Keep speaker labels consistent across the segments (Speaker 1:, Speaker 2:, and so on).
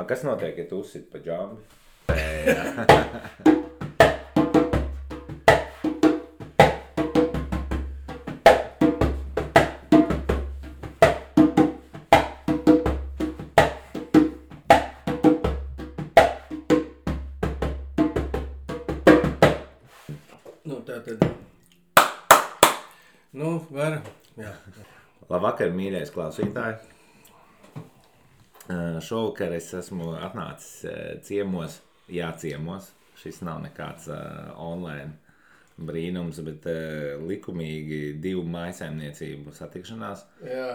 Speaker 1: Kas notiek, ja tu uzsit pa džambi?
Speaker 2: Var. Jā.
Speaker 1: Labvakar, mīļais klausītāji. Šovakar es esmu atnācis ciemos. Šis nav nekāds online brīnums, bet likumīgi 2 mājsaimniecību satikšanās.
Speaker 2: Jā.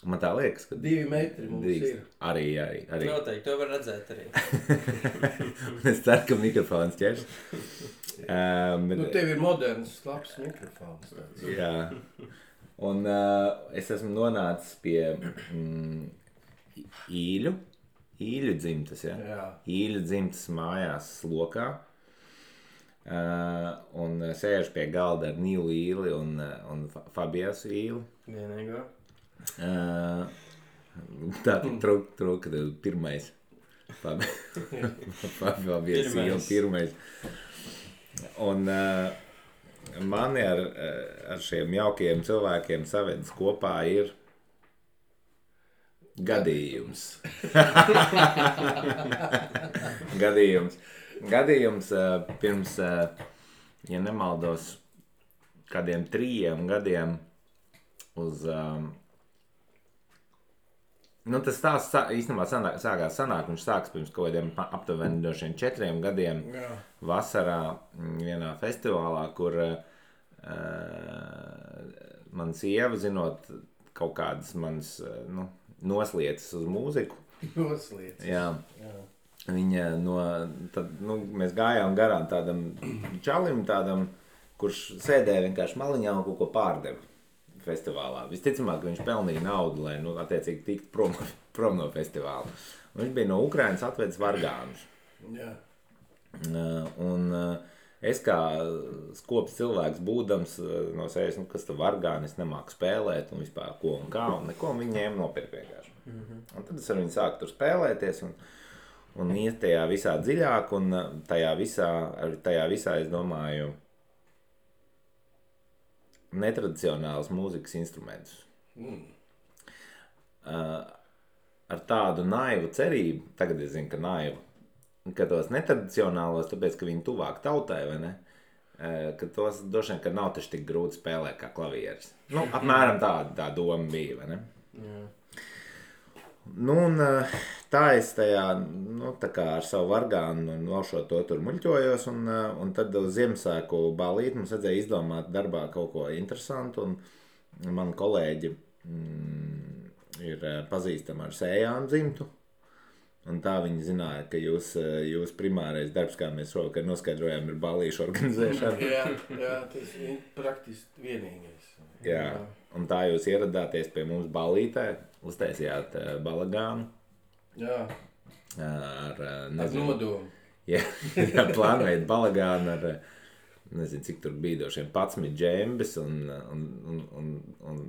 Speaker 1: Man tā liekas, ka
Speaker 2: 2 metri mums ir.
Speaker 1: Arī.
Speaker 3: Noteikti, to var redzēt arī.
Speaker 1: Es ceru, ka mikrofons ķers.
Speaker 2: Tev ir moderns, labs mikrofons.
Speaker 1: Jā. Un es esmu nonācis pie Īļu dzimtas, ja?
Speaker 2: Jā.
Speaker 1: Īļu dzimtas mājās Slokā. Un sēžu pie galda ar Nilu Īli un Fabiasu Īli.
Speaker 3: Vienīgā.
Speaker 1: Tā trūka pirmais. Fabiasu Īli pirmais. Un mani ar šiem jaukajiem cilvēkiem savedis kopā ir gadījums. Gadījums pirms, ja nemaldos, kādiem 3 gadiem uz... tas stāsts īstenībā sākās sanāk, viņš sāks pirms kaut kādiem aptuveni 4 gadiem.
Speaker 2: Jā.
Speaker 1: Vasarā vienā festivālā, kur man sieva, zinot kaut kādas manas noslieces uz mūziku.
Speaker 2: Noslieces.
Speaker 1: Jā. Viņa mēs gājām garām tādam čalim, kurš sēdēja vienkārši maliņā un kaut ko pārdeva festivālā. Visticamāk, ka viņš pelnīja naudu, lai, attiecīgi tikt prom no festivāla. Un viņš bija no Ukrainas atvedis vargānus.
Speaker 2: Jā.
Speaker 1: Un es kā skops cilvēks būdams no sevis, kas tu vargāni, es nemāku spēlēt un vispār ko un kā, un neko viņi ņēma nopirkt vienkārši. Un tad es ar viņu sāku tur spēlēties un iet tajā visā dziļāk, un tajā visā, es domāju, netradicionāls mūzikas instrumentus. Ar tādu naivu cerību, tagad es zinu, ka naivu, ka tos netradicionālos, tāpēc, ka viņi tuvāk tautai, vai ne? Ka tos droši vien, ka nav taču tik grūti spēlēt kā klavieris. Apmēram tā doma bija, vai ne?
Speaker 3: Jā.
Speaker 1: Un tā es tajā, tā kā ar savu vargānu nošot to tur muļķojos, un tad uz Ziemassvētku balīti mums vajadzēja izdomāt darbā kaut ko interesantu, un mani kolēģi ir pazīstami ar Sējānu dzimtu, un tā viņi zināja, ka jūs primārais darbs, kā mēs šovakar noskaidrojām, ir balīšu organizēšana.
Speaker 2: Jā, tas ir praktiski vienīgais.
Speaker 1: Jā, un tā jūs ieradāties pie mums balītē, uztaisījāt balagānu.
Speaker 2: Jā.
Speaker 1: Ar
Speaker 2: nodomu.
Speaker 1: Jā, plānojat balagānu ar, nezinu, cik tur bija došiem 11 džembes un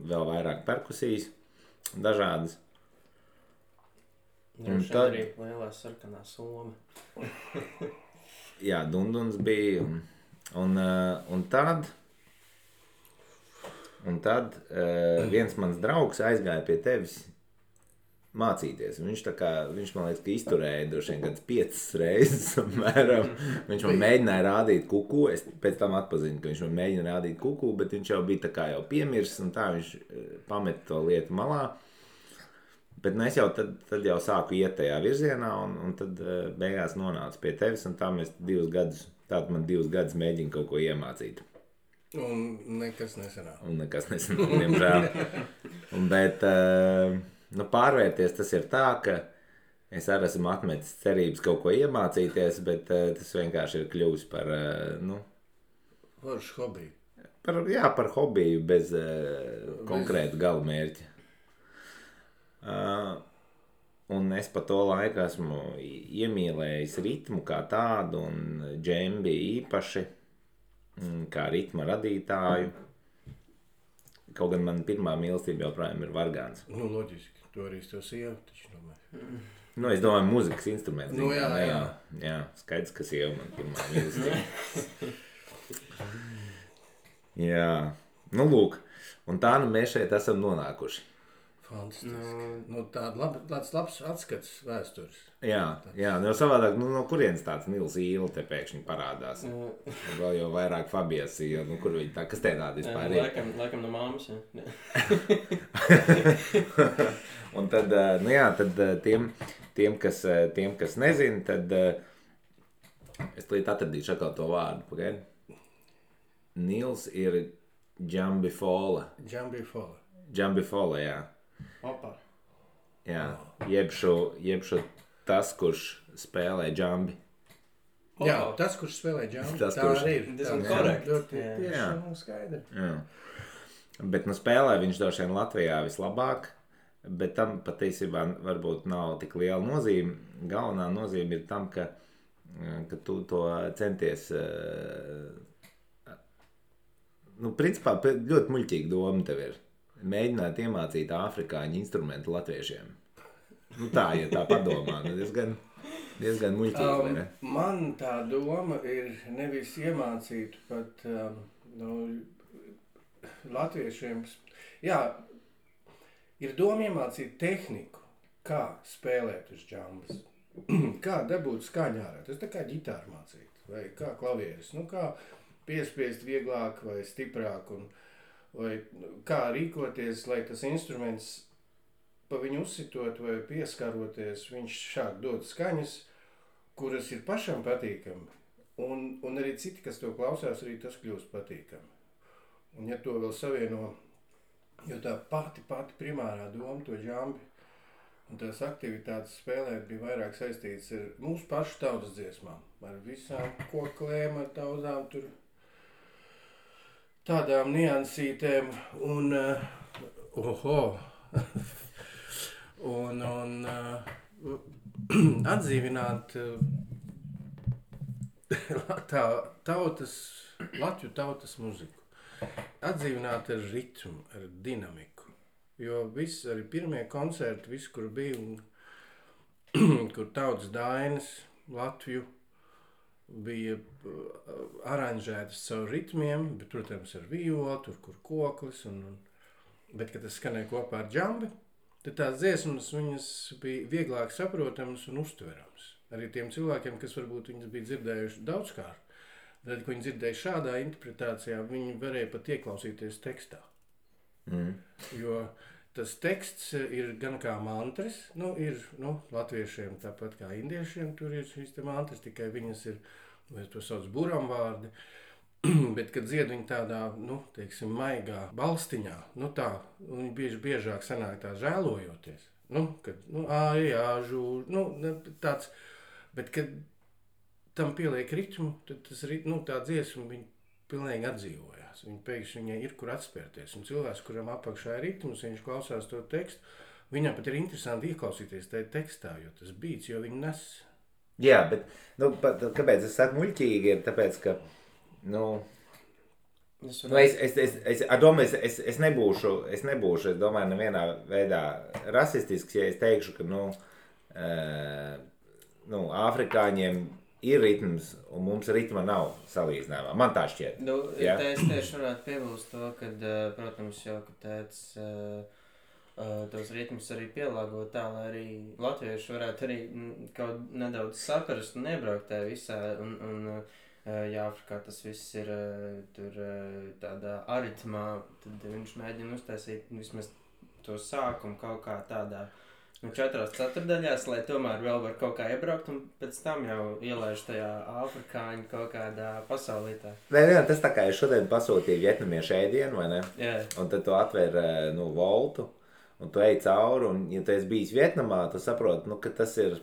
Speaker 1: vēl vairāk perkusijas dažādas.
Speaker 3: Un tad arī lielā sarkanā soma.
Speaker 1: Jā, dunduns bija. Un tad viens mans draugs aizgāja pie tevis mācīties. Viņš man liekas, ka izturēja droši vien kāds 5 reizes apmēram. Viņš man mēģināja rādīt kuku. Es pēc tam atpazinu, ka viņš man mēģina rādīt kuku, bet viņš jau bija tā kā jau piemirsis, un tā viņš pameta to lietu malā. Bet es jau tad jau sāku iet tajā virzienā, un tad beigās nonācu pie tevis, un tā mēs 2 gadus, tātad man 2 gadus mēģina kaut ko iemācīt.
Speaker 2: Un nekas nesanāk.
Speaker 1: Diemžēl. Bet pārvērties tas ir tā, ka es arī esmu atmetis cerības kaut ko iemācīties, bet tas vienkārši ir kļuvis par,
Speaker 2: Foršu hobiju.
Speaker 1: Par hobiju bez konkrētu galamērķa. Un es pa to laiku esmu iemīlējis ritmu kā tādu un džembi īpaši, kā ritma radītāju. Kaut gan man pirmā mīlestība joprojām ir vargāns.
Speaker 2: Loģiski, to arī es to sievu taču domāju.
Speaker 1: Nu, es domāju, mūzikas instruments.
Speaker 2: Nu, jā,
Speaker 1: ne,
Speaker 2: jā.
Speaker 1: Jā, skaidrs, ka sieva man pirmā mīlestība. Jā, nu lūk. Un tā nu mēs šeit esam nonākuši.
Speaker 2: Fantastiski. Nu, tāds labs atskats vēstures.
Speaker 1: Jā, nu savādāk, nu no kurienes tāds Nils Īle te pēkšņi parādās? Vēl jau vairāk Fabijas Īle, nu kur viņi tā, kas te tāda vispār ir?
Speaker 3: Laikam no māmas, jā.
Speaker 1: Un tad, nu jā, tad tiem kas nezin, tad es līdz atradīšu atkal to vārdu, pagaidi. Nils ir Džambifola. Džambifola, jā.
Speaker 3: Opa.
Speaker 1: Jā, jebšu tas, kurš spēlē džambi.
Speaker 2: Jā, tas, kurš spēlē džambi,
Speaker 1: Tas,
Speaker 2: tā
Speaker 1: kurš-
Speaker 2: arī ir.
Speaker 3: Diezgan
Speaker 2: Tā
Speaker 3: korekti.
Speaker 2: ļoti
Speaker 3: Jā.
Speaker 2: tieši
Speaker 1: Jā.
Speaker 2: un skaidri.
Speaker 1: Jā. Bet nu spēlē viņš droši vien Latvijā vislabāk, bet tam patiesībā varbūt nav tik liela nozīme. Galvenā nozīme ir tam, ka tu to centies, nu principā ļoti muļķīga doma tev ir. Mēģināt iemācīt afrikāņu instrumentu latviešiem. Nu tā, ja tā padomā, nu diezgan muļķīgi, vai ne?
Speaker 2: Man tā doma ir nevis iemācīt pat latviešiem. Jā, ir doma iemācīt tehniku, kā spēlēt uz džambas, kā dabūt skaņu ārā. Tas tā kā ģitāru mācīt, vai kā klavieris, nu kā piespiest vieglāk vai stiprāk, vai kā rīkoties, lai tas instruments pa viņu uzsitot vai pieskaroties, viņš šāk dod skaņas, kuras ir pašam patīkami, un arī citi, kas to klausās, arī tas kļūst patīkami. Un ja to vēl savieno, jo tā pati primārā doma to džambi un tās aktivitātes spēlēt bija vairāk saistīts ar mūsu pašu tautas dziesmām, ar visām koklēm, ar daudzām tur tādām niansītēm un atdzīvināt Latviju tautas muziku. Atdzīvināt ar ritmu, ar dinamiku. Jo viss, arī pirmie koncerti, viss, kur bija, kur tautas dainas Latviju bija aranžētas caur ritmiem, bet, protams, ar violu, tur, kur koklis, bet, kad tas skanēja kopā ar džambi, tad tās dziesmas viņas bija vieglāk saprotamas un uztverams. Arī tiem cilvēkiem, kas varbūt viņas bija dzirdējuši daudzkārt, tad, ko viņi dzirdēja šādā interpretācijā, viņi varēja pat ieklausīties tekstā. Jo tas teksts ir gan kā mantras, ir latviešiem tāpat kā indiešiem, tur ir šīs te mantras, tikai viņas ir, vai to sauc buramvārdi, bet, kad dzied viņi tādā, teiksim, maigā balstiņā, tā, viņi biežāk sanāk tā žēlojoties, kad, ājāžu, tāds, bet, kad tam pieliek ritmu, tad tas, tā dziesma, viņi pilnīgi atdzīvojās, viņi pēkšņi viņai ir, kur atspērties, un cilvēks, kuram apakšā ir ritmus, viņš klausās to tekstu, viņam pat ir interesanti ieklausīties tajā tekstā, jo tas beats, jo viņi nes.
Speaker 1: Jā, bet, kāpēc es saku muļķīgi, ir tāpēc, ka, es nebūšu, es domāju, nevienā veidā rasistisks, ja es teikšu, ka, afrikāņiem ir ritms, un mums ritma nav salīdzinājumā. Man tā šķiet.
Speaker 3: Es tieši varētu piebilst to, ka, protams, jau, ka tēts tos ritmus arī pielāgot tā, lai arī latvieši varētu arī kaut nedaudz saprast un iebraukt tajā visā, un ja Afrikā tas viss ir tur tādā aritmā, tad viņš mēģina uztaisīt vismaz to sākumu kaut kā tādā 4 ceturdaļās, lai tomēr vēl var kaut kā iebraukt un pēc tam jau ielaiž tajā afrikāņu kaut kādā pasaulītā.
Speaker 1: Nē, tas tā kā es šodien pasūtīju vietnamiešu ēdienu, vai ne?
Speaker 3: Jā.
Speaker 1: Un tad tu atver voltu, un tu ej cauri, un ja tu esi bijis Vietnamā, tu saproti, ka tas ir...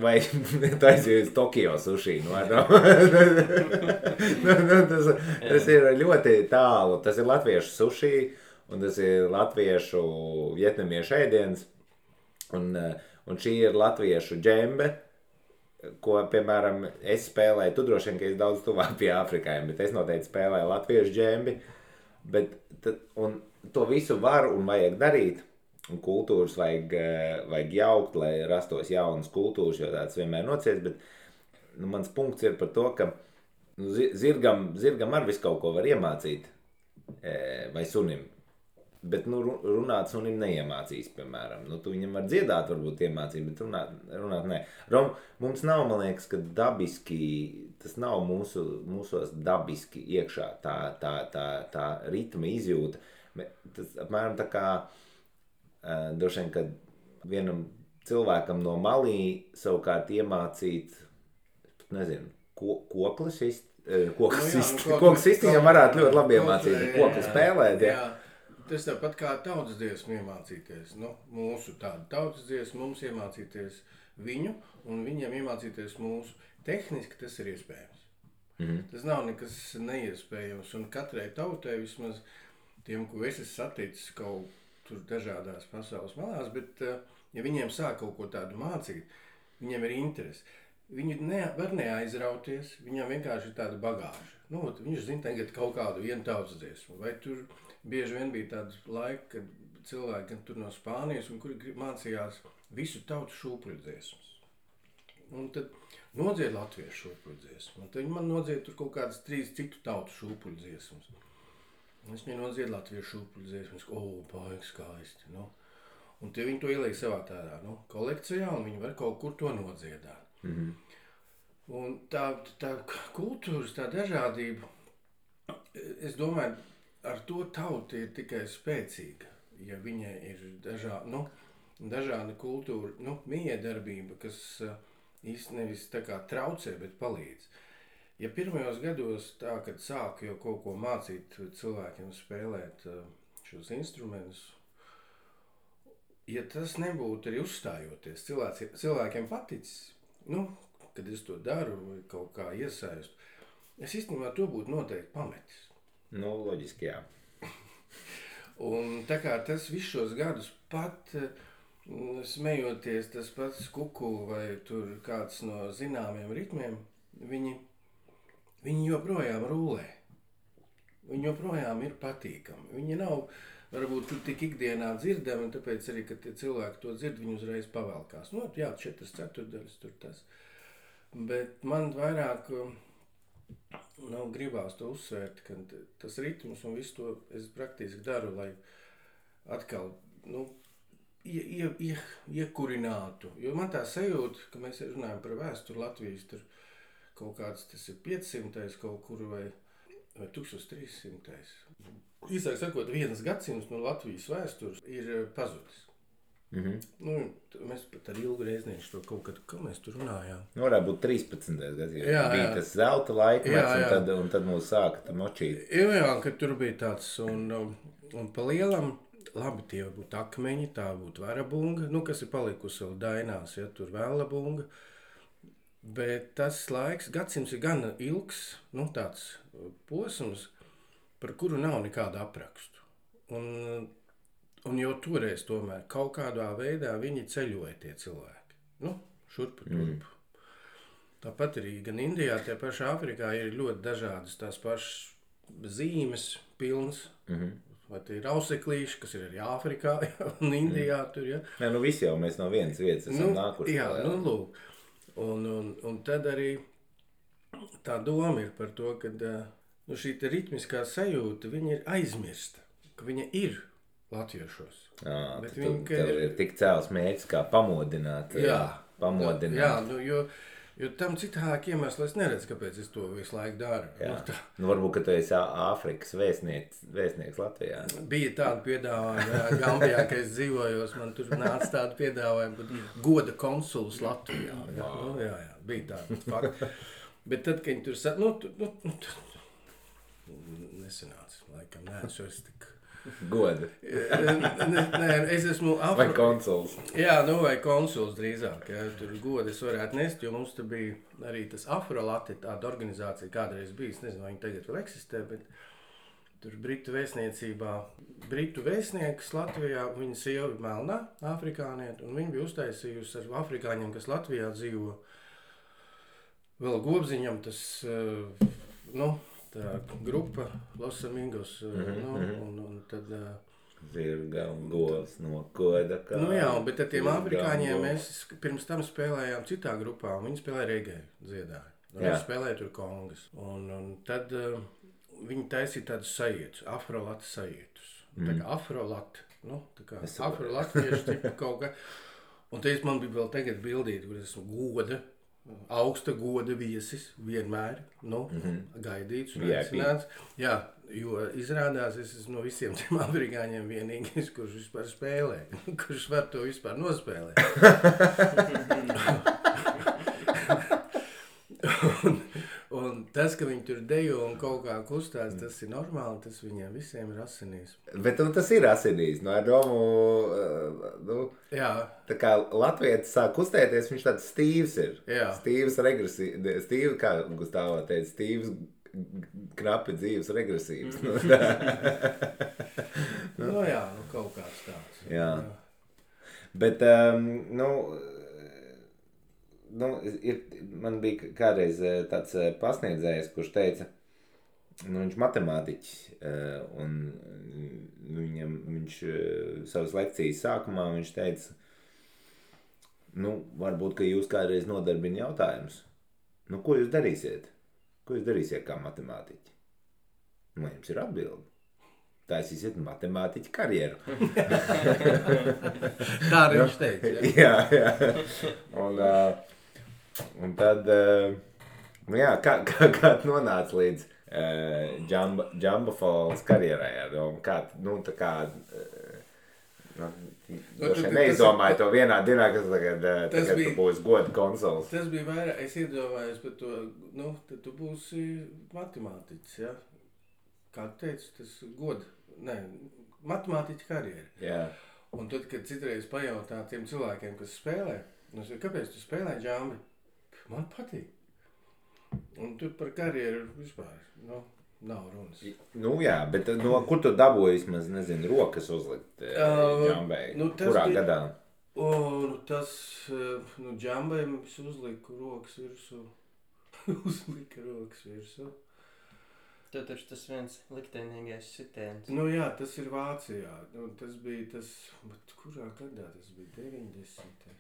Speaker 1: Vai tu aizjūji uz Tokio suši, tas ir ļoti tālu, tas ir latviešu suši, un tas ir latviešu vietnamiešu ēdiens, un šī ir latviešu džembe, ko, piemēram, es spēlēju, tu droši vien, ka es daudz tuvāk pie afrikājiem, bet es noteikti spēlēju latviešu džembi, un to visu var un vajag darīt, un kultūras vajag jaukt, lai rastos jaunas kultūras, jo tāds vienmēr nociets, bet mans punkts ir par to, ka zirgam ar visu kaut ko var iemācīt, vai sunim. Bet, runāt sunim neiemācīs, piemēram. Tu viņam var dziedāt, varbūt iemācīt, bet runāt nē. Mums nav, man liekas, ka dabiski, tas nav mūsos dabiski iekšā tā ritma izjūta. Tas apmēram tā kā, droši vien, kad vienam cilvēkam no Malī savukārt iemācīt, nezinu, koklis viņam varētu ļoti labi iemācīt, kokli spēlēt,
Speaker 2: jā. Tas tāpat kā tautas dziesmu iemācīties. Mūsu tādu tautas dziesmu mums iemācīties viņu, un viņiem iemācīties mūsu. Tehniski tas ir iespējams. Tas nav nekas neiespējams, un katrai tautai vismaz tiem, ko es esmu saticis kaut tur dažādās pasaules malās, bet ja viņiem sāk kaut ko tādu mācīt, viņiem ir interesi. Viņi var neaizrauties, viņam vienkārši ir tāda bagāža. Viņš zina tagad kaut kādu vienu tautas dziesmu, vai tur bieži vien bija tāds laika, kad cilvēki tur no Spānijas, un kuri mācījās visu tautu šūpuļu dziesmas. Un tad nodzied latviešu šūpuļu dziesmu, un tad viņi man nodzied tur kaut kādas 3 citu tautu šūpuļu dziesmas. Es viņai nodzied latviešu šūpuļu dziesmas, baigi skaisti, Un tie viņi to ieliek savā tādā, kolekcijā, un viņi var kaut kur to nodziedāt. Un tā kultūras, tā dažādība, es domāju, ar to tauta ir tikai spēcīga, ja viņai ir dažāda kultūra, miedarbība, kas īsti nevis tā kā traucē, bet palīdz. Ja pirmajos gados tā, kad sāku jau kaut ko mācīt cilvēkiem spēlēt šos instrumentus, ja tas nebūtu arī uzstājoties, cilvēkiem paticis, kad es to daru vai kaut kā iesaistu, es īstenībā to būtu noteikti pametis.
Speaker 1: Loģiski, jā.
Speaker 2: Un tā kā tas visus šos gadus pat smejoties, tas pats kuku vai tur kāds no zināmiem ritmiem, viņi joprojām rūlē. Viņi joprojām ir patīkami. Viņi nav varbūt tur tik ikdienā dzirdami, un tāpēc arī, kad tie cilvēki to dzird, viņi uzreiz pavelkās. 4/4 tur tas. Bet man vairāk gribās to uzsvērt, ka tas ritms un visu to es praktiski daru, lai atkal iekurinātu. Jo man tā sajūta, ka mēs runājam par vēsturi Latvijas, tur kaut kāds tas ir 500. Kaut kur vai 1300. Īsāk sakot, 1 gadsimts no Latvijas vēstures ir pazudis. Mēs pat ar Ilgu Reiznieku to kaut kad, kā mēs tur runājām.
Speaker 1: Varētu būt 13. gadsimts. Bija tas zelta laikmets, un tad mūs sāka močīt.
Speaker 2: Jā, kad tur bija tāds, un pa lielam, labi, tie būtu akmeņi, tā būtu varabunga, kas ir palikusi vēl dainās, tur vēlabunga. Bet tas laiks, gadsimts ir gan ilgs, tāds posms, par kuru nav nekāda aprakstu. Un jau toreiz tomēr kaut kādā veidā viņi ceļoja tie cilvēki. Šurpu turpu. Tāpat arī gan Indijā, tie paši Āfrikā ir ļoti dažādas tās pašas zīmes pilns. Vai tie ir auseklīši, kas ir arī Āfrikā un Indijā tur, ja?
Speaker 1: Nē, visi jau mēs no vienas vietas esam nākuši.
Speaker 2: Jā, lūk. Un tad arī tā doma ir par to, ka šī ritmiskā sajūta, viņa ir aizmirsta, ka viņa ir latviešos.
Speaker 1: Tev ir tik cēls mērķis, kā pamodināt.
Speaker 2: Jo tam citāk iemeslu es neredzu, kāpēc es to visu laiku daru.
Speaker 1: Varbūt, ka tu esi Āfrikas vēstnieks Latvijā.
Speaker 2: Bija tāda piedāvājuma, Gambijā, ka es dzīvojos, man tur nāca tāda piedāvājuma, bet goda konsuls Latvijā. Jā, bija tāda fakta. Bet tad, kad viņi tur nesanāca, laikam, es tik...
Speaker 1: Goda.
Speaker 2: Nē, es esmu...
Speaker 1: Vai konsuls.
Speaker 2: Jā, vai konsuls drīzāk. Ja, tur godu es varētu nest, jo mums tur bija arī tas Afrolati, tāda organizācija kādreiz bijis. Nezinu, vai viņi tagad vēl eksistē, bet tur Britu vēstniecībā. Britu vēstnieks Latvijā, viņa sieva ir melnā, afrikānieta, un viņa bija uztaisījusi ar afrikāņiem, kas Latvijā dzīvo. Vēl Gobziņam tas, tā grupa Los Amigos, un tad
Speaker 1: Zirga un govs no koda kā.
Speaker 2: Nu jā, bet ar tiem afrikāņiem mēs pirms tam spēlējām citā grupā, un viņi spēlēja regēju, dziedāja. Viņi spēlēja tur kongas. Un tad viņi taisīja tādus sajietus, afrolatu sajietus. Tā kā afrolatu, nu, tā kā afrolatieši tipa kaut kā. Un te man bija vēl tagad bildīt, kur esmu goda, augsta goda viesis, vienmēr, nu, gaidīts un aicināts. Jā, jo izrādās, es esmu no visiem tiem afrikāņiem vienīgais, kurš vispār spēlē, kurš var to vispār nospēlēt. un tas, ka viņi tur dejo un kaut kā kustās, tas ir normāli, tas viņiem visiem ir asinīs.
Speaker 1: Bet tas ir asinīs, no ar domu,
Speaker 2: Jā.
Speaker 1: Tā kā latvietis sāk kustēties, viņš tāds stīvs ir.
Speaker 2: Jā.
Speaker 1: Stīvi, kā Gustavā teica, stīvs knapi dzīves regresīvs.
Speaker 2: Nu jā, kaut kāds tāds.
Speaker 1: Jā. Bet, man bija kādreiz tāds pasniedzējs, kurš teica, viņš matemātiķis, un viņš savas lekcijas sākumā viņš teica, varbūt, ka jūs kādreiz nodarbina jautājums, ko jūs darīsiet? Ko jūs darīsiet kā matemātiķi? Jums ir atbildi. Taisīsiet matemātiķu karjeru.
Speaker 2: Tā arī viņš teica.
Speaker 1: Jā. Un tad, kā nonāca līdz Džambafols karjerai? Neizdomāju to vienā dienā, kas tagad tu būsi goda konsols.
Speaker 2: Tas bija vairāk, es iedomājos par to, tad tu būsi matemātiķis, ja? Kā tu teici, tas goda. Nē, matemātiķa karjera.
Speaker 1: Jā.
Speaker 2: Un tad, kad citreiz pajautā tiem cilvēkiem, kas spēlē, kāpēc tu spēlē džambi? Man patīk. Un tur par karjeru vispār, nav runas.
Speaker 1: Jā, bet kur tu dabūji vismaz, nezinu, rokas uzlikt džambei? Kurā gadā?
Speaker 2: Džambai es uzliku rokas virsū.
Speaker 3: Tev taču tas viens liktenīgais sitiens.
Speaker 2: Jā, tas ir Vācijā. Tas bija tas, bet kurā gadā tas bija? 90.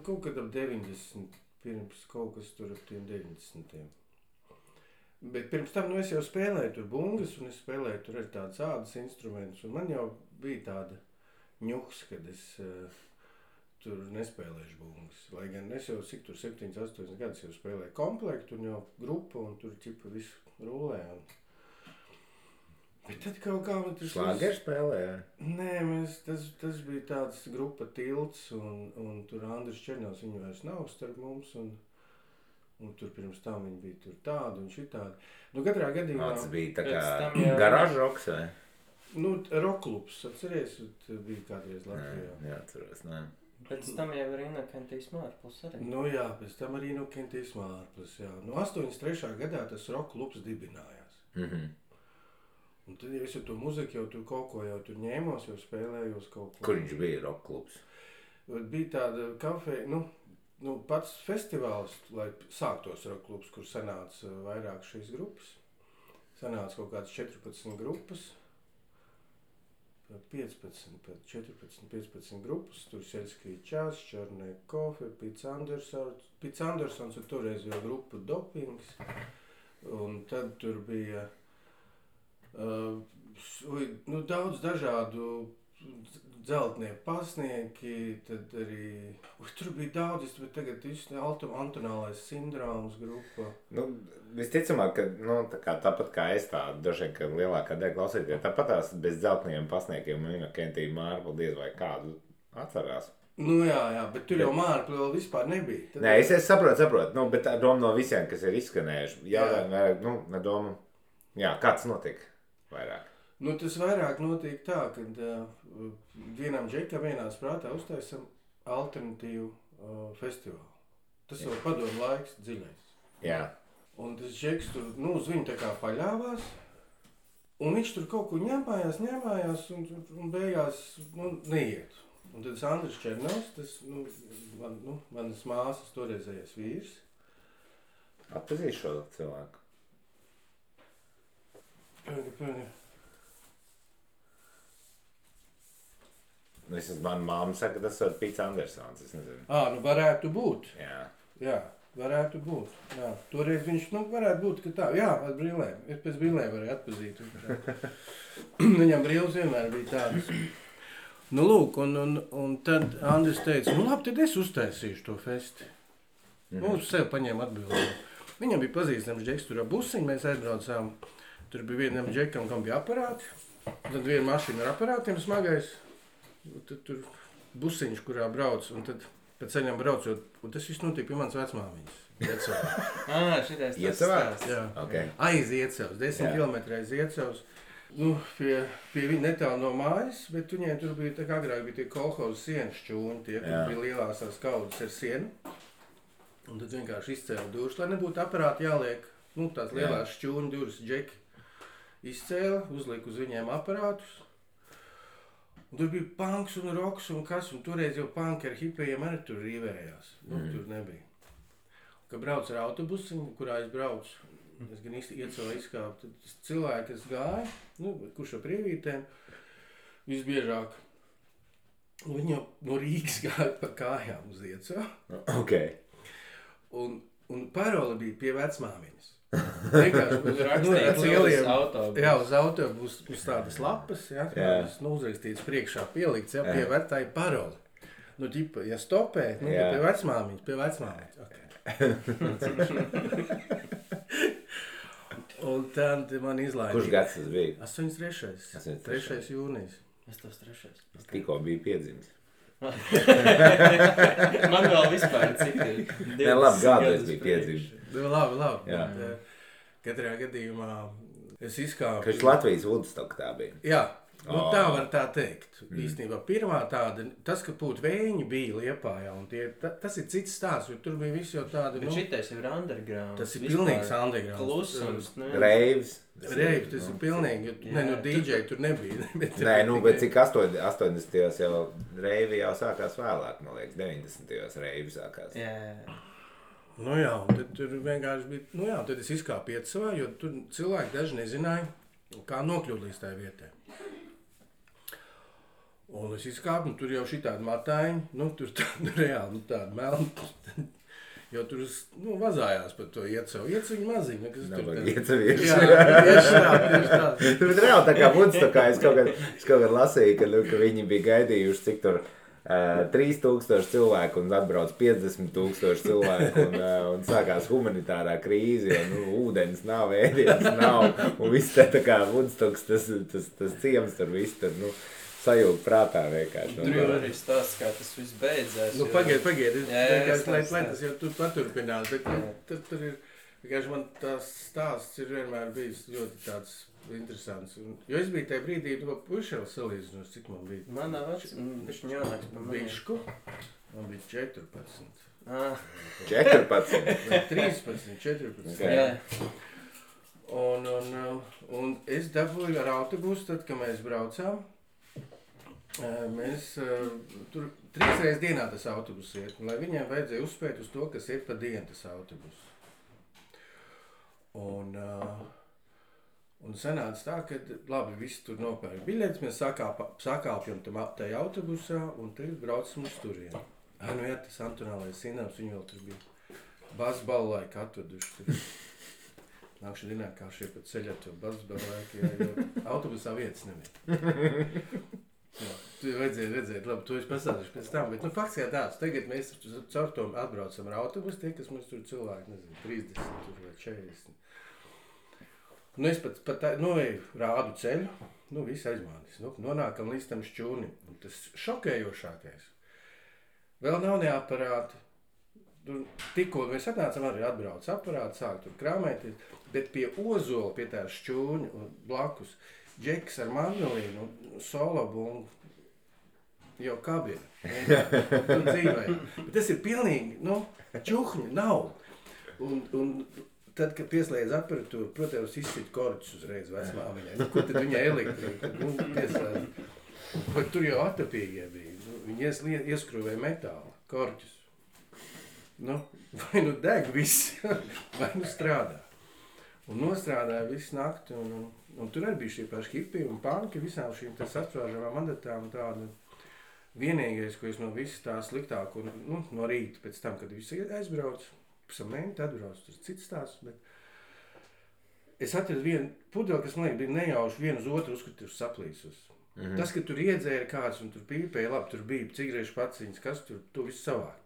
Speaker 2: Kaut kad ap 90, pirms kaut kas tur ap tiem 90. Bet pirms tam, es jau spēlēju tur bungas, un es spēlēju tur ar tādas ādas instrumentus, un man jau bija tāda ņuks, kad es tur nespēlēšu bungas. Lai gan es jau 7-8 gadus jau spēlēju komplektu un jau grupu un tur ķipa visu rulē. Bet tad kaut kā man tur...
Speaker 1: Šlāgeru spēlēja?
Speaker 2: Nē, tas bija tāds grupa Tilts un tur Andris Černovs, viņu vairs nav starp mums un tur pirms tam viņi bija tur tādi un šitādi. Katrā gadījumā...
Speaker 1: Tas bija tā kā garāžu roks, vai?
Speaker 2: Roklubs, atceries, bija kādreiz Latvijā.
Speaker 1: Jā, atceros, nē.
Speaker 3: Pēc tam jau ir Inokentīsma ārpus arī.
Speaker 2: Jā, pēc tam arī Inokentīsma ārpus, jā. 83. gadā tas roklubs dibinājās. Un tad, ja es ar to muziku jau tur kaut ko jau tur ņēmos, jau spēlējos kaut ko.
Speaker 1: Kur viņš bija roklubs?
Speaker 2: Bija tāda kafeja, pats festivāls, lai sāktos roklubs, kur sanāca vairāk šīs grupas. Sanāca kaut kādas 14 grupas. 14-15 grupas, tur Seļskija Čās, Čarnē Kofe, Pits Andersons, un toreiz jau grupa Dopings, un tad tur bija daudz dažādu dzeltnieku pasnieki, tad arī, tur bija daudz, bet tagad Antonālais sindroms grupa.
Speaker 1: Visticamāk, ka tāpat kā es dažiem, ka lielākā daļa klausīties, tāpat tās bez dzeltniem pasniekiem un Inokentīja Mārpla diez vai kādu atcerās.
Speaker 2: Jā, bet tur jau Mārpla vēl vispār nebija.
Speaker 1: Nē, es saprotu, bet ar domu no visiem, kas ir izskanējuši, ar domu, kāds notiek vairāk?
Speaker 2: Tas vairāk notiek tā, kad vienam džekam vienā sprātā uztaisam alternatīvu festivālu. Tas jau padomu laiks dziļais.
Speaker 1: Jā.
Speaker 2: Un tas džeks tur, uz viņu tā kā paļāvās, un viņš tur kaut ko ņēmājās, un beigās, neiet. Un tad Andris Černovs, tas, manas māsas toreizējais vīrs.
Speaker 1: Atpazīšu šo cilvēku?
Speaker 2: Pēdi.
Speaker 1: Man mamma saka, ka tas ir Pits Andersons, es nezinu.
Speaker 2: Nu varētu būt.
Speaker 1: Jā.
Speaker 2: Varētu būt. Jā. Toreiz viņš, varētu būt, ka tā. Jā, ar brillēm. Es pēc brillēm varēju atpazīt. Viņam brilles vienmēr bija tādas. Lūk, un tad Andris teica, labi, tad es uztaisīšu to festi. Uz sevi paņēma atbildību. Viņam bija pazīstams džeks, tur ar busiņu, mēs aizbraucām. Tur bija vienam džekam, kam bija aparāti. Tad viena mašīna ar aparātiem smagais. Tad tur busiņš, kurā brauc, un tad pēc ceļam braucot, un tas viss notika pie manas vecmāmiņas.
Speaker 3: Šitais tas
Speaker 1: Iecavā?
Speaker 2: Jā.
Speaker 1: Okay.
Speaker 2: Aiz Iecavas, 10 kilometri aiz Iecavas. Pie viņa netālu no mājas, bet viņiem tur bija, tā kā agrāk bija tie kolhozu sienas šķūņi, tie, kur bija lielās tās kaudzes ar sienu. Un tad vienkārši izcēla durvis, lai nebūtu aparāti jāliek, tās lielās šķūņu durvis džeki. Izcēla, uzlika uz viņiem aparātus. Un tur bija punks un roks un kas, un toreiz jau punki ar hipējiem arī tur rīvējās. Tur nebija. Kad brauc ar autobusiņu, kurā es braucu, es gan Iecavā izkāpu, tad cilvēki, kas gāja, kurš ar prievītēm, visbiežāk, viņi jau no Rīgas gāja pa kājām uz Iecavu.
Speaker 1: Okay.
Speaker 2: Un parole bija pie vecmāmiņas. Vienkārši uz autobusu uz tādas lapas, tādas uzrakstītas priekšā pielikts, pie vecāja paroli. Ģipa, ja stopē, pie vecmāmiņas. Okay. Un tad man izlaida.
Speaker 1: Kurš gads tas bija?
Speaker 2: 83. 3. jūnijas.
Speaker 3: Es tos 3.
Speaker 1: Tikko bija piedzimis.
Speaker 3: Man vēl vispār cik ir.
Speaker 1: Labi, gādēs bija piedzimis.
Speaker 2: Labi. Katrā gadījumā es izkāpu.
Speaker 1: Kas Latvijas Woodstock tā bija?
Speaker 2: Jā, tā var tā teikt. Īstenībā pirmā tāda, tas, ka pūt vēņi bija Liepājā, un tas ir cits stāsts, jo tur bija visi jau tādi.
Speaker 3: Bet šitais ir underground.
Speaker 2: Tas ir pilnīgs underground.
Speaker 3: Klusums.
Speaker 1: Reivs,
Speaker 2: tas ir pilnīgi, DJ tur nebija.
Speaker 1: Bet cik 80. jau reivi jau sākās vēlāk, man liekas, 90. reivi sākās.
Speaker 2: Jā, un tad tur vienkārši bija, tad es izkāpu Iecavā, jo tur cilvēki daži nezināja, kā nokļūt līdz tai vietai. Un es izkāpu, un tur jau šitādi matājiņi, tur reāli tādi melni, jo tur vazājās par to Iecavu. Iecaviņi maziņi, kas tur tā.
Speaker 1: Iecavieši.
Speaker 2: Jā, tieši tā.
Speaker 1: Tur ir reāli tā kā Woodstockā, es kaut kad lasīju, ka viņi bija gaidījuši, cik tur 3000 cilvēku un atbrauc 50,000 cilvēku un sākās humanitārā krīze, jo ūdens nav, ēdienas nav un viss tā kā Woodstocks, tas ciems tur viss tur, sajūta prātā vienkārši.
Speaker 3: Tur jau arī stāsts, kā tas viss beidzās.
Speaker 2: Pagaid, lai tas jau tur paturpinās, bet tur ir, vienkārši man tās stāsts ir vienmēr bijis ļoti tāds interesants. Jo es biju tajā brīdī, puiši jau salīdzinos, cik man bija.
Speaker 3: Manā bišķi ņānāks pa manī.
Speaker 2: Bišku, man bija 14.
Speaker 1: 14?
Speaker 2: 13, 14.
Speaker 3: Jā.
Speaker 2: Un es dabūju ar autobusu, tad, kad mēs braucām. Mēs tur 3 reizes dienā tas autobus iet, un lai viņiem vajadzēja uzspēt uz to, kas iet pa dienu tas autobus. Un sanāca tā, ka labi, visi tur nopērk biļetes, mēs sakāpjam tajā autobusā un tagad braucam uz turieni. Tas Antonālais Sinams, viņi vēl tur bija basbalu laiku atveduši. Nākšu dienā, kā šie pa ceļā to basbalu laiku, jo autobusā vietas nebija. Tu vajadzēja redzēt, labi, to es pasādīšu pēc tam, bet fakts jā tāds, tagad mēs caur to atbraucam ar autobusu, tie, kas mums tur cilvēki, nezinu, 30 vai 40. Es pat rādu ceļu, viss aizmānis, nonākam līdz tam šķūnim, un tas šokējošākais. Vēl nav ne aparāti, tikko mēs atnācam arī atbrauc aparāti, sāk tur krāmēties, bet pie ozola, pie tā šķūņa blakus, džeks ar mandolīnu, solobungu, jau kabina. Tur dzīvēja. Bet tas ir pilnīgi, čuhņi nav. Un tad, kad pieslēdz aparatūru, protams, izsit korķus uzreiz vecmāmiņai. Kur tad viņai elektrika? Pieslēdz. Bet tur jau atapīgie bija. Viņi ieskrūvēja metālu, korķus. Vai deg viss, vai strādā. Un nostrādāja visu nakti. Un tur arī bija šie paši hipi un panki, visām šīm sasprāžamām mandatām tādu. vienīgais, ko es no visas tā sliktāko, nu, no rīta pēc tam, kad visi aizbrauc, pēc tam mēnti atbrauc, tas ir cits stāsts, bet es atradu vienu pudeli, kas man liekas bija nejauši vienu uz otru uzskatīju saplīsus. Tas, ka tur iedzēra kāds un tur pīpēja, labi, tur bija cigarešu paciņas, kas tur, to visu savāk,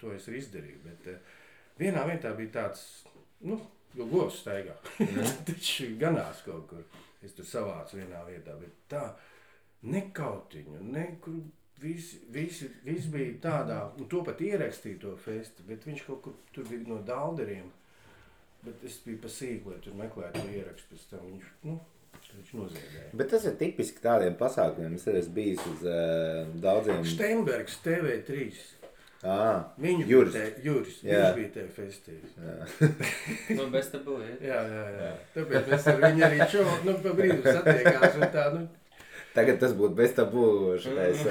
Speaker 2: to es arī izdarīju, bet vienā vietā bija tāds, nu, jo govs staigā, taču ganās kaut kur, es tur savācu vienā vietā, bet tā, nekautiņu, nekur, viss bija tādā, un to pat ierakstīja to festi, bet viņš kaut kur tur bija no Dalderiem, bet es biju pa sīku, lai tur meklētu to ierakstu, pēc tam viņš noziedēja.
Speaker 1: Bet tas ir tipiski tādiem pasākumiem. Es esmu bijis uz daudziem...
Speaker 2: Steinbergs TV3.
Speaker 1: Juris.
Speaker 2: Viņš bija te festījis.
Speaker 3: Nu, bez tabū,
Speaker 2: Jā. Tāpēc mēs ar viņu arī pa brīdu satiekās un tā,
Speaker 1: Tagad tas būtu bez tabū šitais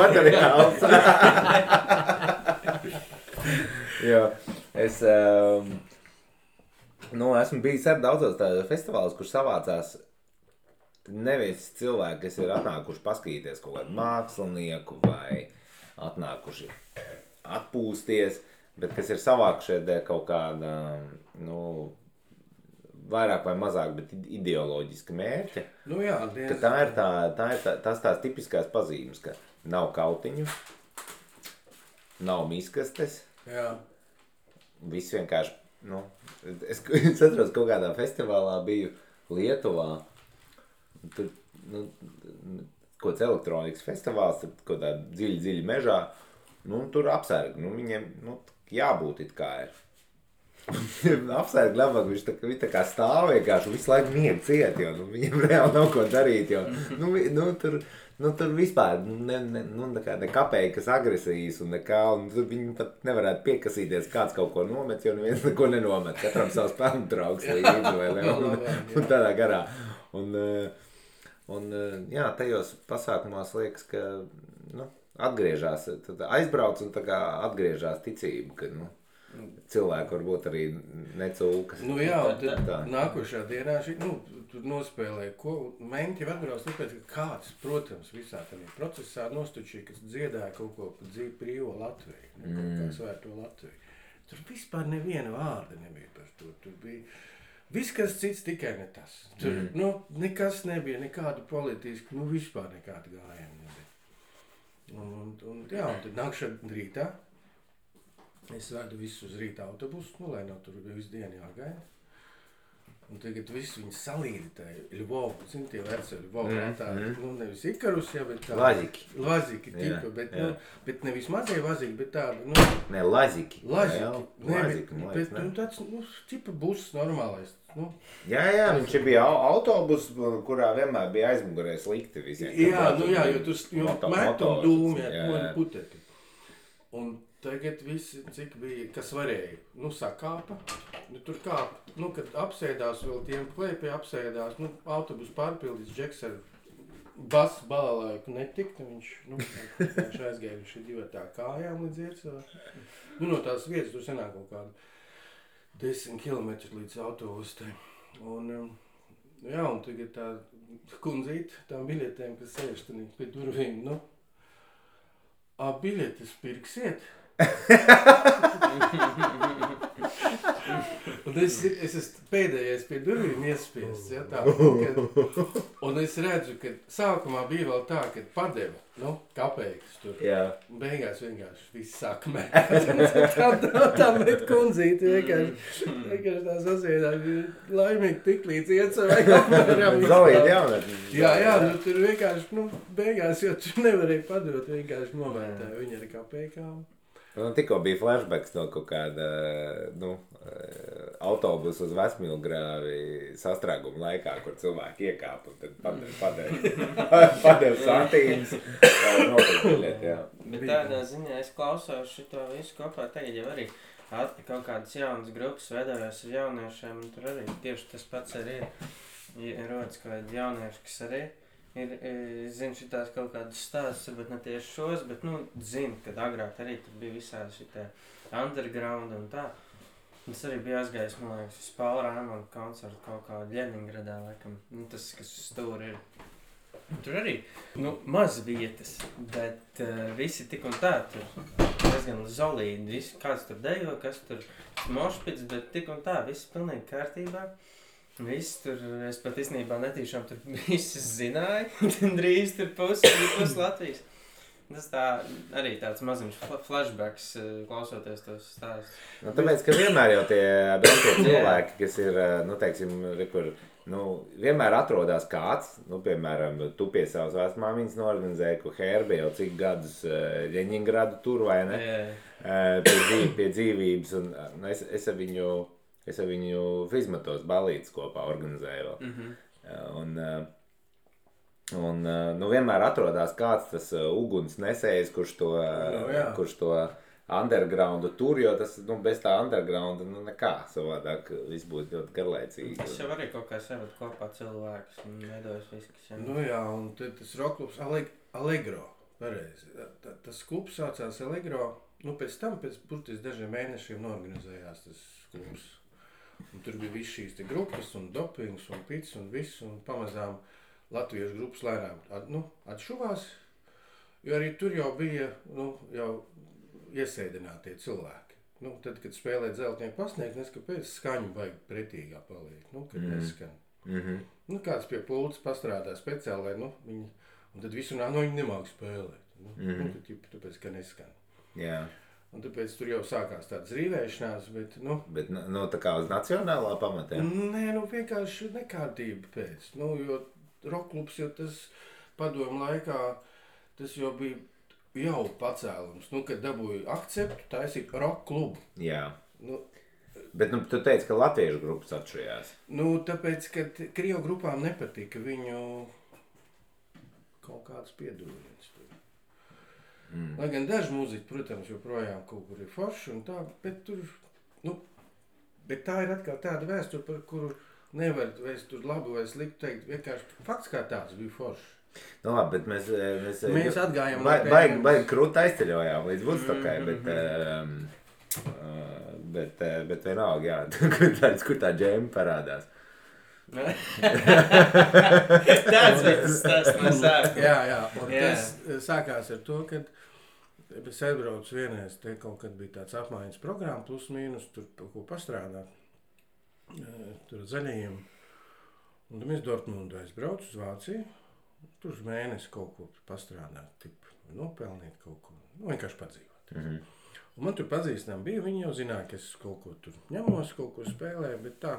Speaker 1: materiāls. Jo, es esmu bijis ar daudzos tādos festivālos, kur savācās nevis cilvēki, kas ir atnākuši paskatīties kaut kādu mākslinieku vai atnākuši atpūsties, bet kas ir savākušie dēļ kaut kāda, vairāk vai mazāk, bet ideoloģiska mērķa.
Speaker 2: Jā,
Speaker 1: tas tās tipiskās pazīmes, ka nav kautiņu, nav miskastes.
Speaker 2: Jā.
Speaker 1: Viss vienkārši, es atceros, kaut kādā festivālā biju Lietuvā. Tur, kaut kāds elektronikas festivāls, tur kaut kādā dziļi mežā, tur apsargi, viņiem, jābūt it kā ir. Apsargi labāk, viņš tā kā stāv vienkārši, visu laiku miegu ciet, jo viņiem reāli nav ko darīt, jo, tur vispār, ne kapeikas agresijas un nekā, un tur viņi pat nevarētu piekasīties, kāds kaut ko nomet, jo neviens neko nenomet, katram savs pelnu trauks līdzi, vai ne, un tādā garā. Un tajos pasākumos liekas, ka, atgriežās, tad aizbrauc un tā kā atgriežās ticība, ka, cilvēki varbūt arī necūkas.
Speaker 2: Jā, tad nākošā dienā tur nospēlēja, ko menti jau atbrauc, tāpēc, ka kāds, protams, visā tādā procesā nostučīja, kas dziedāja kaut ko par dzīvi brīvo Latviju, kaut kā svērto Latviju. Tur vispār neviena vārda nebija par to, tur bija viss, kas cits, tikai ne tas. Tur, nekas nebija, nekādu politisku, vispār nekādu gājumu nebija. Un tad nākšana rītā, es vedu visus uz rīta autobusu, lai nav tur visu dienu jāgaida. Un tagad visu viņi salīdēja Ļvovu, tie veci Ļvovu, nevis Ikarus, bet tā... Laziki tipa, bet nevis mazie vaziki, bet tāda,
Speaker 1: Ne, Laziki.
Speaker 2: Bet tāds, tipa buss normālais,
Speaker 1: Jā, viņš bija autobus, kurā vienmēr bija aizmugurē slikti visiem.
Speaker 2: Jā, jo tur met un dūmi, puteti. Un tagad visi, cik bija, kas varēja, sakāpa, tur kāpa, kad apsēdās vēl tiem klēpie apsēdās, autobus pārpildīs, Džeks ar basu balalaiku netikta, viņš aizgāja viņš ir divatā kājām līdz iecā. No tās vietas tur senāk kaut kādu 10 kilometri līdz autobustai. Un tagad tā kundzīte, tām biļetēm, kas sēž pie durvīm, biļetes pirksiet? Un es esmu pēdējais pie durvīm iespiests, un es redzu, ka sākumā bija vēl tā, ka padeva, kapeikas tur. Un beigās vienkārši viss sāk mēt. Tā met kundzīti vienkārši tā sasiedās, laimīgi tik līdz iecavai apmēram.
Speaker 1: Zalīt jaunatni.
Speaker 2: Jā, tur vienkārši, beigās, jo tu nevarēji padot, vienkārši novērtēja viņa ar kapeikām.
Speaker 1: Tikko bija flashbacks no kaut kāda, autobusu uz Vecmilgrāvi sastrēguma laikā, kur cilvēki iekāpa un tad padeva santīnas.
Speaker 3: Bet tādā ziņā es klausos šito visu kopā, tagad jau arī kaut kādas jaunas grupas veidojās ar jauniešiem, un tur arī tieši tas pats arī ir rodas kaut kādi jaunieši, kas arī zinu šitās kaut kādas stāstus, varbūt ne tieši šos, bet, zinu, kad agrāk arī tur bija visādi šitie underground un tā. Es arī biju aizgājis, man liekas, uz Paula Rāmona koncertu kaut kā Ļeningradā, laikam. Tas, kas uz stūri ir. Tur arī maz vietas, bet visi tik un tā tur diezgan zolīdi. Visi, kāds tur dejo, kas tur mošpits, bet tik un tā, viss pilnīgi kārtībā. Viss tur, es pat īstenībā netīšām tur visus zināju, drīz tur pus Latvijas. Tas tā arī tāds maziņš flashbacks, klausoties tos stāstus.
Speaker 1: Nu, tāpēc, ka vienmēr jau tie braukie cilvēki, kas ir, nu, teiksim, kur, nu, vienmēr atrodās kāds, nu, piemēram, tu pie savas vecmāmiņas norganizēji, ko Herbe jau cik gadus Ļeņingradu tur, vai ne? Pie dzīvības, un nu, es ar viņu Fizmatos balītes kopā organizēju vēl. Un nu, vienmēr atrodās kāds tas uguns nesējs, kurš to undergroundu tur, jo tas, nu, bez tā undergrounda, nu, nekā savādāk viss būtu ļoti garlaicīgi.
Speaker 3: Tas jau arī kaut kā savat kopā cilvēkus un veidojas viss, kas jau...
Speaker 2: Nu jā, un tad tas rockklubs Allegro, pareizi. Tas klubs saucās Allegro, nu, pēc tam, pēc burtiski dažiem mēnešiem norganizējās tas klubs. Un tur bija viss šīs te grupas un dopings un pits un viss, un pamazām latviešu grupas lēnām atšuvās, jo arī tur jau bija jau iesēdinātie cilvēki. Nu, tad, kad spēlē Dzeltnieku pasniegt, nes kāpēc skaņu baigi pretīgā paliek, kad neskan. Nu, kāds pie pults pastrādā speciāli, lai viņi, un tad visu viņi nemāk spēlēt. Tāpēc, ka neskan.
Speaker 1: Jā.
Speaker 2: Un tāpēc tur jau sākās tādas rīvēšanās, bet,
Speaker 1: Bet, tā kā uz nacionālā pamatē?
Speaker 2: Nē, vienkārši nekārtība pēc, jo rockklubs, jo tas padomu laikā, tas jau bija jau pacēlums, kad dabūja akceptu taisīt rockklubu.
Speaker 1: Jā. Bet, tu teici, ka latviešu grupas atšujās.
Speaker 2: Tāpēc, ka Krievu grupām nepatika viņu kaut kāds piedūriens tur. Lai gan daži mūziķi, protams, joprojām kaut kur ir forši un tā, bet tur, bet tā ir atkal tāda vēsture, par kuru nevar vairs tur labu vai sliktu teikt, vienkārši fakts kā tāds bija forši.
Speaker 1: Nu labi, bet mēs
Speaker 2: atgājām
Speaker 1: baigi krūti aizceļojām līdz Woodstockai, bet vienalga, jā, kur tā džēma parādās.
Speaker 3: Tāds bija tas stāsts no sākuma.
Speaker 2: Jā, un tas sākās ar to, kad es aizbraucu vienreiz, te kaut kad bija tāds apmaiņas programma, plus mīnus, tur ko pastrādāt. Tur zaļajiem. Un tad mēs Dortmundu aizbraucu uz Vāciju. Tur uz mēnesi kaut ko pastrādāt, nopelnīt kaut ko, vienkārši padzīvot. Un man tur pazīstam bija, viņi jau zināja, ka es kaut ko tur ņemos, kaut ko spēlēju, bet tā.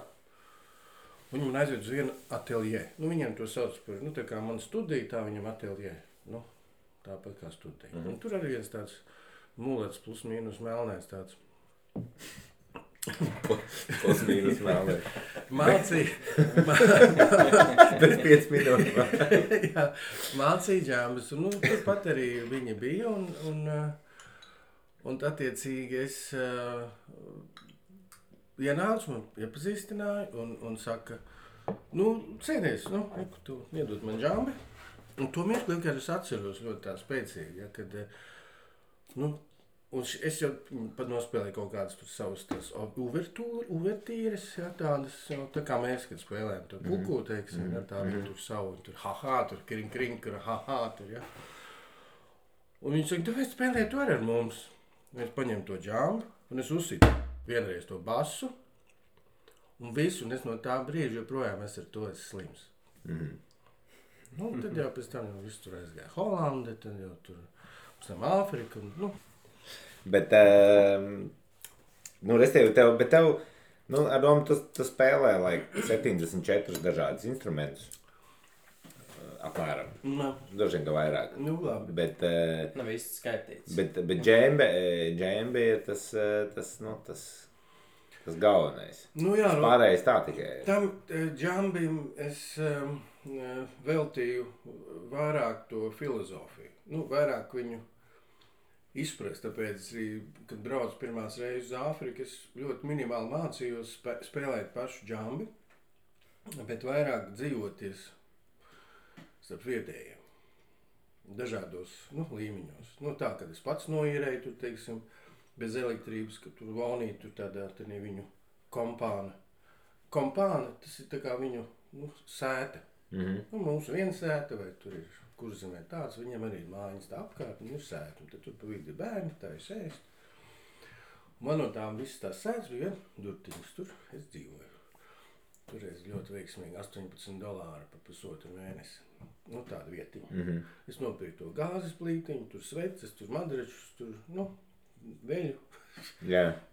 Speaker 2: Viņi man aizved uz vienu ateljē. Viņiem to sauc par, tā kā man studija, tā viņam ateljē. Tāpat kā studija. Un tur arī viens tāds mulets plus mīnus melnēs tāds.
Speaker 1: Plus mīnus melnēs.
Speaker 2: Mācīja.
Speaker 1: Pēc 5 minūtes.
Speaker 2: Jā, mācīja džambas. Un turpat arī viņi bija. Un attiecīgi es ienācu, man iepazīstināja un saka, cēdies, tu iedod man džambi. Un to mirkli vienkārši es atceros ļoti tā spēcīgi, ja, kad, un es jau pat nospēlēju kaut kādas tur savas tās uvertīres, ja, tādas, tā kā mēs, kad spēlējam tur puku, teiksim, ja, tādu tur savu, tur ha-ha, tur kring, tur ha-ha, tur, ja. Un viņi saka, tāpēc spēlē to ar mums. Es paņemu to džambu, un es uzsitu vienreiz to basu, un visu, un es no tā brīža joprojām es ar to esmu slims. Tad jau pēc tam viss tur aizgāja Holande, tad jau tur pēc tam Āfrika.
Speaker 1: Bet, bet tev, ar domu tu spēlē, 74 dažādus instrumentus. Apmēram. Dažiem ka vairāk.
Speaker 2: Labi.
Speaker 1: Bet,
Speaker 3: nav īsti skaitīts.
Speaker 1: Bet džembe ir tas galvenais.
Speaker 2: Jā,
Speaker 1: pārējais tā tikai.
Speaker 2: Tam džambim es veltīju vairāk to filozofiju. Vairāk viņu izprast, tāpēc, kad braucu pirmās reizes uz Āfriku, es ļoti minimāli mācījos spēlēt pašu džambi, bet vairāk dzīvoties starp vietējiem, dažādos līmeņos. Tā, kad es pats noīrēju, tur, teiksim, bez elektrības, ka tur valnīt, tur tādā viņu kompāna. Kompāna, tas ir tā kā viņu sēta. Nu, mums viena sēta, vai tur ir Kurzemē tāds, viņam arī ir mājiņas tā apkārt, un ir sēta, un tad tur pa vidu ir bērni, tā ir sēst. Man no tām visas tās sētas bija durtiņas, tur es dzīvoju. Toreiz ļoti veiksmīgi $18 par pusotru mēnesi. Nu, tāda vietiņa. Es nopirku to gāzes plītiņu, tur sveces, tur madračus, tur, veļu.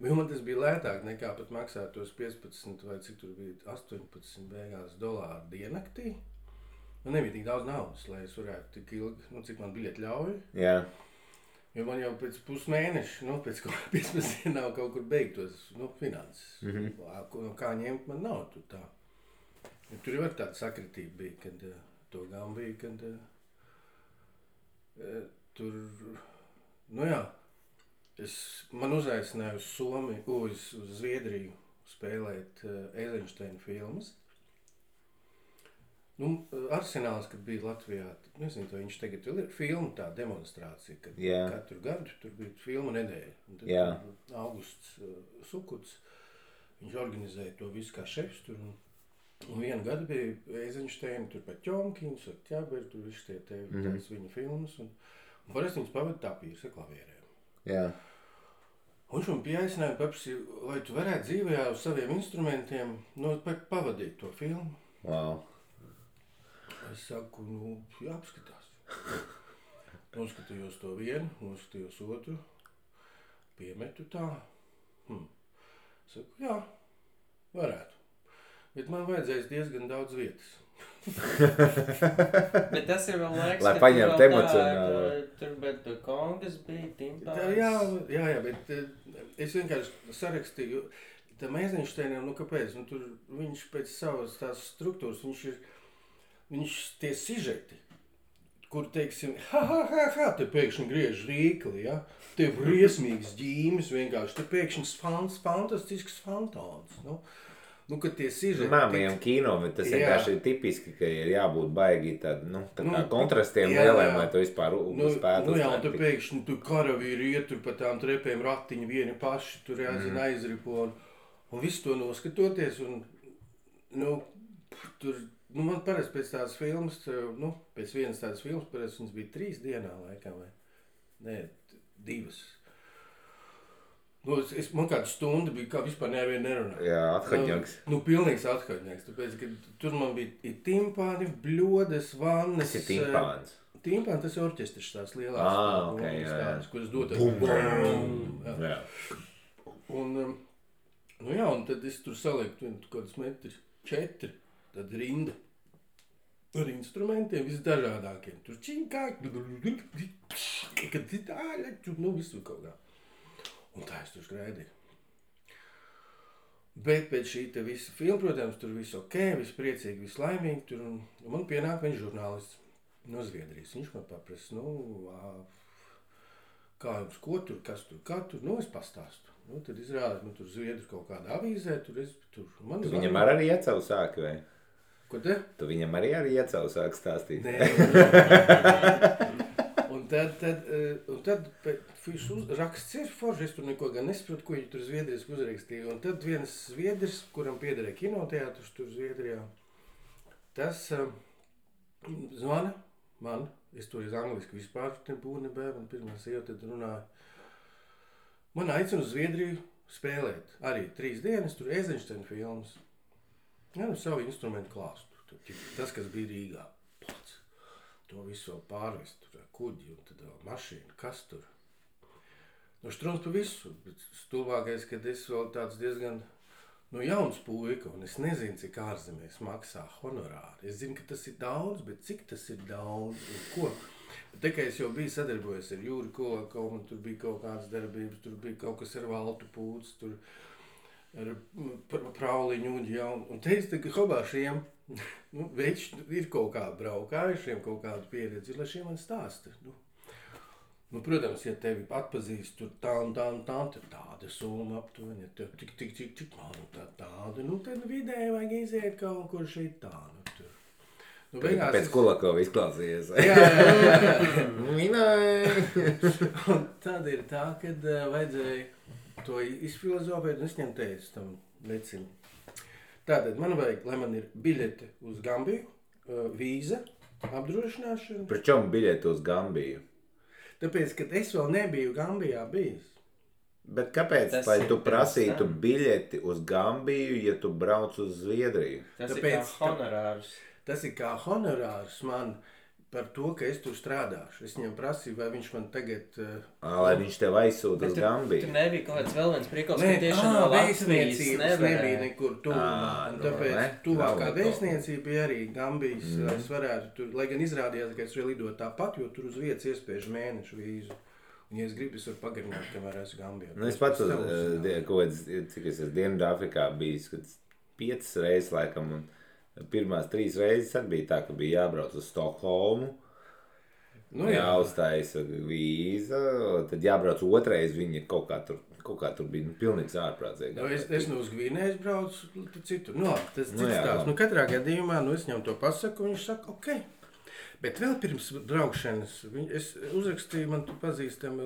Speaker 2: Man tas bija lētāk nekā pat maksāt tos 15 vai cik tur bija 18 beigās dolāru diennaktī. Man nebija tik daudz naudas, lai es varētu tik ilgi, cik man biļeti ļauj. Jo man jau pēc pusmēneša, pēc 15 dienām kaut kur beigtos, finanses. Kā ņemt man nav tur tā. Ja tur jau tāda sakritība bija, kad to gan bija, kad tur, man uzaicināja uz Somiju, uz Zviedriju spēlēt Eizenšteina filmas. Arsenāls, kad bija Latvijā, nezinu, vai viņš tagad vēl ir filma tā demonstrācija, kad katru gadu tur bija filma nedēļa. Un tad Augusts Sukuts, viņš organizēja to visu kā šefs tur. Un vienu gadu bija Eizenšteina, tur pat Ķomkiņš, Ķaberi, tur viss tās viņa filmas. Un parasti viņas pavada tapīrs ar klavierēm. Un viņš man pieaicināja, paprasīja, vai tu varētu dzīvējā uz saviem instrumentiem pavadīt to filmu.
Speaker 1: Wow.
Speaker 2: Es saku, jāapskatās. Noskatījos to vienu, noskatījos otru, piemetu tā. Saku, jā, varētu. Bet man vajadzēs diezgan daudz vietas.
Speaker 3: Bet tas ir vēl laiks,
Speaker 1: lai paņemtu emocionāli.
Speaker 3: Tur bet kongas bija, timpāns.
Speaker 2: Jā, bet es vienkārši sarakstīju. Tam Eizenšteinam, kāpēc? Tur viņš pēc savas tās struktūras, viņš tie sižeti, kur, teiksim, te pēkšņi griež rīkli, ja? Te briesmīgas ģīmes vienkārši, te pēkšņi fantastisks fantāns, kad tie sižeti...
Speaker 1: Māmajam kino, bet tas vienkārši ir tipiski, ka ir jābūt baigi tādi, tā kā kontrastiem lieliem, lai to vispār spētu
Speaker 2: uztvert. Un te pēkšņi tu karavīri iet tur pa tām trepēm ratiņi vieni paši, tur jāzina aizripo, un visu to noskatoties, un, tur... man parasti pēc tādas filmas, pēc vienas tādas filmas, parasti viņas bija 3 dienā laikam, vai? Nē, 2. Man kāda stunda bija, kā vispār nevienu nerunāt.
Speaker 1: Jā, athaņaks.
Speaker 2: Pilnīgs athaņaks, tāpēc, ka tur man bija timpāni, bļodas, vannas.
Speaker 1: Tas ir timpāns?
Speaker 2: Timpāni, tas ir orķestris tās lielās.
Speaker 1: Tādas,
Speaker 2: kuras dotas.
Speaker 1: Jā.
Speaker 2: Un tad es tur salieku kādas metri 4. Tad rinda ar instrumentiem visdažādākiem. Tur činkāk, visu kaut kā. Un tā es tur skraidīju. Bet pēc šī te visa filma, protams, tur viss ok, viss priecīgi, viss laimīgi. Tur, un man pienāk viņš žurnālists no Zviedrijas. Viņš man paprasa, kā jums, ko tur, kas tur, kā tur, es pastāstu. Tad izrādās, tur Zviedru kaut kādā avīzē, tur.
Speaker 1: Tu viņam arī iecavu sāki, vai?
Speaker 2: Ko te?
Speaker 1: Tu viņam arī iecavu sāki stāstīt?
Speaker 2: Nē. Un tad raksts ir forši, es tur neko gan nesaprotu, ko viņi tur Zviedrijas uzrakstīja. Un tad viens Zviedris, kuram piederēja kinoteātrs tur Zviedrijā, tas zvana man, es to iz angliski vispār nebūtu, man pirmā sieva tad runāja. Man aicina uz Zviedriju spēlēt. Arī 3 dienas, tur Eizenšteina filmas. Savu instrumentu klāstu. Tas, kas bija Rīgā. Pats. To visu pārvest. Tur kuģi un tad mašīna. Kas tur? Štruns pa visu. Bet stulbākais, kad es vēl tāds diezgan jauns puika. Un es nezinu, cik ārzemēs maksā honorāri. Es zinu, ka tas ir daudz, bet cik tas ir daudz un ko? Tā kā es jau biju sadarbojies ar Jūri Kolakovu, un tur bija kaut kādas darbības, tur bija kaut kas ar Valtu Pūts, tur ar Prauliņu uģi, un te es tagad hobāšiem, veči ir kaut kā braukājušiem, kaut kādu pieredzi, lai šiem man stāsta. Protams, ja tevi atpazīst, tur tā un tāda summa aptuveni, ja tev tik, tāda, tad vidēji vajag iziet kaut kur šeit tā, tur.
Speaker 1: Pēc Kolakova izklausījies.
Speaker 2: Jā.
Speaker 1: Minēja.
Speaker 2: Un tad ir tā, kad vajadzēja to izfilozofēt un es ņem teicu tam vecim. Tātad man vajag, lai man ir biļete uz Gambiju, vīza, apdrošināšana.
Speaker 1: Pričom biļeti uz Gambiju?
Speaker 2: Tāpēc, ka es vēl nebiju Gambijā bijis.
Speaker 1: Bet kāpēc, lai tu prasītu biļeti uz Gambiju, ja tu brauc uz Zviedriju?
Speaker 3: Tas ir kā honorārs.
Speaker 2: Tas ir kā honorārs man par to, ka es tur strādāšu. Es viņam prasīju, vai viņš man tagad...
Speaker 1: Lai viņš tev aizsūta uz Gambiju.
Speaker 3: Tur nebija kaut kāds vēl viens prikals, ka tieši no Latvijas
Speaker 2: nebija nekur tuvumā. Tāpēc tuvākā vēstniecība bija arī Gambijas, lai es varētu tur, lai gan izrādījās, ka es varu lidot tāpat, jo tur uz vietas iespējas mēnešu vīzu. Un, ja es gribu, es varu pagarināt, kamēr esmu Gambijā.
Speaker 1: Es pats cik es esmu Dienvidāfrikā bijis, kad 5 reizes laikam, un pirmās 3 reizes arī bija tā, ka bija jābrauc uz Stokholmu, jāuzstājas vīza, tad jābrauc otrais, viņi kaut kā tur bija pilnīgs ārprātīgi.
Speaker 2: Es no uz Gvinējas braucu citur. Tas cits tās. Katrā gadījumā, es viņam to pasaku, un viņš saka, ok. Bet vēl pirms braukšanas, es uzrakstīju, man tu pazīstami,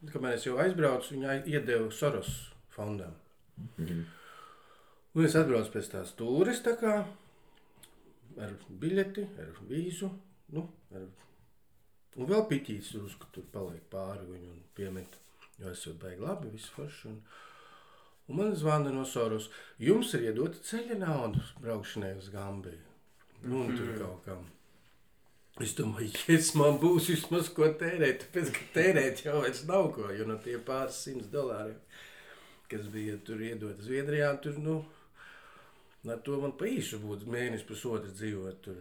Speaker 2: kamēr es jau aizbraucu, viņa iedeva Soros fondam. Un es atbraucu pēc tās tūres, tā kā, ar biļeti, ar vīzu, un vēl piķīs tur paliek pāri viņu un piemet, jo esot baigi labi, visu forši. Un man zvana no Soros, jums ir iedota ceļa nauda braukšanai uz Gambiju. Un tur kaut kam. Es domāju, man būs vismaz ko tērēt, tāpēc, ka tērēt jau vairs nav ko, jo no tie pāris $100, kas bija tur iedot Zviedrijā, tur, ar to man pa īsu būtu mēnesi pusotru dzīvot tur,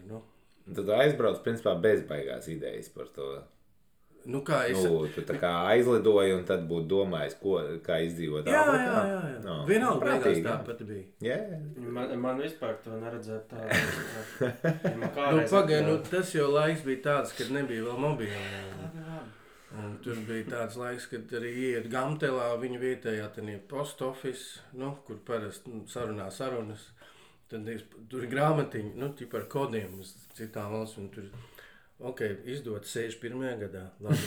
Speaker 1: Tad aizbrauc, principā, bezbaigās idejas par to.
Speaker 2: Kā es...
Speaker 1: Tu tā kā aizlidoji un tad būtu domājis, kā izdzīvot Āfrikā?
Speaker 2: Jā. Vienalga beigās tāpat bija.
Speaker 1: Yeah.
Speaker 3: Man vispār to neredzēt tā.
Speaker 2: Pagaid, tas jau laiks bija tāds, kad nebija vēl mobīla. Un tur bija tāds laiks, kad arī iet Gamtelā, viņa vietējā post office, kur parasti sarunā sarunas. Tad tur ir grāmatiņi, par kodiem uz citām valstīm. Tur izdot 61. gadā. Labi.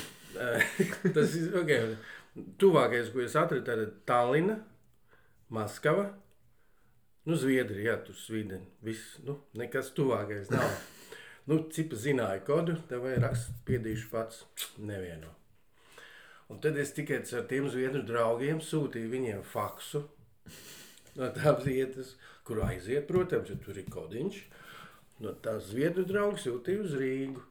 Speaker 2: Tas ir, tuvākais, ko es atradu, tad Tallina, Maskava, Zviedrija, tur Svīdeni, viss, nekas tuvākais nav. Cipa zināja kodu, tev vai rakst, piedīšu pats, nevieno. Un tad es tikai ar tiem zviedru draugiem sūtīju viņiem faksu no tās vietas, kur aiziet, protams, ja tur ir kodiņš. No tās zviedru draugu sūtīju uz Rīgu.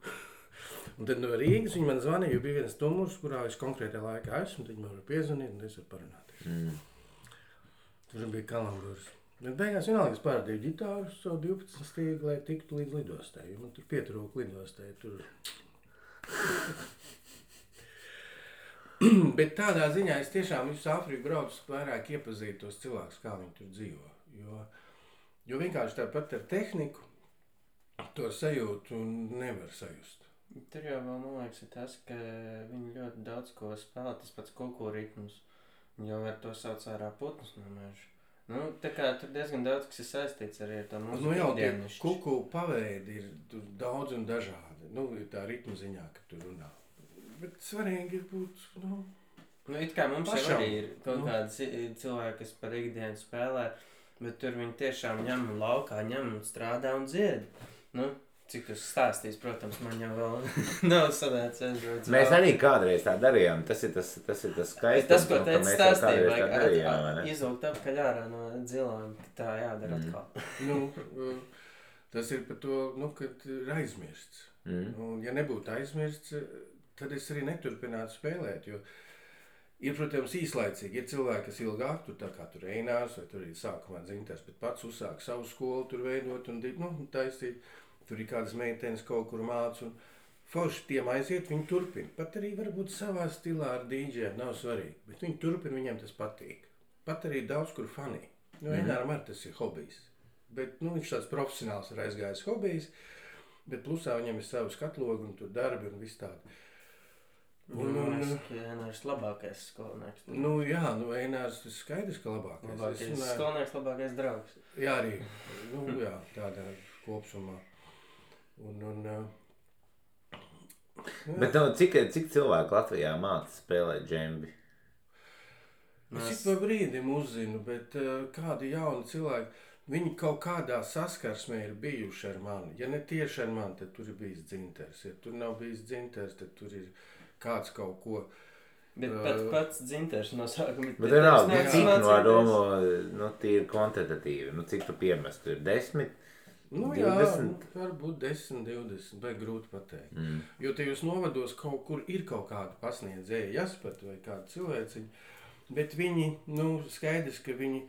Speaker 2: Un tad no Rīgas viņi man zvanīja, jo bija viens numurs, kurā es konkrētā laikā esmu, tad viņi man var piezvanīt un es varu parunāties. Tur bija kalamburs. Bet beigās vienalga es pārādīju ģitāru savu 12 stīgu, lai tiktu līdz lidostai, jo man tur pietrūka lidostai. Bet tādā ziņā es tiešām visu Āfriku braucu vairāk iepazīt tos cilvēkus, kā viņi tur dzīvo. Jo vienkārši tāpat ar tehniku to sajūtu nevar sajust.
Speaker 3: Tur jau vēl, man liekas, ir tas, ka viņi ļoti daudz ko spēlē, tas pats kuku ritmus. Viņi jau var to sauc ārā putnus no meža. Tā kā tur diezgan daudz, kas ir saistīts arī ar to mūsu ikdienišķi.
Speaker 2: Kuku paveidi ir daudz un dažādi. Ir tā ritmu ziņā, ka tur runā. Bet svarīgi ir būt,
Speaker 3: it kā mums jau arī ir kaut kādi cilvēki, kas par ikdienu spēlē, bet tur viņi tiešām ņem un laukā, ņem un strādā un dzied. Cik tas stāstīs, protams, man jau vēl nav sanācis.
Speaker 1: Mēs arī kādreiz tā darījām, tas ir tas skaistums,
Speaker 3: tas, ko
Speaker 1: ka mēs kādreiz tā darījām.
Speaker 3: Izvilkt apkaļ ārā no dzilām, tā jādara atkal.
Speaker 2: Tas ir par to, kad ir aizmirsts. Ja nebūtu aizmirsts, tad es arī neturpinātu spēlēt, jo ir, protams, īslaicīgi. Ir cilvēki, kas ilgāk, tur tā kā tur Einārs, vai tur ir sākumā dzintars, bet pats uzsāk savu skolu tur veidot un taisīt. Tur ir kādas meitenes kaut kur māc un forši tiem aiziet, viņi turpina. Pat arī varbūt savā stilā ar dīdžiem, nav svarīgi, bet viņi turpina, viņiem tas patīk. Pat arī daudz kur fanī. Eināram arī tas ir hobijs. Bet, viņš tāds profesionāls ir aizgājis hobijs, bet plusā viņam ir savu skatlogu un tur darbi un viss tādi.
Speaker 3: Einārs labākais skolnieks.
Speaker 2: Einārs ir skaidrs, ka labākais.
Speaker 3: Skolnieks labākais draugs.
Speaker 2: Jā, arī. Tādā kopsumā.
Speaker 1: Bet cik cilvēki Latvijā māca spēlēt džembi?
Speaker 2: Es ik pa brīdim uzzinu, bet kādi jauni cilvēki, viņi kaut kādā saskarsmē ir bijuši ar mani. Ja ne tieši ar mani, tad tur ir bijis dzinters. Ja tur nav bijis dzinters, tad tur ir kāds kaut ko.
Speaker 3: Bet pats dzinters no sākuma.
Speaker 1: Bet vienalga, cik no domu, tīri kvantitatīvi, cik tu piemestu, ir 10? 20?
Speaker 2: Varbūt 10, 20, vai grūti pateikt. Jo tajos novados kaut kur ir kaut kāda pasniedzēja Jaspat vai kāda cilvēciņa, bet viņi, skaidrs, ka viņi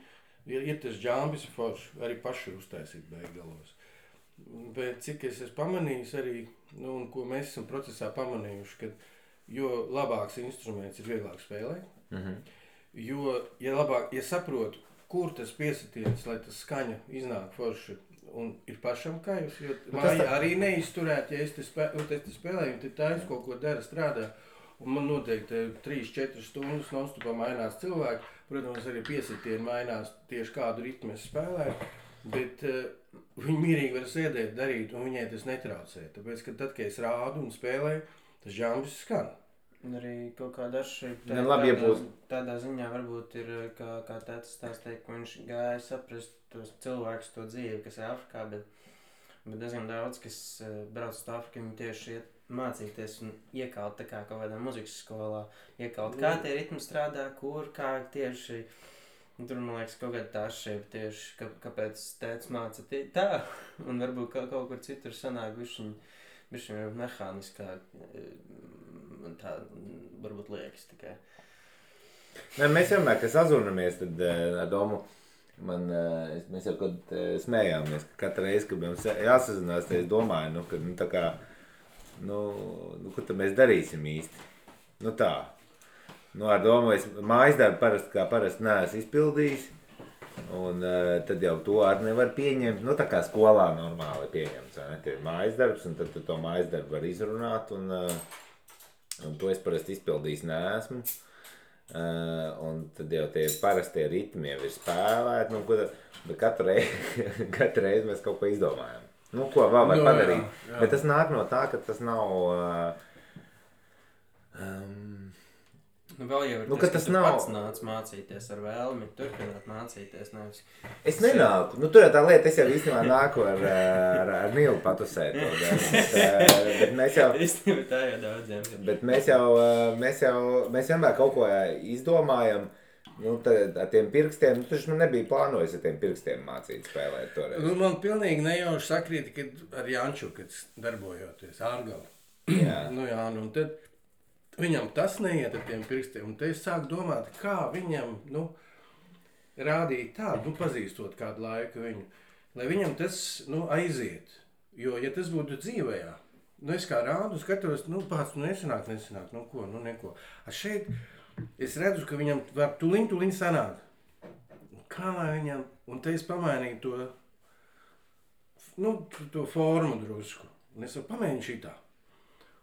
Speaker 2: ir tas džambis forši, arī paši uztaisīt beigalos. Bet cik es esmu pamanījis arī, un ko mēs esam procesā pamanījuši, ka jo labāks instruments ir vieglāk spēlēt, jo, ja saprotu, kur tas piesitiens, lai tas skaņa iznāk forši, un ir pašam kairs, jo māja arī neizturēt, ja es te spēlēju, tad tā es kaut ko dara, strādā, un man noteikti 3-4 stundas nonstopā mainās cilvēki, protams, arī piesitieni mainās tieši kādu ritmu es spēlēju, bet viņi mierīgi var sēdēt, darīt, un viņai tas netraucē, tāpēc, ka tad, kad es rādu un spēlēju, tas žambis skan.
Speaker 3: Un arī kaut kāda atšķirība tādā ziņā varbūt ir, kā tētis stāstīja, ka viņš gāja saprast tos cilvēkus, to dzīvi, kas ir Afrikā, bet diezgan daudz, kas brauc uz Afriku, viņi tieši iet mācīties un iekalt tā kā kaut kādā muzikas skolā, iekalt kā tie ritmi strādā, kur, kā tieši, un tur, man liekas, kaut kāda tā atšķirība tieši, kāpēc tētis māca tā, un varbūt kaut kur citur sanāk bišķiņ mehāniskāk, un tā varbūt liekas tikai.
Speaker 1: Mēs vienmēr, kad sazūnamies, tad ar domu, mēs jau kad smējāmies, ka katru reizi, kad mums jāsazinās, tad es domāju, ka tā kā, ko tad mēs darīsim īsti? Tā. Ar domu, es mājas darbu parasti neesmu izpildījis, un tad jau to arī nevar pieņemt, tā kā skolā normāli pieņemts, tie ir mājas darbs, un tad tu to mājas darbu var izrunāt, un to es parasti izpildījis neesmu, un tad jau tie parastie ritmi jau ir spēlēti, bet katru reizi mēs kaut ko izdomājam. Ko vēl var padarīt, bet tas nāk no tā, ka tas nav...
Speaker 3: Vēl jau ir ka tu pats nāc mācīties ar vēlmi, turpināt mācīties, nevis...
Speaker 1: Es nenāku, tur tā lieta, es jau īstenībā nāku ar Nilu patusēt, bet mēs jau...
Speaker 3: Īstenībā tā jau daudziem.
Speaker 1: Bet mēs vienmēr kaut ko izdomājam, ar tiem pirkstiem, taču nebija plānojis ar tiem pirkstiem mācīt spēlēt toreiz.
Speaker 2: Man pilnīgi nejauši sakrīt, kad ar Janču, kad darbojoties ārgali.
Speaker 1: Jā.
Speaker 2: Un tad... Viņam tas neiet ar tiem pirkstiem, un te es sāku domāt, kā viņam, rādīt tādu, pazīstot kādu laiku viņu, lai viņam tas, aiziet. Jo, ja tas būtu dzīvējā, es kā rādu skatos, pats, nesanāk, neko. Šeit es redzu, ka viņam var tuliņ sanāk. Kā lai viņam, un te es pamainīju to formu drusku, un es pamēģinu šitā.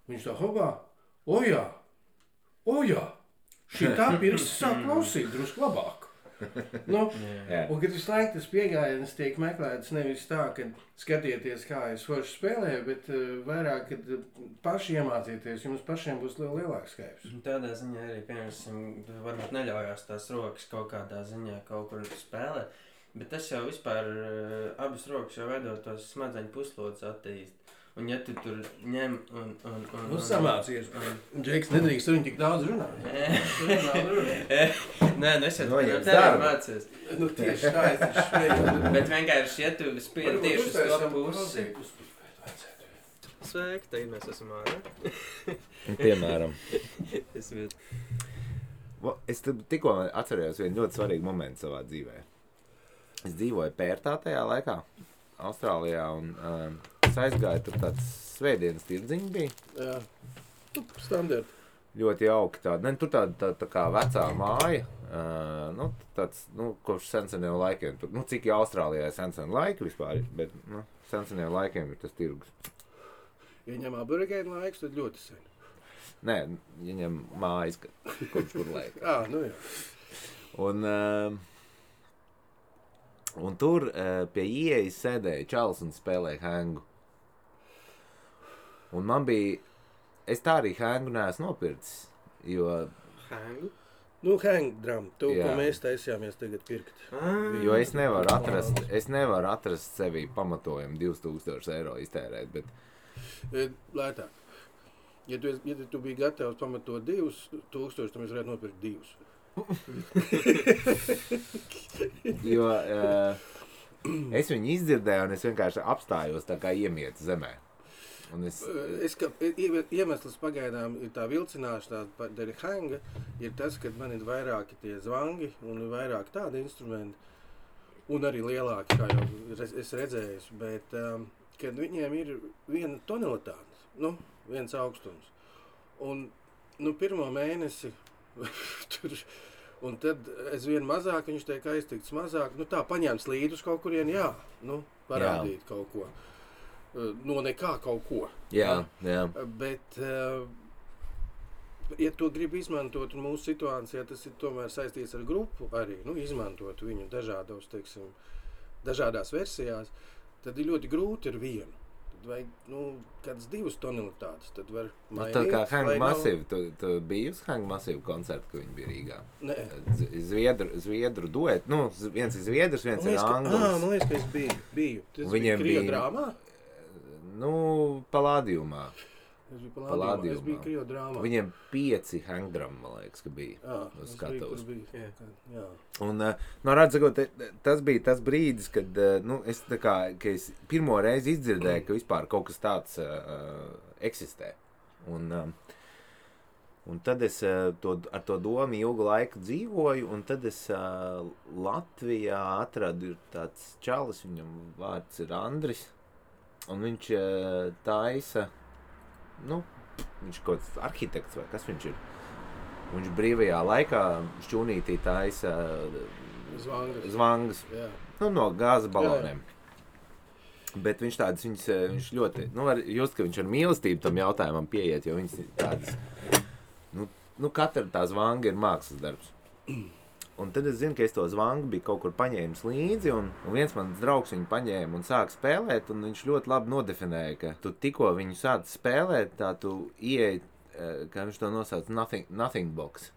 Speaker 2: Viņš tā hopā, o jā, šitā pirksts sāk klausīt drusku labāk. Un kad visu laiku tas piegājiens tiek meklēts nevis tā, ka skatieties, kā es forši spēlēju, bet vairāk, kad paši iemācieties, jums pašiem būs lielāks skaips.
Speaker 3: Tādā ziņā arī, piemēram, varbūt neļaujās tās rokas kaut kādā ziņā kaut kur spēlēt, bet tas jau vispār abas rokas jau veidot tos smadzeņu puslodus attīst. Un ja tu tur ņem un
Speaker 2: samācies. Džeks nedrīkst viņu tik daudz runāt.
Speaker 3: Nē, es jau tevi mācies.
Speaker 2: Tieši tā, es taču šveju.
Speaker 3: Bet vienkārši, ja tu spiedi tieši uz to pusi. Sveiki, tagad mēs esam ārā.
Speaker 1: Piemēram.
Speaker 3: Es
Speaker 1: Es tikko atcerējos vienu ļoti svarīgu momentu savā dzīvē. Es dzīvoju Pērtā tajā laikā, Austrālijā, un es aizgāju, tur tāds svētdienas tirdziņi bija.
Speaker 2: Jā, standarti.
Speaker 1: Ļoti jauki tāda. Tur tā kā vecā māja, tāds, kopš senseniem laikiem. Tur, cik jau Austrālijā ir senseniem laiki vispār, bet, senseniem laikiem ir tas tirgus.
Speaker 2: Ja ņem aborigēnu laiks, tad ļoti sen.
Speaker 1: Nē, ja ņem mājas, kopš kur laika.
Speaker 2: Jā.
Speaker 1: Un tur pie ieejas sēdēja čalis un spēlēja hengu. Un man bija... Es tā arī hengu neesmu nopircis, jo...
Speaker 3: Hengu?
Speaker 2: Nu, hang drum, to,
Speaker 1: Jā.
Speaker 2: ko mēs taisījāmies tagad pirkt.
Speaker 1: Jo es nevaru atrast sevī pamatojumu 2000 eiro iztērēt, bet
Speaker 2: Lētāk. Ja tu biji gatavs pamatot 2000, tad mēs varētu nopirkt 2.
Speaker 1: jo es viņu izdzirdēju un es vienkārši apstājos tā kā iemietu zemē. Un
Speaker 2: Iemesls pagaidām ir tā vilcināšana, dēļ hanga, ir tas, ka man ir vairāki tie zvangi un ir vairāk tādi instrumenti, un arī lielāki, kā jau es redzēju, bet kad viņiem ir viena tonalitāte, viens augstums, un pirmo mēnesi tur, un tad es vien mazāk, viņš tiek aiztikts mazāk, tā paņēms līdus kaut kurien, parādīt kaut ko. No nekā kaut ko.
Speaker 1: Jā.
Speaker 2: Bet, ja to grib izmantot mūsu situācijā, tas ir tomēr saistīts ar grupu arī, izmantot viņu dažādās versijās, tad ir ļoti grūti ar vienu. Tad vajag, kādas 2 tonalitātes, tad var mainīt.
Speaker 1: Tā kā Hang Massive, tu biji uz Hang Massive koncertu, kad viņi bija Rīgā?
Speaker 2: Nē.
Speaker 1: Zviedru duet, viens ir zviedrs, viens ir anglis.
Speaker 2: Man liekas, ka es biju. Tas bija Krieva drāmā?
Speaker 1: Palādījumā.
Speaker 2: Es biju Krieva drāmā.
Speaker 1: Viņiem 5 hangdram, man liekas, ka bija uz skatuves.
Speaker 2: Jā.
Speaker 1: Un, redzot, tas bija tas brīdis, kad, ka es pirmo reizi izdzirdēju, ka vispār kaut kas tāds eksistē. Un tad es ar to domu ilgu laiku dzīvoju, un tad es Latvijā atradu tāds čalis, viņam vārds ir Andris, un viņš taisa, viņš kaut kāds arhitekts vai kas viņš ir. Viņš brīvajā laikā šķūnītī taisa zvangas, no gāzes baloniem. Bet viņš tādas, viņš ļoti, var just, ka viņš ar mīlestību tam jautājumam pieiet, jo viņš tādas, katra tā zvanga ir mākslas darbs. Un tad es zinu, ka es to zvangu biju kaut kur paņēmis līdzi, un viens mans draugs viņu paņēma un sāka spēlēt, un viņš ļoti labi nodefinēja, ka tu tikko viņu sāc spēlēt, tā tu ieej, kā viņš to nosauc, nothing box.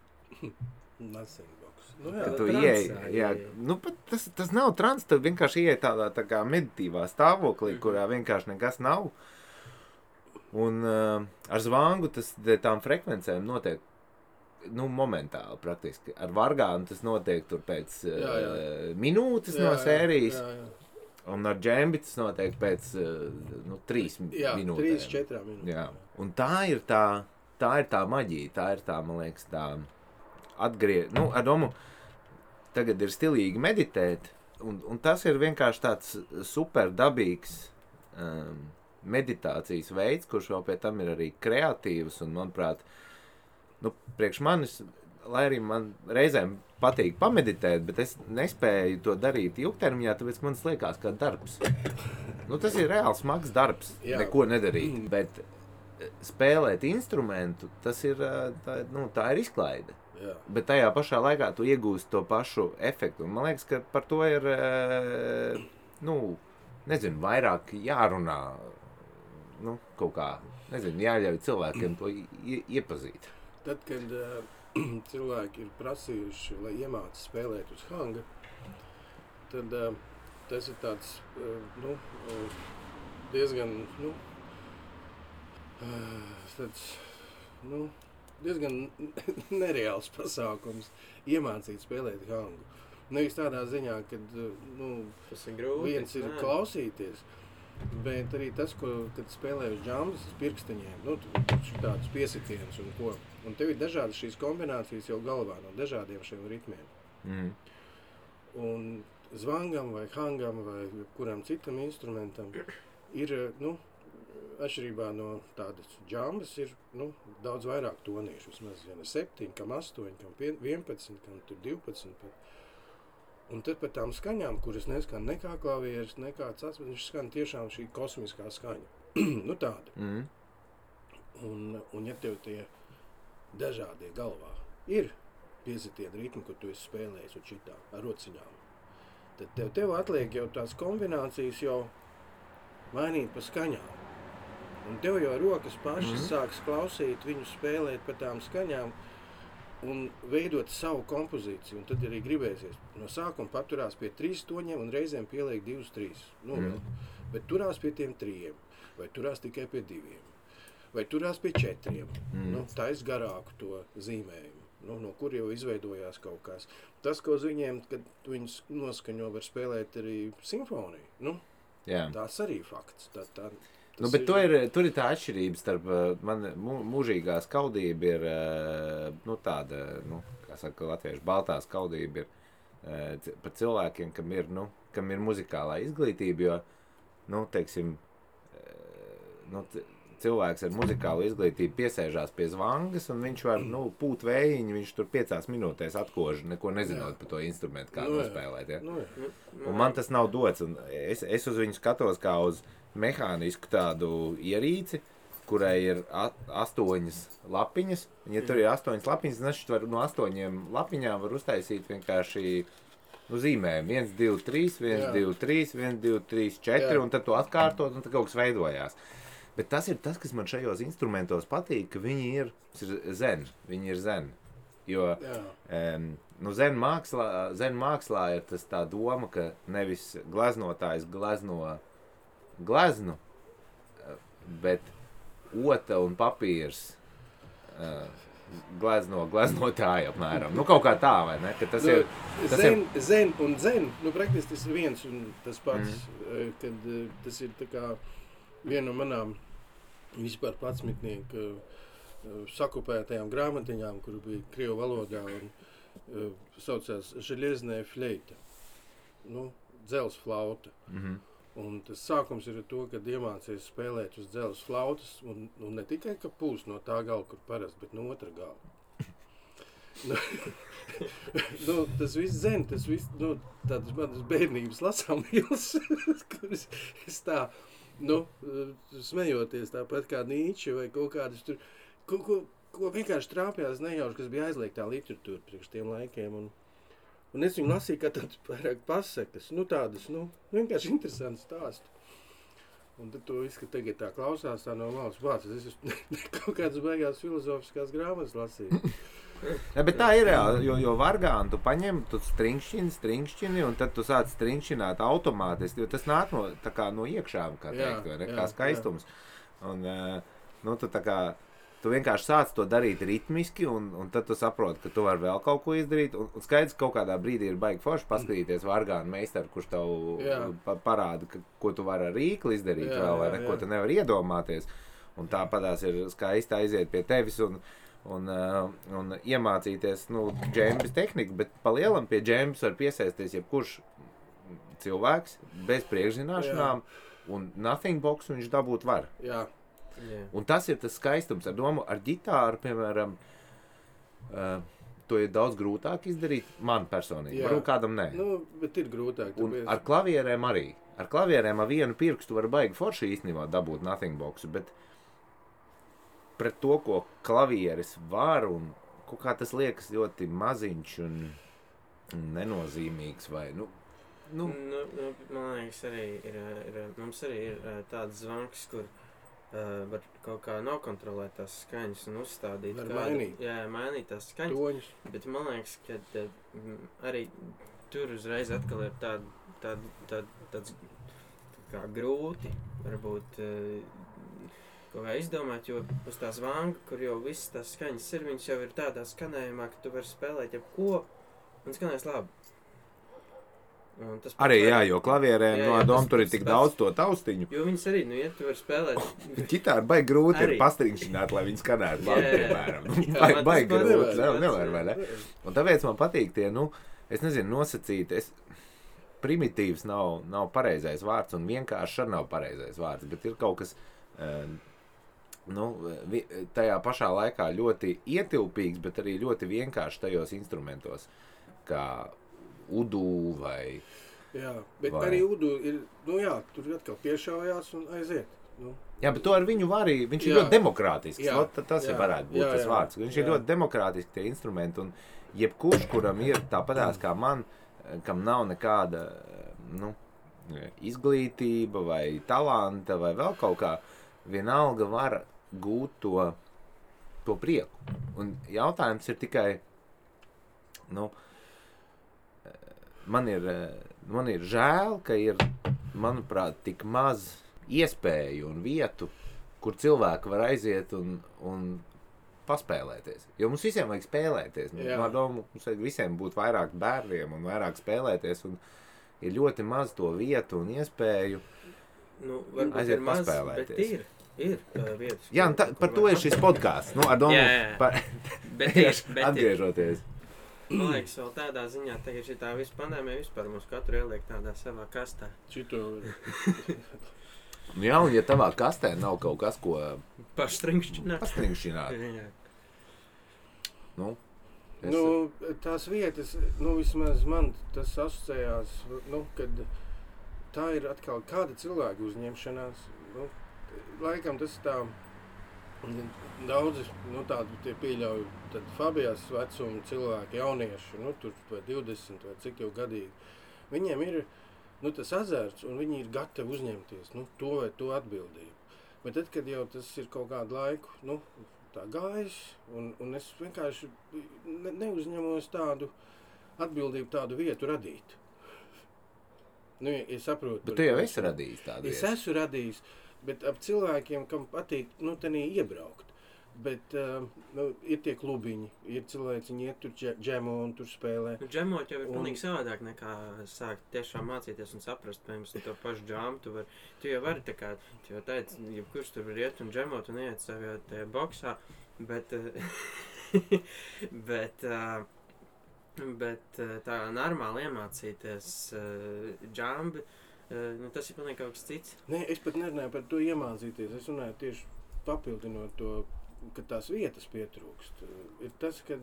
Speaker 2: Nothing box.
Speaker 1: Ka tu ieej, tas nav trans, tu vienkārši ieej tādā tā kā meditīvā stāvoklī, kurā vienkārši nekas nav. Un ar zvangu tām frekvencēm notiek, momentāli praktiski. Ar vargānu tas notiek tur pēc minūtes no sērijas. Un ar džembi tas notiek pēc 3 minūtēm.
Speaker 2: 3-4 minūtēm.
Speaker 1: Jā. Un tā ir tā maģija, tā ir tā, man liekas, tā ar domu, tagad ir stilīgi meditēt, un tas ir vienkārši tāds super dabīgs meditācijas veids, kurš vēl pie tam ir arī kreatīvs, un, manuprāt, priekš manis, lai arī man reizēm patīk pameditēt, bet es nespēju to darīt ilgtermiņā, tāpēc man liekas kā darbs. Tas ir reāls smags darbs, neko nedarīt, bet spēlēt instrumentu, tas ir, tā ir izklaide.
Speaker 2: Jā.
Speaker 1: Bet tajā pašā laikā tu iegūsti to pašu efektu. Un man liekas, ka par to ir, vairāk jārunā, kaut kā, jāļauj cilvēkiem to iepazīt.
Speaker 2: Tad, kad cilvēki ir prasījuši, lai iemāca spēlēt uz hanga, tad tas ir tāds, diezgan, diezgan nereāls pasākums iemācīt spēlēt hangu. Nevis tādā ziņā, kad
Speaker 3: tas ir grūti,
Speaker 2: viens ir klausīties, bet arī tas, kad spēlē uz džambas pirksteņiem, tāds piesitiens un ko. Un tev ir dažādas šīs kombinācijas jau galvā no dažādiem šiem ritmiem. Un zvangam vai hangam vai kuram citam instrumentam ir, atšķirībā no tādas džambas ir daudz vairāk toniešu. Vismaz 7, kam 8, kam 11, kam 12. Un tad par tām skaņām, kuras neskan nekā klavieres, nekā cits, viņš skan tiešām šī kosmiskā skaņa. Tāda. Un ja tev tie dažādie galvā ir piesitieni ritmi, kur tu esi spēlējis un šitā ar rociņām, tad tev atliek jau tās kombinācijas jau mainīt pa skaņām. Un tev jau rokas pašas sāks klausīt, viņu spēlēt pa tām skaņām. un veidot savu kompozīciju, un tad arī gribēsies. No sākuma paturās pie 3 toņiem un reizēm pieliek 2-3. Bet turās pie tiem 3, vai turās tikai pie 2, vai turās pie 4. Tais garāku to zīmējumu. No kur jau izveidojās kaut kas. Tas, ko uz viņiem, kad viņus noskaņo, var spēlēt arī simfoniju. Tās arī fakts.
Speaker 1: Bet tur ir tā atšķirība starp man mūžīgā skaudība ir tāda, kā saka latviešu, baltā skaudība ir par cilvēkiem, kam ir muzikālā izglītība, jo, teiksim, cilvēks ar muzikālu izglītību piesēžās pie zvangas, un viņš var, pūt vējiņu, viņš tur 5 minūtēs atkož, neko nezinot par to instrumentu, kā nospēlēt, ja? Un man tas nav dots, un es uz viņu skatos kā uz mehānisku tādu ierīci, kurai ir 8 lapiņas, un ja tur ir 8 lapiņas, tad var no 8 lapiņām var uztaisīt vienkārši zīmējumu, 1, 2, 3, 1, 2, 3, 1, 2, 3, 4, un tad to atkārtot, un tad kaut kas veidojās. Bet tas ir tas, kas man šajos instrumentos patīk, ka viņi ir zen. Jo zen mākslā ir tas tā doma, ka nevis gleznotājs glezno gleznu, bet ota un papīrs gleznotāji apmēram. Kaut kā tā, vai ne? Ka tas ir,
Speaker 2: zen un zen, praktiski tas ir viens un tas pats, kad tas ir tā kā viena no manām vispār patsmitnieku sakupētajām grāmatiņām, kuru bija krievu valodā un saucās želieznē fleita, dzels flauta. Un tas sākums ir ar to, kad iemācies spēlēt uz dzels flautas un ne tikai, ka pūst no tā gala, kur parasti, bet no otra gala. Tas viss zen, tas viss, tādas manas bērnības lasāmīlas, kuras es tā, smejoties tāpat kā Nīče vai kaut kādas tur, ko vienkārši trāpjās nejauši, kas bija aizliegtā literatūra priekš tiem laikiem. Un es viņu lasīju kā tādas pārāk pasakas, tādas, vienkārši interesantas stāstu. Un tad to viss, ka tagad tā klausās, tā no malas vācis, es kaut kādas baigās filozofiskās grāmatas lasīju.
Speaker 1: Bet tā ir reāli, jo vargāni tu paņem, tu stringšķini, un tad tu sāc stringšķināt automātiski, jo tas nāk no iekšām, kā teikt, vai ne, kā skaistums. Un, tu vienkārši sāc to darīt ritmiski, un tad tu saproti, ka tu vari vēl kaut ko izdarīt, un skaidrs, kaut kādā brīdī ir baigi forši paskatīties vargānu meistaru, kurš tev parāda, ko tu vari ar rīkli izdarīt vēl, vai ne, ko tu nevar iedomāties. Un tāpatās ir skaisti aiziet pie tevis, un iemācīties, džembis tehniku, bet pa lielam pie džembis var piesēsties jebkurš cilvēks bez priekšzināšanām, un nothing box viņš dabūt var. Un tas ir tas skaistums ar domu, ar ģitāru, piemēram, to ir daudz grūtāk izdarīt, man personīgi, varbūt kādam nē.
Speaker 2: Bet ir grūtāk.
Speaker 1: Un ar klavierēm arī. Ar klavierēm ar vienu pirkstu var baigi forši īstenībā dabūt nothing boxu, bet pret to, ko klavieris var, un kaut kā tas liekas ļoti maziņš un nenozīmīgs, vai,
Speaker 3: man liekas, arī mums arī ir tāds zvanks, kur var kaut kā nokontrolēt tās skaņas un uzstādīt mainīt tās skaņas.
Speaker 2: Toņus. Bet
Speaker 3: man liekas, ka arī tur uzreiz atkal ir tāds kā grūti, varbūt kaut kā izdomāt, jo uz tās vanga, kur jau visas tās skaņas ir, viņas jau ir tādā skanējumā, ka tu vari spēlēt jebko un skanēs labi.
Speaker 1: Arī jo klavierēm tur ir tik daudz to taustiņu.
Speaker 3: Jo viņas arī, ja tu vari spēlēt.
Speaker 1: Ģitāra baigi grūti ir pastringšināt, lai viņi skanētu labi, piemēram. Baigi grūti, nevar, vai ne? Un tāpēc man patīk tie, es nezinu, nosacīt, primitīvs nav pareizais vārds, un vienkārši nav pareizais vārds, bet ir kaut kas, tajā pašā laikā ļoti ietilpīgs, bet arī ļoti vienkārši tajos instrumentos, kā udu vai...
Speaker 2: Jā, bet arī udu ir, tur atkal piešaujās un aiziet.
Speaker 1: Jā, bet to ar viņu var arī, viņš ir ļoti demokrātisks, tas varētu būt tas vārds. Viņš ir ļoti demokrātiski tie instrumenti, un jebkurš, kuram ir tāpatās kā man, kam nav nekāda, izglītība vai talanta vai vēl kaut kā, vienalga var gūt to prieku. Un jautājums ir tikai, nu, man ir žēl, ka ir, manuprāt, tik maz iespēju un vietu, kur cilvēki var aiziet un paspēlēties. Jo mums visiem vajag spēlēties. Mums vajag visiem būt vairāk bērniem un vairāk spēlēties. Un ir ļoti maz to vietu un iespēju aiziet paspēlēties.
Speaker 4: Ir vietas.
Speaker 1: Jā, par to ir šis podcasts. Ar domu
Speaker 4: Bet
Speaker 1: atgriežoties.
Speaker 4: Man liekas, vēl tādā ziņā, tagad šitā visu pandēmija vispār mums katru ieliek tādā savā kastā.
Speaker 1: Jā, un ja tavā kastē nav kaut kas, ko pastrinkšķināt.
Speaker 2: Tās vietas, vismaz man tas asociējās, kad tā ir atkal kāda cilvēka uzņemšanās. Laikam tas tā daudzi, tādi tie pieļauj, tad Fabijas vecuma cilvēki, jaunieši, tur vai 20 vai cik jau gadīgi, viņiem ir, tas azarts un viņi ir gatavi uzņemties, to vai to atbildību. Bet tad, kad jau tas ir kaut kādu laiku, tā gājis, un es vienkārši neuzņemos tādu atbildību, tādu vietu radīt. Es saprotu.
Speaker 1: Bet tu jau esi radījis tādu vietu.
Speaker 2: Es esmu radījis. Bet ap cilvēkiem, kam patīk, tenī iebraukt. Bet ir tie klubiņi, ir cilvēki, viņi iet tur džemo un tur spēlē.
Speaker 4: Džemot jau ir pilnīgi savādāk nekā sākt tiešām mācīties un saprast, piemēram, to pašu džamu. Tu jau vari tā kā, tu jau teici, jebkurš tur var iet un džemot un iet savā tajā boksā, bet tā normāli iemācīties džambi, tas ir pilnīgi kaut kas cits.
Speaker 2: Nē, es pat nerunāju par to iemācīties. Es runāju tieši papildinot to, ka tās vietas pietrūkst. Ir tas, kad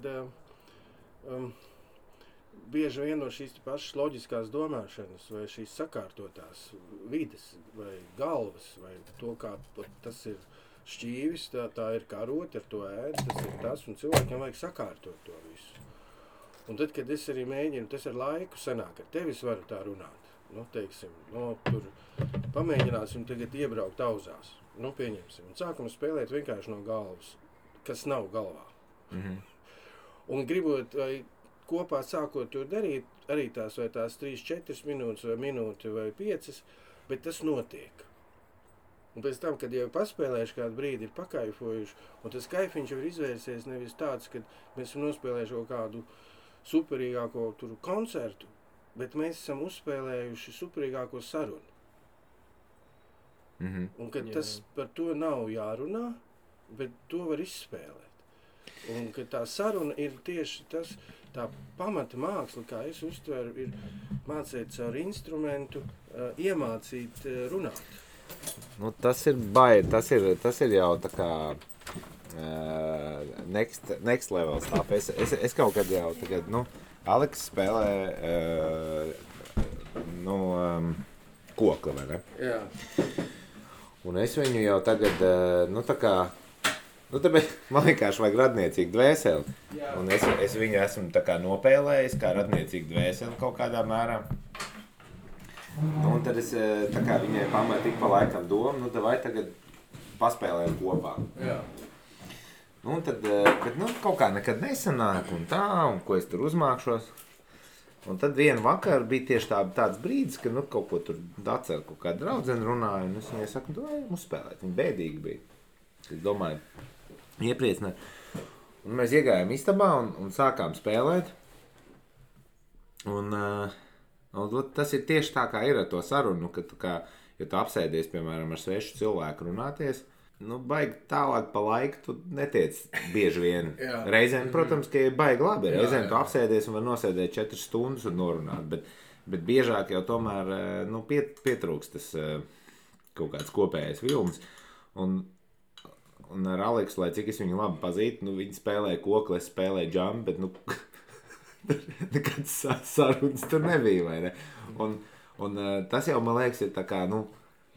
Speaker 2: bieži vien no šīs pašas loģiskās domāšanas vai šīs sakārtotās vides vai galvas vai to, kā tas ir šķīvis, tā ir karoti, ar to ēd, tas ir tas, un cilvēkiem vajag sakārtot to visu. Un tad, kad es arī mēģinu, tas ar laiku sanāk, ar tevis varu tā runāt. Tur pamēģināsim tagad iebraukt auzās. Pieņemsim. Un sākam spēlēt vienkārši no galvas, kas nav galvā.
Speaker 1: Mm-hmm.
Speaker 2: Un gribot vai kopā sākot to darīt, arī tās 3-4 minūtes vai minūti vai 5, bet tas notiek. Un pēc tam, kad jau paspēlējuši kādu brīdi, ir pakaifojuši, un tas kaifiņš jau ir izvērsies nevis tāds, kad mēs esam nospēlējuši kaut kādu superīgāko koncertu, bet mēs esam uzspēlējuši superīgāko sarunu.
Speaker 1: Mm-hmm.
Speaker 2: Un kad tas par to nav jārunā, bet to var izspēlēt. Un kad tā saruna ir tieši tas, tā pamata māksla, kā es uztveru, ir mācīt caur instrumentu, iemācīt runāt.
Speaker 1: Tas ir baigi, tas ir jau tā kā next level stuff. Es kaut kad jau tagad, Aleks spēlē kokli, vai ne?
Speaker 2: Jā.
Speaker 1: Un es viņu jau tagad, tāpēc man vienkārši vajag radniecīgu dvēseli. Jā. Un es viņu esmu tā kā nopēlējis kā radniecīgu dvēseli kaut kādā mērā. Un tad es tā kā viņai pamēju tik pa laikam domu, vai tagad paspēlējam kopā.
Speaker 2: Jā.
Speaker 1: Un tad, bet kaut kā nekad nesanāk un tā, un ko es tur uzmākšos. Un tad vienu vakaru bija tieši tāds brīdis, ka kaut ko tur atceru, kaut kāda draudzene runāja, un es viņai saku, ejam uzspēlēt. Viņa bēdīgi bija. Es domāju, iepriecināt. Un mēs iegājām istabā un sākām spēlēt. Un tas ir tieši tā, kā ir ar to sarunu, ka ja tu apsēdies, piemēram, ar svešu cilvēku runāties, baigi tālāk pa laiku tu netiec bieži vien. Reizēm, protams, ka ir baigi labi. Reizēm tu apsēdies un var nosēdēt 4 stundas un norunāt, bet biežāk jau tomēr pietrūks tas kaut kāds kopējais vilnis. Un ar Aleksu, lai cik es viņu labi pazītu, viņi spēlē kokli, es spēlēju džambu, bet nekāds sarunas tur nebija, vai ne? Un tas jau, man liekas, ir tā kā,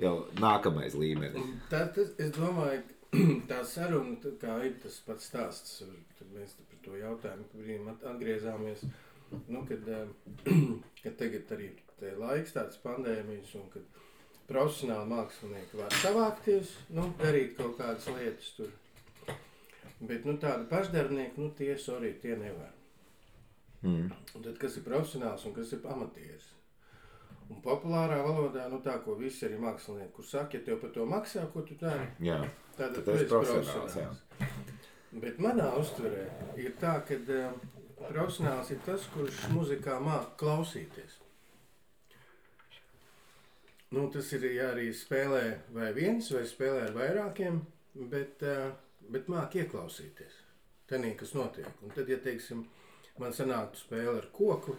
Speaker 1: jau nākamais līmenis.
Speaker 2: Es domāju, tā saruna, kā ir tas pats stāsts, tad mēs par to jautājumu, kad brīdim atgriezāmies, kad tagad arī te laiks tāds pandēmijas un kad profesionāli mākslinieki var savākties, darīt kaut kādas lietas tur. Bet tādi pašdarbnieki, tie nevar. Un tad, kas ir profesionāls un kas ir amatieris. Un populārā valodā, nu tā, ko visi arī mākslinieki, kur saka, ja tev par to maksā, ko tu dari, tad tu esi profesionāls. Bet manā uztverē ir tā, ka profesionāls ir tas, kurš muzikā māk klausīties. Nu, tas ir, ja arī spēlē vai viens, vai spēlē ar vairākiem, bet māk ieklausīties. Tenī, kas notiek. Un tad, ja, teiksim, man sanāktu spēle ar koku,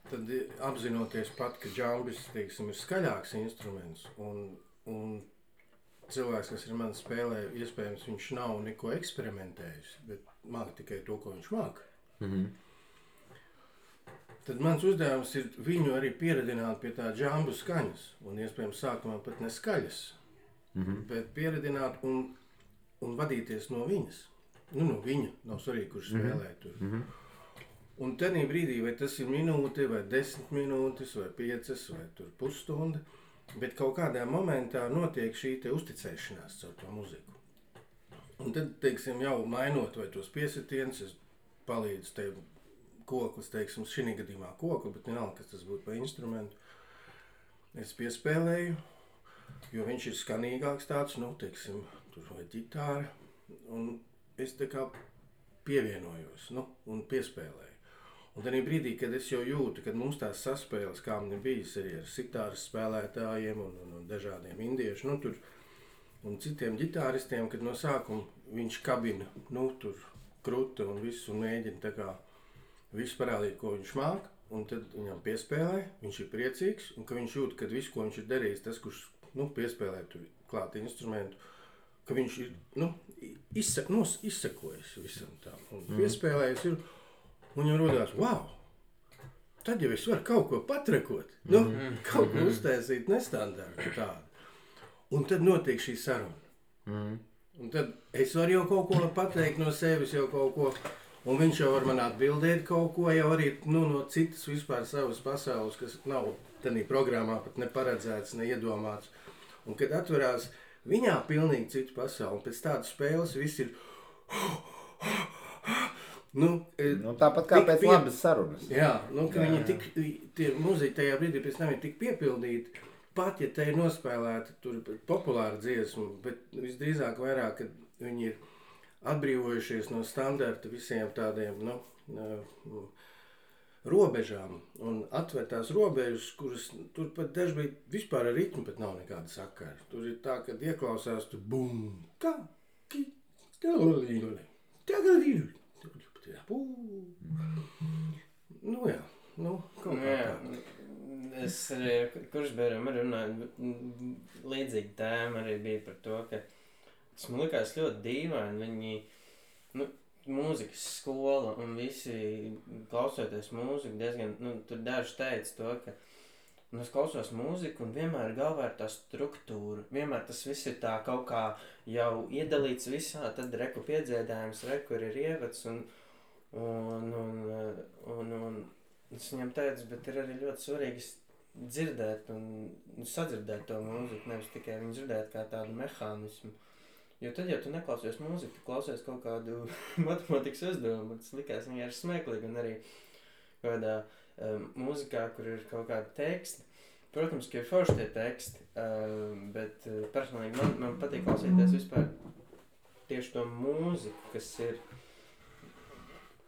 Speaker 2: tad apzinoties pat, ka džambis, teiksim, ir skaļāks instruments, un cilvēks, kas ar mani spēlē, iespējams, viņš nav neko eksperimentējis, bet māk tikai to, ko viņš māk. Tad mans uzdevums ir viņu arī pieredināt pie tā džambu skaņas, un iespējams sākumā pat ne skaļas, bet pieredināt un vadīties no viņas. Nu, no viņa, nav svarīgi, kurš spēlē tur. Un tenī brīdī, vai tas ir minūte, vai 10 minūtes, vai 5, vai tur pusstunda, bet kaut kādā momentā notiek šī te uzticēšanās caur to muziku. Un tad, teiksim, jau mainot vai tos piesitienus, es palīdzu tev koklis, teiksim, šī gadījumā koku, bet vienalga, kas tas būtu par instrumentu. Es piespēlēju, jo viņš ir skanīgāks tāds, nu, teiksim, tur vai ģitāra, un es tā kā pievienojos, nu, un piespēlēju. Un tādā brīdī, kad es jau jūtu, kad mums tās saspēles, kā man ir bijis arī ar sitāras spēlētājiem un dažādiem indiešu, nu, tur, un citiem ģitāristiem, kad no sākuma viņš kabina, nu, tur kruta un visu, un mēģina tā kā visu parādīt, ko viņš māk, un tad viņam piespēlē, viņš ir priecīgs, un ka viņš jūt, ka visu, ko viņš ir darījis, tas, kurš, nu, piespēlē tur klāt instrumentu, ka viņš ir, nu, izsekojas visam tām, un piespēlējis ir, un jau rodās, wow, tad jau es varu kaut ko patrekot, nu, kaut ko uztaisīt nestandartu tādu. Un tad notiek šī saruna. Un tad es varu jau kaut ko pateikt no sevis, jau kaut ko, un viņš jau var man atbildēt kaut ko, jau arī, nu, no citas vispār savas pasaules, kas nav tādā programmā pat neparedzēts, neiedomāts. Un kad atverās viņā pilnīgi citu pasauli, un pēc tādas spēles viss ir
Speaker 1: tāpat kā pēc labas sarunas.
Speaker 2: Jā, nu, ka viņi tie muziķi tajā brīdī pēc tam ir tik piepildīti, pat, ja te ir nospēlēta tur populāra dziesma, bet visdrīzāk vairāk, kad viņi ir atbrīvojušies no standarta visiem tādiem, nu, robežām un atver tās robežas, kuras tur pat dažbrīd vispār ar ritmu pat nav nekāda sakara. Tur ir tā, kad ieklausās tu bum, kā, nu jā, nu, kaut kā tā.
Speaker 3: Es arī, kurš bērnam arī runāju, līdzīgi tēma arī bija par to, ka tas man likās ļoti dīvaini, viņi, nu, mūzikas skola un visi klausoties mūziku diezgan, nu, tur daži teica to, ka, nu, es klausos mūziku un vienmēr galvā ir tā struktūra, vienmēr tas viss ir tā kaut kā jau iedalīts visā, tad reku piedziedājums, reku ir ievads un es viņam teicu, bet ir arī ļoti svarīgi dzirdēt un sadzirdēt to mūziku, nevis tikai viņu dzirdēt kā tādu mehānismu. Jo tad, ja tu neklausies mūziku, tu klausies kaut kādu matemātikas uzdevumu, tas likās vienkārši smieklīgi, un arī kādā mūzikā, kur ir kaut kāda teksta. Protams, ka ir forši tie teksti, bet personīgi man patīk klausīties vispār tieši to mūziku, kas ir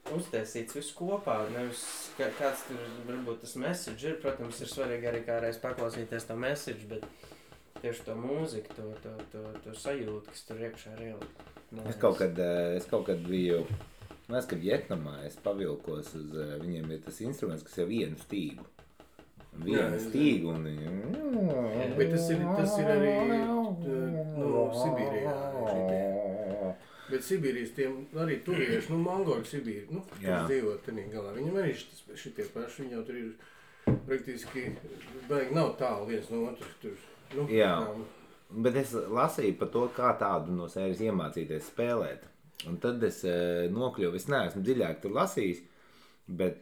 Speaker 3: uztaisīts visu kopā, nevis kāds tur varbūt tas message ir, protams, ir svarīgi arī kādreiz paklausīties to message, bet tieši to mūziku, to sajūtu, kas tur iekšā ir ielikt.
Speaker 1: Es kaut kad biju, mēs, kad Vietnamā es pavilkos uz, viņiem ir tas instruments, kas ir vienu stīgu. Vienu stīgu un viņi...
Speaker 2: Bet tas ir arī Sibīrijā. Bet Sibīrijas tiem arī turieši, mongoļu Sibīri, kas dzīvo tenī galā. Viņam arī šitie paši, viņi jau tur ir praktiski, baigi nav tālu viens no otras tur.
Speaker 1: Jā, bet es lasīju par to, kā tādu no sērijas iemācīties spēlēt. Un tad es nokļuvu, es neesmu dziļāk tur lasījis, bet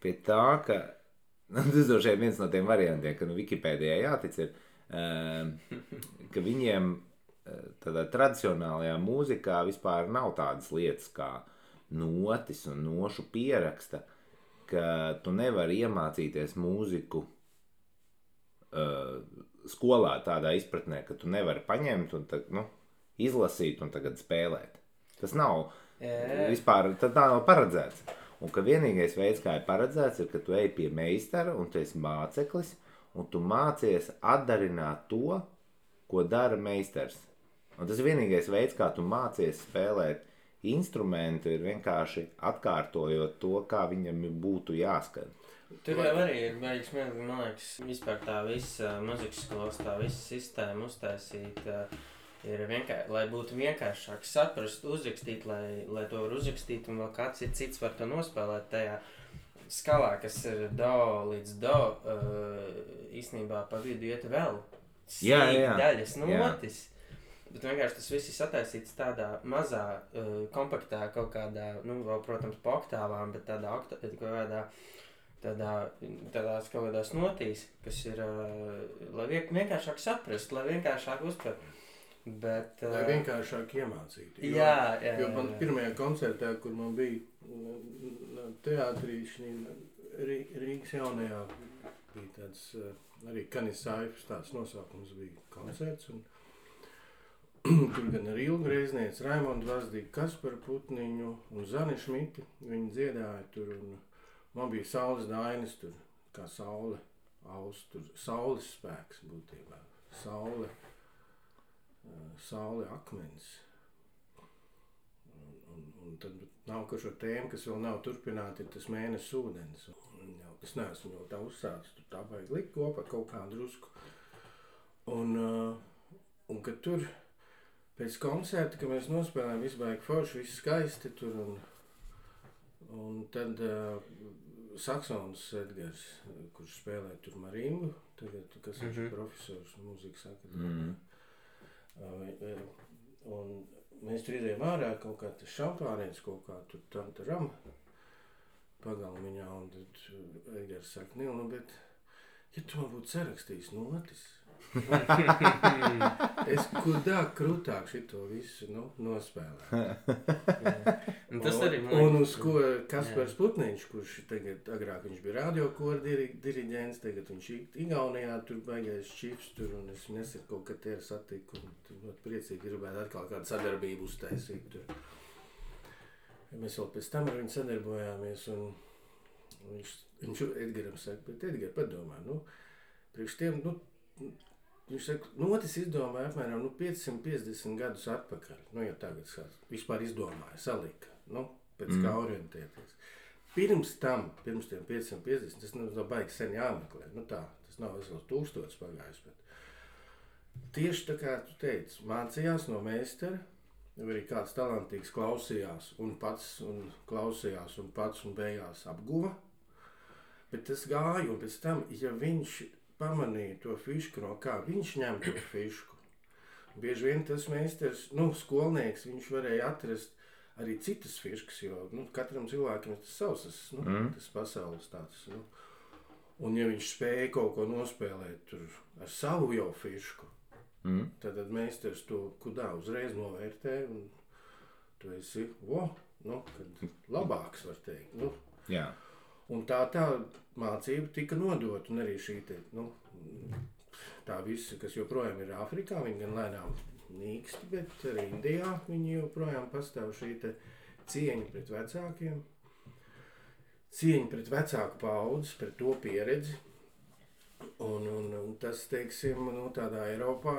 Speaker 1: pie tā, ka, tas droši vien viens no tiem variantiem, ka Wikipēdijā jātic ir, ka viņiem tādā tradicionālajā mūzikā vispār nav tādas lietas kā notis un nošu pieraksta, ka tu nevari iemācīties mūziku skolā tādā izpratnē, ka tu nevari paņemt un izlasīt un tagad spēlēt. Tas nav vispār, tā nav paredzēts. Un ka vienīgais veids, kā ir paredzēts, ir, ka tu ej pie meistara un tu esi māceklis un tu mācies atdarināt to, ko dara meistars. Un tas ir vienīgais veids, kā tu mācies spēlēt instrumentu, ir vienkārši atkārtojot to, kā viņam būtu jāskan.
Speaker 3: Tur jau arī ir beigas, man liekas, vispār tā visa muzikas skolas, tā visa sistēma uztaisīta ir vienkārši, lai būtu vienkāršāk saprast, uzrakstīt, lai to var uzrakstīt un vēl kāds cits var to nospēlēt tajā skalā, kas ir do līdz do, īstenībā pa vidu iet vēl daļas notis. Bet vienkārši tas viss ir sataisīts tādā mazā, kompaktā kaut kādā, vēl, protams, pa oktāvām, bet tādās kaut kādās notīs, kas ir, lai vienkāršāk saprast, lai vienkāršāk uztvert. Bet,
Speaker 2: lai vienkāršāk iemācīt.
Speaker 3: Jo
Speaker 2: man pirmajā koncertā, kur man bija teātrī, Rīgas jaunajā, bija tāds arī Kanisāifs, tāds nosaukums bija koncerts. Un tur gan ar Ilgu Reizniec, Raimondu Vazdīgu, Kasparu Putniņu un Zani Šmiti. Viņi dziedāja tur un man bija saules dainas tur, kā saule, tur saules spēks būtībā. Saule akmens. Un tad nākošo tēmu, kas vēl nav turpināta, ir tas mēnesis ūdens. Es neesmu jau tā uzsācis, tur tā vajag likt kopā kaut kādu drusku. Un kad tur pēc koncerta, kad mēs nospēlējām, viss baigi forši, viss skaisti tur. Un tad saksons Edgars, kurš spēlē tur marimbu, tagad, kas ir profesors mūzikas akadēmijā. Un mēs tur izējām ārā kaut kā tas šampāniens, kaut kā tur tam pagalmiņā, un tad Edgars saka, Nil, bet ja tu man būtu sarakstījis notis, es krūtāk šito visu nospēlētu. Un uz ko Kaspars Putniņš, kurš tagad agrāk viņš bija radiokora diriģents, tagad viņš Igaunijā tur baigais čifs tur, un es nesen kaut kad te satiku, un tur priecīgi gribētu atkal kādu sadarbību uztaisīt tur. Mēs vēl pēc tam ar viņu sadarbojāmies, un viņš Edgaram saka, bet Edgar, padomā, priekš tiem, viņš saka, notis izdomāja apmēram 550 gadus atpakaļ. Ja tagad vispār izdomāja, salika, pēc kā orientēties. Pirms tiem 550, tas nav baigi sen jāmeklē. Tas nav vesels 1000 pagājis, bet tieši tā kā tu teici, mācījās no meistara, arī kāds talantīgs klausījās un pats un beigās apguva, bet tas gāja, un pēc tam, ja viņš pamanīja to fišku, no kā viņš ņem to fišku. Bieži vien tas meistars, skolnieks, viņš varēja atrast arī citas fiškas, jo katram cilvēkam ir tas savs, tas pasaules tāds. Un ja viņš spēja kaut ko nospēlēt tur ar savu jau fišku, tad meistars to kudā uzreiz novērtē, un tu esi, kad labāks, var teikt.
Speaker 1: Jā.
Speaker 3: Un tā mācība tika nodota, un arī šī tā visa, kas joprojām ir Āfrikā, viņi gan lēnām nīksti, bet arī Indijā viņi joprojām pastāv šī cieņa pret vecākiem, cieņa pret vecāku paudzi, pret to pieredzi. Un tas, teiksim, tādā Eiropā,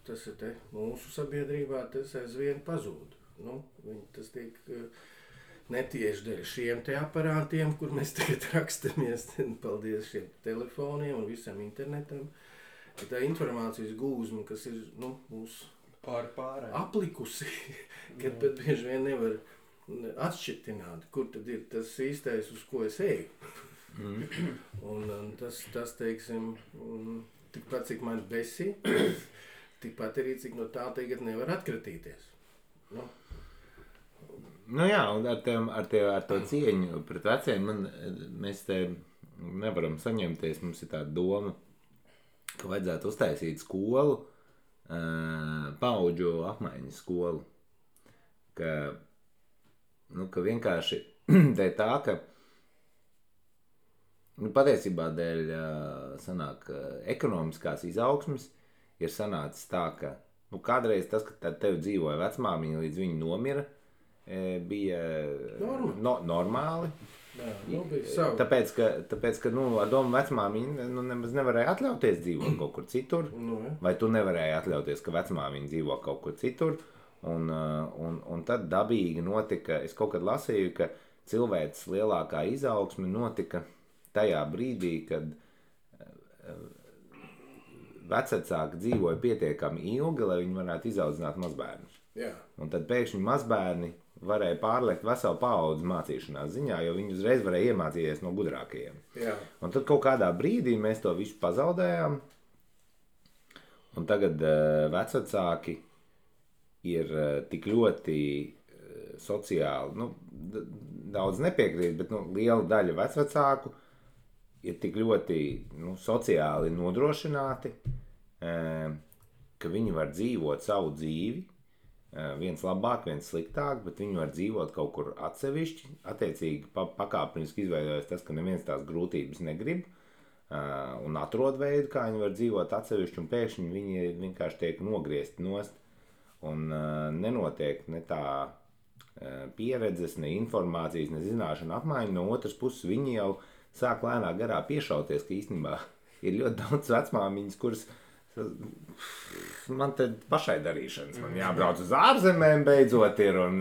Speaker 3: tas ir mūsu sabiedrībā, tas aizvien pazūd. Tas tiek netieši dēļ šiem aparātiem, kur mēs tagad rakstamies, paldies šiem telefoniem un visam internetam. Tā informācijas gūzma, kas ir mūsu aplikusi, kad pat bieži vien nevar atšķirtināt, kur tad ir tas īstais, uz ko es eju. Un tas, teiksim, tikpat, cik man besī, tikpat arī, cik no tā tagad nevar atkratīties.
Speaker 1: Jā, un ar to cieņu pret veciem mēs te nevaram saņemties. Mums ir tāda doma, ka vajadzētu uztaisīt skolu, paudžu apmaiņas skolu. Ka ka vienkārši dēļ tā, ka patiesībā dēļ sanāk ekonomiskās izaugsmes ir sanācis tā, ka kādreiz tas, ka tev dzīvoja vecmāmiņa līdz viņa nomira, bija normāli.
Speaker 2: Jā, bija savu.
Speaker 1: Tāpēc, ka ar domu vecmāmiņa nemaz nevarēja atļauties dzīvot kaut kur citur, vai tu nevarēji atļauties, ka vecmāmiņa dzīvo kaut kur citur, un tad dabīgi notika, es kaut kad lasīju, ka cilvēks lielākā izaugsme notika tajā brīdī, kad vecvecāki dzīvoja pietiekami ilgi, lai viņi varētu izaudzināt mazbērnus.
Speaker 2: Jā.
Speaker 1: Un tad pēkšņi mazbērni varēja pārliekt veselu paudzi mācīšanās ziņā, jo viņi uzreiz varēja iemācīties no gudrākajiem.
Speaker 2: Jā.
Speaker 1: Un tad kaut kādā brīdī mēs to visu pazaudējām, un tagad vecvecāki ir tik ļoti sociāli, daudz nepiekrīt, bet liela daļa vecvecāku ir tik ļoti sociāli nodrošināti, ka viņi var dzīvot savu dzīvi, viens labāk, viens sliktāk, bet viņi var dzīvot kaut kur atsevišķi, attiecīgi pakāpeniski izveidojas tas, ka neviens tās grūtības negrib, un atrod veidu, kā viņi var dzīvot atsevišķi, un pēkšņi viņi vienkārši tiek nogriezti nost, un nenotiek ne tā pieredzes, ne informācijas, ne zināšana apmaiņa. No otras puses viņi jau sāk lēnā garā piešauties, ka īstenībā ir ļoti daudz vecmāmiņas, kuras man te pašai darīšanas. Man jābrauc uz ārzemēm beidzot ir, un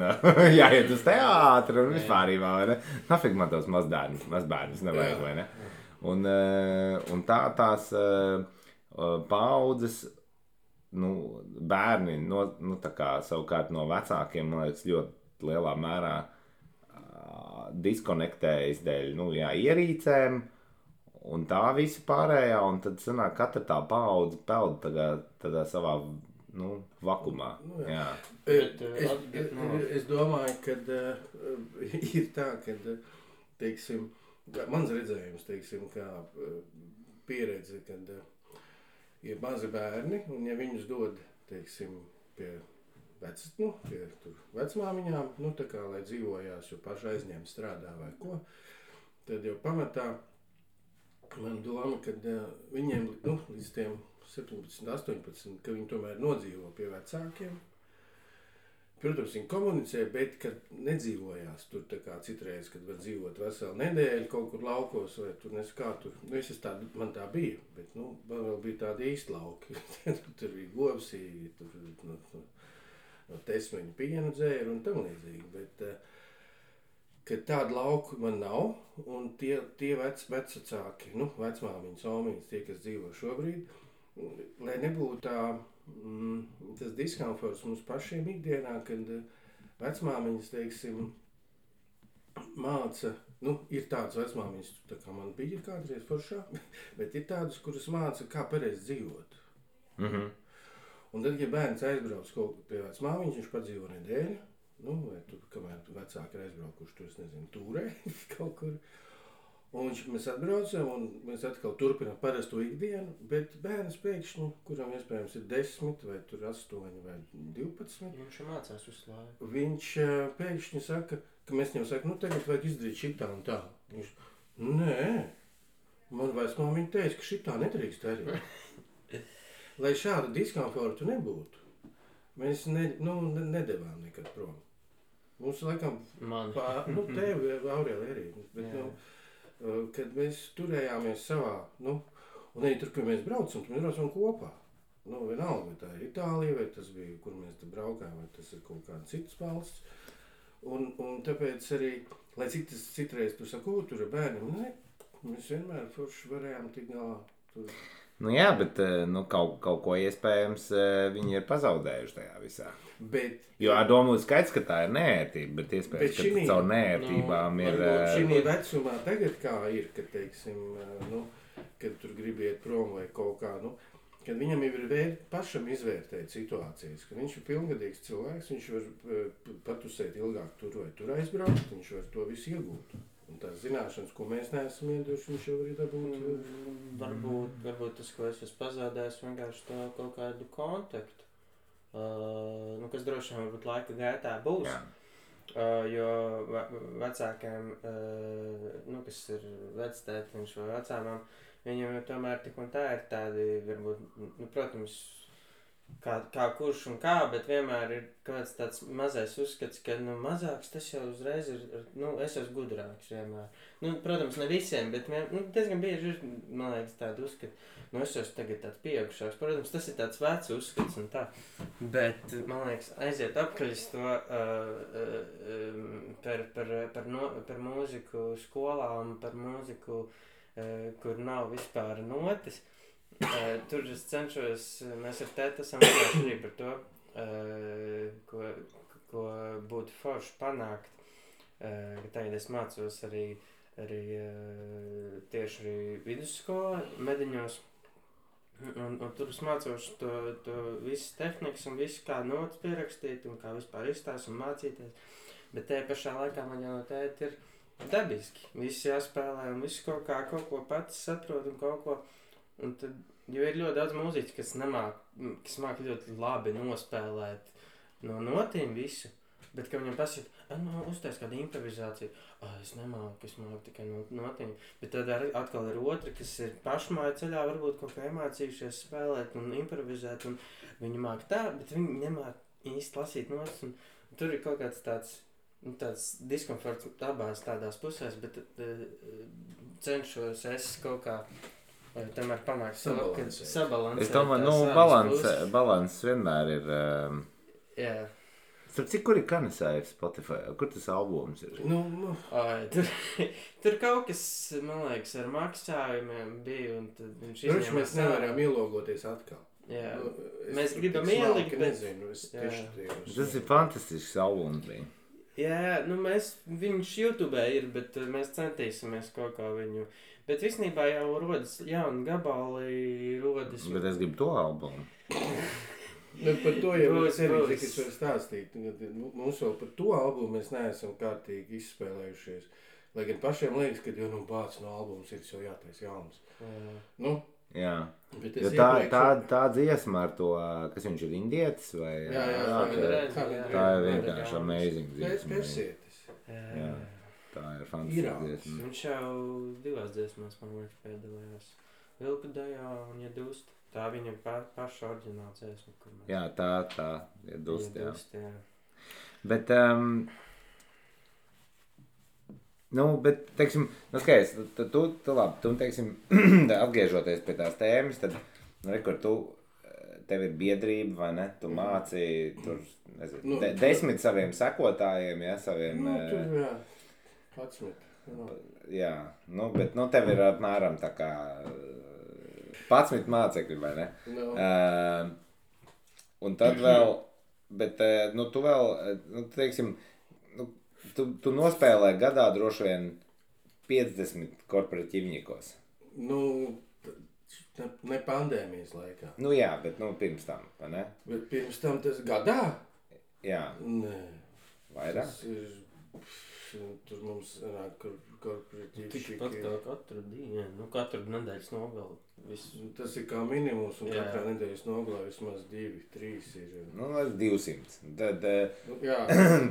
Speaker 1: jāiet uz teātri, un vispārībā, vai ne? Nafik man tos mazbērnus nevajag, vai ne? Un tās paudzes, bērni, tā kā savukārt no vecākiem, man liekas, ļoti lielā mērā diskonektējas dēļ, ierīcēm, un tā visa pārējā, un tad sanāk, katra tā paudze peld tādā savā, vakumā. Jā.
Speaker 2: Es domāju, ka ir tā, ka, teiksim, mans redzējums, teiksim, kā pieredze, kad ir mazi bērni, un ja viņus dod, teiksim, pie vecmāmiņām, tā kā, lai dzīvojās, jo paši aizņem strādā vai ko, tad jau pamatā man doma, kad viņiem, līdz tiem 17, 18, ka viņi tomēr nodzīvo pie vecākiem. Protams, viņi komunicē, bet kad nedzīvojās tur tā kā citreiz, kad var dzīvot veselu nedēļu kaut kur laukos, vai tur kā tur, man tā bija, bet, man vēl bija tādi īsti lauki. Tur bija govsī, tur no tesmeņu pienu dzēra un tam līdzīgi, bet, kad tādu lauku man nav, un tie vecvecāki, vecmāmiņas, omiņas, tie, kas dzīvo šobrīd, lai nebūtu tas diskomforts mums pašiem ikdienā, kad vecmāmiņas, teiksim, māca, ir tādas vecmāmiņas, tā kā man bija kādreiz foršā, bet ir tādas, kuras māca, kā pareizi dzīvot.
Speaker 1: Mhm.
Speaker 2: Un tad, ja bērns aizbrauc kaut kur pie vecmāmiņas, viņš padzīvo nedēļu, vai tur, kamēr vecāki ir aizbraukuši, tur, es nezinu, tūrē kaut kur. Un mēs atbraucam, un mēs atkal turpinām parasto ikdienu, bet bērns pēkšņi, kuram iespējams ir 10, vai tur 8, vai 12.
Speaker 3: Viņš mācās visu laiku.
Speaker 2: Viņš pēkšņi saka, ka mēs viņam sakam, tagad vajag izdarīt šitā un tā. Viņš, nē, man vecmāmiņa teica, ka šitā nedrīkst darīt. Lai šādu diskomfortu nebūtu, mēs nedevām nekad prom. Mums laikam, tevi, Aurēli, arī, bet, kad mēs turējāmies savā, un arī tur, kur mēs braucam kopā. Vienalga, vai tā ir Itālija, vai tas bija, kur mēs te braukājām, vai tas ir kaut kāda citas valsts. Un tāpēc arī, lai citreiz tu sako, tur ir bērniem, mēs vienmēr forši varējām tik galā.
Speaker 1: Jā, bet kaut ko iespējams viņi ir pazaudējuši tajā visā. Jo ar domu skaidrs, ka tā ir neērtība, bet iespējams, ka caur neērtībām ir...
Speaker 2: Šī vecumā tagad kā ir, kad, teiksim, kad tur grib iet prom vai kaut kā, kad viņam ir pašam izvērtēt situācijas, ka viņš ir pilngadīgs cilvēks, viņš var patusēt ilgāk tur vai tur aizbraukt, viņš var to visu iegūt. Un tās zināšanas, ko mēs neesam iedoši, viņš jau arī dabūt.
Speaker 3: Varbūt tas, ko es esmu pazaudējis, vienkārši to kaut kādu kontaktu, kas droši vien varbūt laika gaitā būs.
Speaker 1: Jā.
Speaker 3: Jo vecākiem, nu, kas ir vectētiņš vai vecāmām, viņiem jau tomēr tik un tā ir tādi, varbūt, nu, protams, kā kurš un kā, bet vienmēr ir kāds tāds mazais uzskats, ka, nu, mazāks tas jau uzreiz ir, nu, es esmu gudrāks vienmēr. Nu, protams, ne visiem, bet, nu, diezgan bieži ir, man liekas, tāda uzskata, nu, es esmu tagad tāds pieaugušāks. Protams, tas ir tāds vecs uzskats un tā, bet, man liekas, aiziet apkaļ to par mūziku skolām, par mūziku, kur nav vispār notis. Tur es cenšos, mēs ar tēti esam runājuši arī par to, ko būtu forši panākt. Tagad es mācos arī tieši vidusskolā, Mediņos. Un tur es mācos to visas tehnikas un visu, kā notas pierakstīt un kā vispār izstāst un mācīties. Bet tajā pašā laikā man jau no tēti ir dabiski. Viss jāspēlē un viss kaut ko pats saprot un kaut ko. Un tad, jo ir ļoti daudz mūziķu, kas māk ļoti labi nospēlēt no notīm visu, bet, ka viņam pasaka, nu, uztais kādu improvizāciju, es nemāku, es māku tikai no notīm, bet tad atkal ir otri, kas ir pašmāju ceļā, varbūt kaut kā iemācījušies spēlēt un improvizēt, un viņi māk tā, bet viņi nemāk īsti lasīt notis, un tur ir kaut kāds tāds diskomforts abās tādās pusēs, bet cenšos es kaut kā tomēr panākt sabalansēt.
Speaker 1: Es domāju, balans vienmēr ir...
Speaker 3: Jā.
Speaker 1: Starp cik, kur ir Kanisājs Spotify? Kur tas albums ir?
Speaker 3: Tur kaut kas, man liekas, ar maksājumiem bija, un tad viņš
Speaker 2: izņēmās. Mēs nevaram ielogoties atkal.
Speaker 3: Jā. Mēs gribam ielikt, bet...
Speaker 2: Nezinu, es tieši tajos.
Speaker 1: Tas ir fantastisks albums bija.
Speaker 3: Jā, nu viņš YouTube ir, bet mēs centīsimies kaut kā viņu... Bet visnībā jau rodas jauni gabali, rodas...
Speaker 1: Bet es gribu to albumu.
Speaker 2: Par to jau es arī varu stāstīt. Mums vēl par to albumu mēs neesam kārtīgi izspēlējušies. Lai gan pašiem liekas, ka jau bāc no albums ir jau jātais jauns. Nu,
Speaker 1: jā. Jo tā dziesma ar to, kas viņš ir indietis vai...
Speaker 3: Jā.
Speaker 1: Tā ir vienkārši amazing dziesma.
Speaker 2: Persietis.
Speaker 1: Jā. Tā ir fantastiska dziesma.
Speaker 3: Viņš jau 2 dziesmās, man liekas, piedalījās. Vilku dejā un Iedust. Tā viņa paša oriģināla dziesma, kur mēs...
Speaker 1: Jā, tā Iedust, jā. Bet, bet, teiksim, skaidrs, tu labi, tu, teiksim, atgriežoties pie tās tēmas, tad, rekur, tev ir biedrība, vai ne? Tu māci, tur, nezinu, 10 saviem sekotājiem, ja, saviem...
Speaker 2: tur, jā. 11.
Speaker 1: Jā, bet tev ir apmēram tā kā 11 mācekļi, vai ne? Un tad vēl, bet tu vēl, teiksim, tu nospēlē gadā droši vien 50 korporatīvņikos.
Speaker 2: Ne pandēmijas laikā.
Speaker 1: Jā, bet pirms tam, vai ne?
Speaker 2: Bet pirms tam tas gadā?
Speaker 1: Jā.
Speaker 2: Nē.
Speaker 1: Vairāk?
Speaker 2: Tas ir... Tur mums nāk korporatīvi
Speaker 3: Tikpat kā katru dienu, katru nedēļas nogali.
Speaker 2: Tas ir kā minimums, un katrā nedēļas nogalā vismaz 2, 3 ir.
Speaker 1: 200. Tad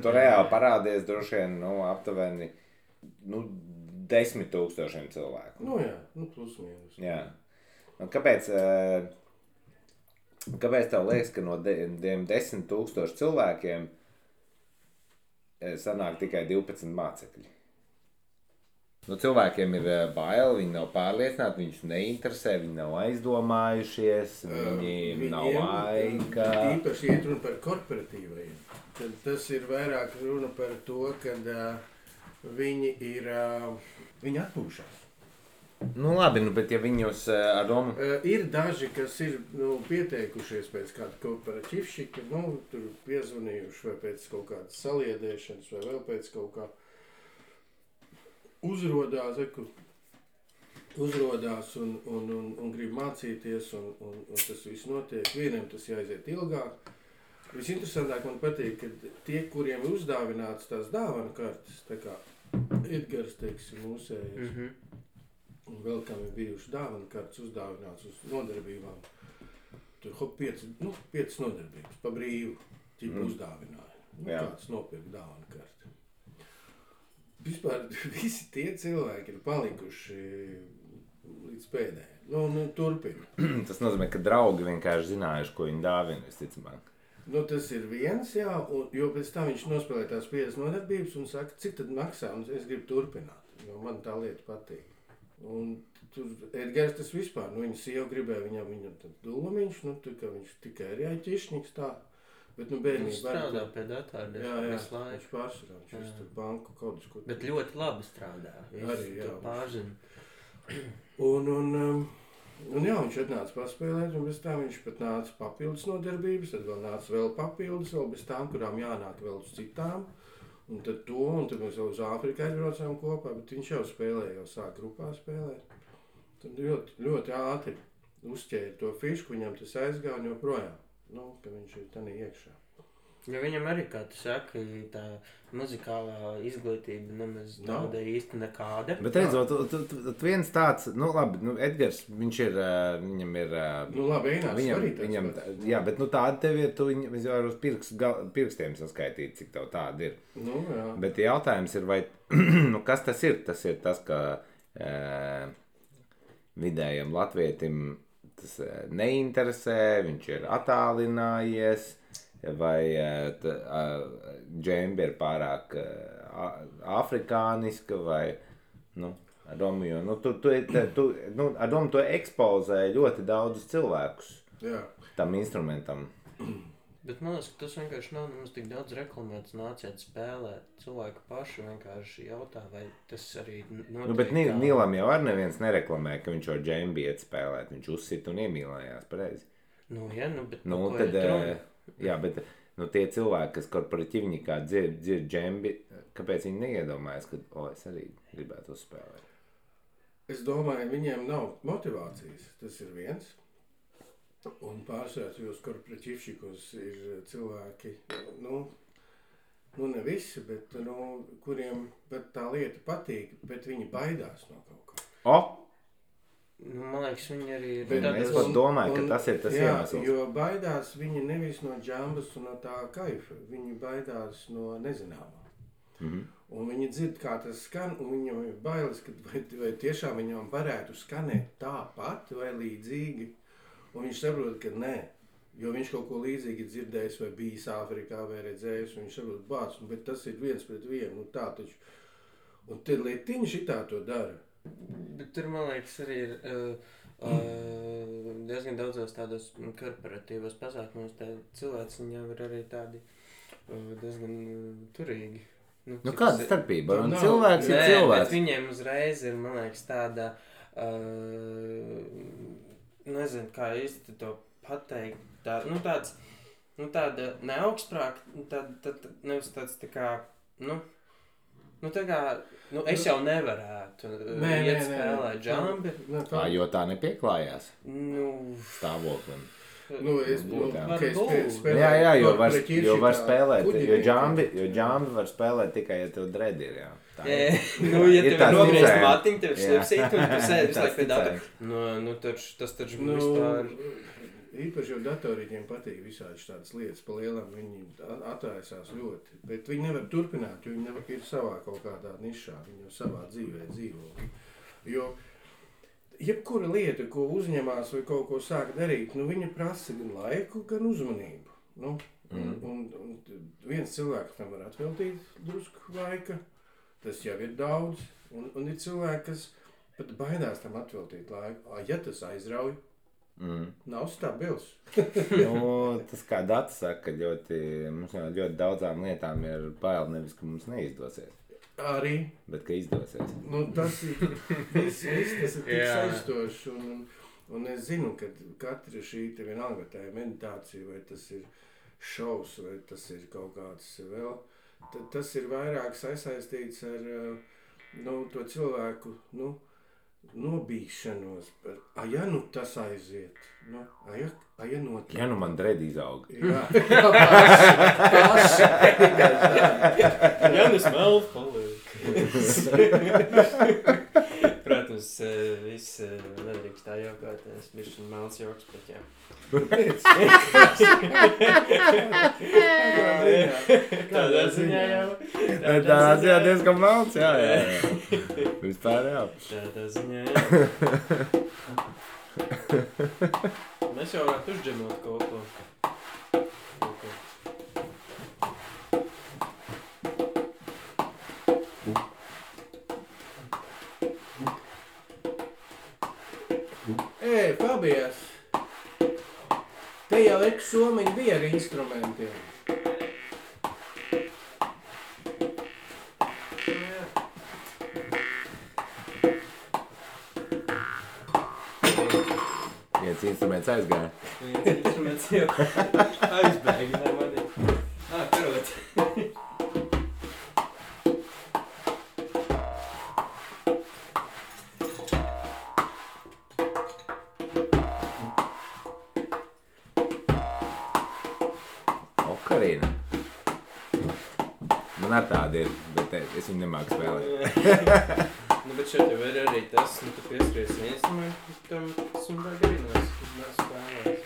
Speaker 1: tu reāli parādies droši vien, aptuveni 10 000 cilvēku.
Speaker 2: Plus mīnus.
Speaker 1: Jā. Kāpēc tev liekas, ka no 10 000 cilvēkiem sanāk tikai 12 mācekļi? Cilvēkiem ir bail, viņi nav pārliecināti, viņus neinteresē, viņi nav aizdomājušies, viņi nav laika.
Speaker 2: Īpaši iet runa par korporatīvajiem. Tad tas ir vairāk runa par to, kad viņi atpūšās.
Speaker 1: Labi, bet ja viņus ar domu...
Speaker 2: Ir daži, kas ir pieteikušies pēc kāda korporatīvšika, tur piezvanījuši vai pēc kaut kādas saliedēšanas vai vēl pēc kaut kā uzrodās un grib mācīties un tas viss notiek. Vienam tas jāiziet ilgāk. Visinteresantāk man patīk, ka tie, kuriem ir uzdāvināts tās dāvanu kartes, tā kā Edgars, teiksim, mūsējais, un vēl kam ir bijuši dāvanu kartes uzdāvināts uz nodarbībām. Tur 5 nodarbības pa brīvu ķipu uzdāvināja. Kāds nopirka dāvanu karti. vispār visi tie cilvēki ir palikuši līdz pēdējai. Nu, turpina.
Speaker 1: Tas nozīmē, ka draugi vienkārši zinājuši, ko viņi dāvina, visticamāk.
Speaker 2: Nu, tas ir viens, jā, jo pēc tam viņš nospēlē tās 50 nodarbības un saka, cik tad maksā, un es gribu turpināt, jo man tā lieta patīk. Un tur Edgars tas vispār, viņa sieva gribēja viņam tad dūmiņš, ka viņš tikai ir jāķišņiks tā, bet bērnīgi...
Speaker 3: Viņš strādā pie datāra visu laiku.
Speaker 2: Viņš pārsvarā, viņš tur banku kaut ko...
Speaker 3: Bet ļoti labi strādā, viņš pārzina. Un jā, viņš atnāca paspēlēt, un bez tā viņš pat nāca papildus nodarbības, tad vēl nāca vēl papildus, vēl bez tām, kurām jānāk vēl uz citām. Un tad mēs vēl uz Āfriku aizbraucām kopā, bet viņš jau spēlēja, jau sāk grupā spēlēt. Tad ļoti, ļoti ātri uzķēra to fišku, viņam tas aizgāja un joprojām, ka viņš ir tanī iekšā. Jo viņam arī, kā tu saki, tā muzikālā izglītība nemaz nav īsti nekāda.
Speaker 1: Bet redzot, tu viens tāds, labi, Edgars, viņš ir, viņam ir...
Speaker 2: labi, Einārs arī
Speaker 1: viņam, jā, bet tāda tev ir, tu viņu var uz pirkstiem saskaitīt, cik tev tāda ir.
Speaker 2: Jā.
Speaker 1: Bet jautājums ir, vai, kas tas ir? Tas ir tas, ka vidējam latvietim tas neinteresē, viņš ir attālinājies, vai džembe ir pārāk afrikāniska, vai, Romeo, ar domu to ekspozē ļoti daudzus cilvēkus tam instrumentam.
Speaker 3: Bet man liekas, ka tas vienkārši nav nemaz tik daudz reklamēts, nāciet spēlēt. Cilvēki paši vienkārši jautā, vai tas arī notiek.
Speaker 1: Bet Nīlam jau ar neviens nereklamē, ka viņš ar džembi iet spēlēt, viņš uzsit un iemīlējās pareizi.
Speaker 3: Bet
Speaker 1: jā, bet tie cilvēki, kas korporatīvnikā dzird džembi, kāpēc viņi neiedomājas, ka, es arī gribētu uzspēlēt?
Speaker 2: Es domāju, viņiem nav motivācijas, tas ir viens. Un pārsvērtījos korporatīvšikos ir cilvēki, ne visi, bet, kuriem tā lieta patīk, bet viņi baidās no kaut kā.
Speaker 3: Man liekas, viņi arī ir...
Speaker 1: Es pat domāju, ka tas ir tas iemesls.
Speaker 2: Jo baidās viņi nevis no džambas un no tā kaifa, viņi baidās no nezināmā. Un viņi dzird, kā tas skan, un viņam ir bailes, ka vai tiešām viņam varētu skanēt tāpat vai līdzīgi. Un viņš saprot, ka nē, jo viņš kaut ko līdzīgi dzirdējis vai bijis Āfrikā vai redzējis, un viņš saprot, bāc, bet tas ir viens pret vienu, tā taču. Un tad lietiņi šitā to dara.
Speaker 3: Bet tur, man liekas, arī ir diezgan daudzos tādos korporatīvos pasākumos, cilvēki viņam ir arī tādi diezgan turīgi.
Speaker 1: Kāda starpība? Cilvēks ir cilvēks.
Speaker 3: Bet viņiem uzreiz ir, man liekas, tāda, nezinu, kā īsti to pateikt, tāda neaugstprāk, nevis tāds tā kā, es jau nevarētu iet spēlēt džambi.
Speaker 1: Jo tā nepieklājās stāvoklim. Jo var spēlēt, jo džambi var spēlēt tikai, ja tev dredi ir, jā.
Speaker 3: Ja tev ir nogriezt matiņu, tev slipsīt, un tu sēdi visu laiku pie datoru. Tas taču vispār...
Speaker 2: Īpaši jau datorīģiem patīk visādi tādas lietas pa lielam, viņi atraisās ļoti, bet viņi nevar turpināt, jo viņi ir savā kaut kādā nišā, viņi jau savā dzīvē dzīvo. Jo jebkura lieta, ko uzņemās vai kaut ko sāk darīt, viņa prasa gan laiku, gan uzmanību. Un viens cilvēks tam var atveltīt drusku laika, tas jau ir daudz, un ir cilvēki, kas pat baidās tam atveltīt laiku. Ja tas aizrauj, nav stabils.
Speaker 1: Tas kā Data saka, mums ļoti daudzām lietām ir bail nevis, ka mums neizdosies.
Speaker 2: Arī.
Speaker 1: Bet ka izdosies.
Speaker 2: Tas ir viss, tas ir tik saistošs, un es zinu, ka katra šī te vienalga tā ir meditācija, vai tas ir šovs, vai tas ir kaut kāds vēl, tas ir vairāk sasaistīts ar to cilvēku, nobīšanos par, tas aiziet, notiek.
Speaker 1: Ja man dredi izaug.
Speaker 2: Jā,
Speaker 3: paši. Smelf paliek. Protams,
Speaker 4: Protams, viss nedrīkst tā jokot, es bišķi melns joks, bet jā. Tādā ziņā jau.
Speaker 1: Tādā ziņā diezgan melns, jā. Vispār jā.
Speaker 4: Tādā ziņā jā. Mēs jau varētu uzģemot kaut ko.
Speaker 2: Fabijas, te jau somiņi bija ar instrumentiem.
Speaker 1: Viens instruments aizgāja.
Speaker 4: Viens instruments jau aizbēga, ne mani. Karot.
Speaker 1: Okarina. Man ar tāda ir, bet es viņu nemāku spēlēt.
Speaker 4: Nu, bet šeit jau ir arī tas, nu, tu pieskaries instrumentu, tam tas un vajag arī spēlēt.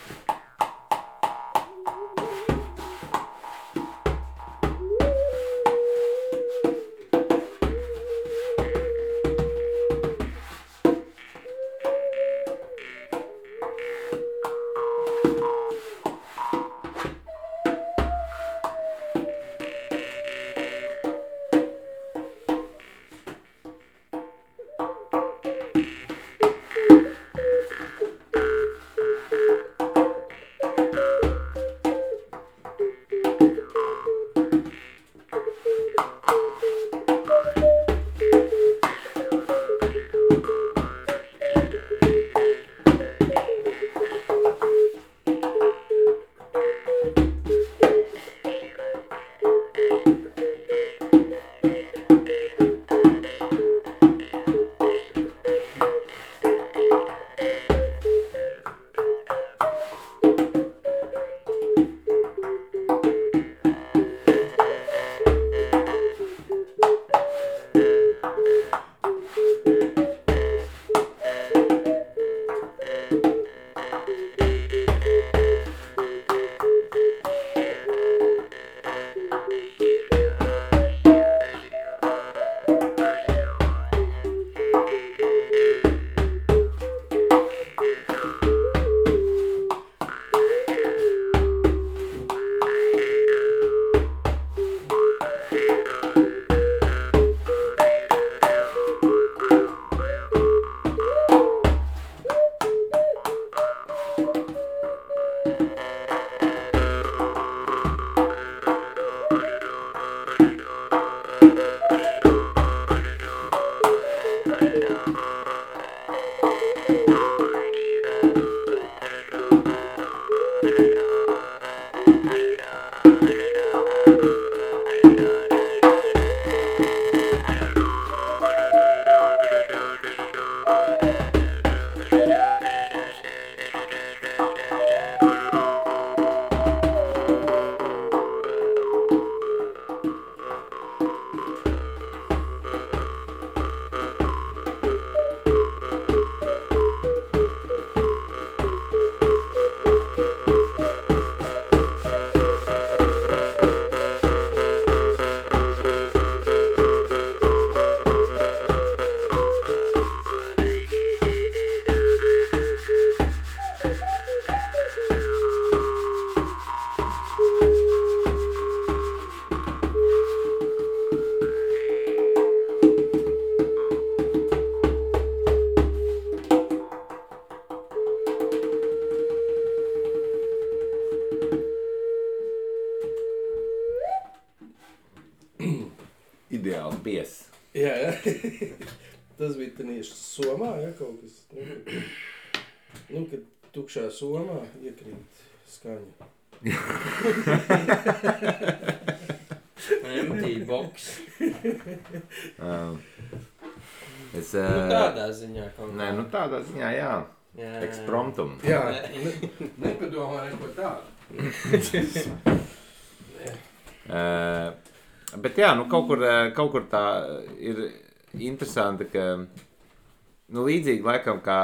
Speaker 1: Ideāls bies.
Speaker 2: Jā, jā. Tas bija tieši somā, ja, kaut kas. Nu, kad tukšā somā iekrīt skaņa.
Speaker 4: Empty box.
Speaker 1: Es,
Speaker 4: Nu tādā ziņā kaut kā.
Speaker 1: nē, nu tādā ziņā, jā.
Speaker 4: Jā.
Speaker 1: Ekspromptum.
Speaker 2: Jā, nepadomā neko tādu.
Speaker 1: Bet jā, nu kaut kur tā ir interesanti, ka Nu, līdzīgi laikam, kā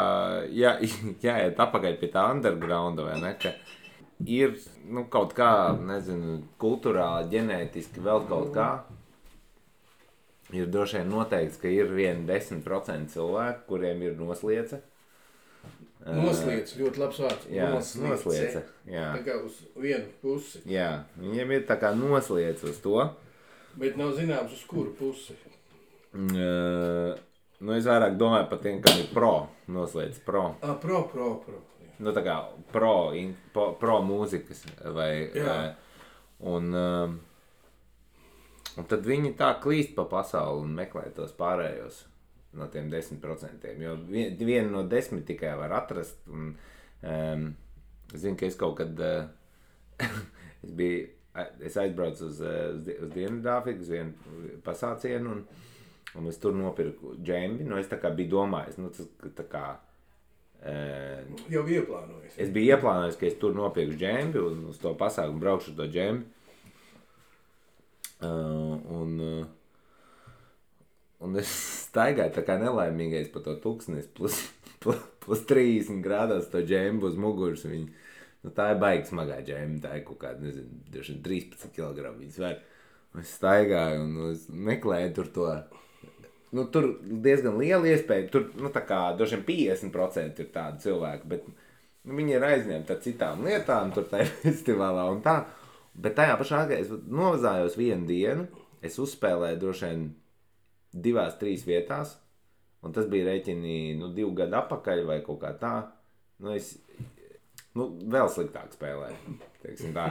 Speaker 1: jāiet apakaļ pie tā undergrounda, vai ne, ka ir, nu, kaut kā, nezinu, kulturāli, ģenētiski, vēl kaut kā. Ir droši vien noteikts, ka ir 10% cilvēku, kuriem ir nosliece.
Speaker 2: Nosliece, ļoti labs vārds.
Speaker 1: Jā, nosliece. Jā.
Speaker 2: Tā kā uz vienu pusi.
Speaker 1: Jā, viņiem ir tā kā nosliece uz to.
Speaker 2: Bet nav zināms, uz kuru pusi.
Speaker 1: Nu, es vairāk domāju par tiem, kam ir pro, nosliece pro.
Speaker 2: Pro. Jā.
Speaker 1: Nu, tā kā pro mūzikas vai... Un tad viņi tā klīst pa pasauli un meklē tos pārējos no tiem 10%. Jo vienu no 10 tikai var atrast. Un, es zinu, ka es kaut kad es aizbraucu uz Dienvidāfriku, uz vienu pasācienu, un es tur nopirku džembi. Nu, es tā kā biju domājis, nu, tā kā...
Speaker 2: Jau ieplānojis.
Speaker 1: Es biju ieplānojis, ka es tur nopirku džembi un uz to pasākumu braukšu to džembi. Un es staigāju tā kā nelaimīgais pa to tuksnes plus 30 grādās to džembu uz muguras. Nu, tā ir baigi smagā džemba, tā ir kaut kāda, nezinu, 13 kg viņas var. Es staigāju un es meklēju tur to. Nu, tur diezgan liela iespēja, tur, nu, tā kā droši vien 50% ir tādi cilvēki, bet nu, viņi ir aizņemti ar citām lietām, tur tajā festivālā un tā. Bet tajā pašā laikā es novazājos vienu dienu, es uzspēlēju droši vien 2-3 vietās, un tas bija rēķini 2 gadu atpakaļ vai kaut kā tā. Nu, es vēl sliktāk spēlēju, teiksim tā.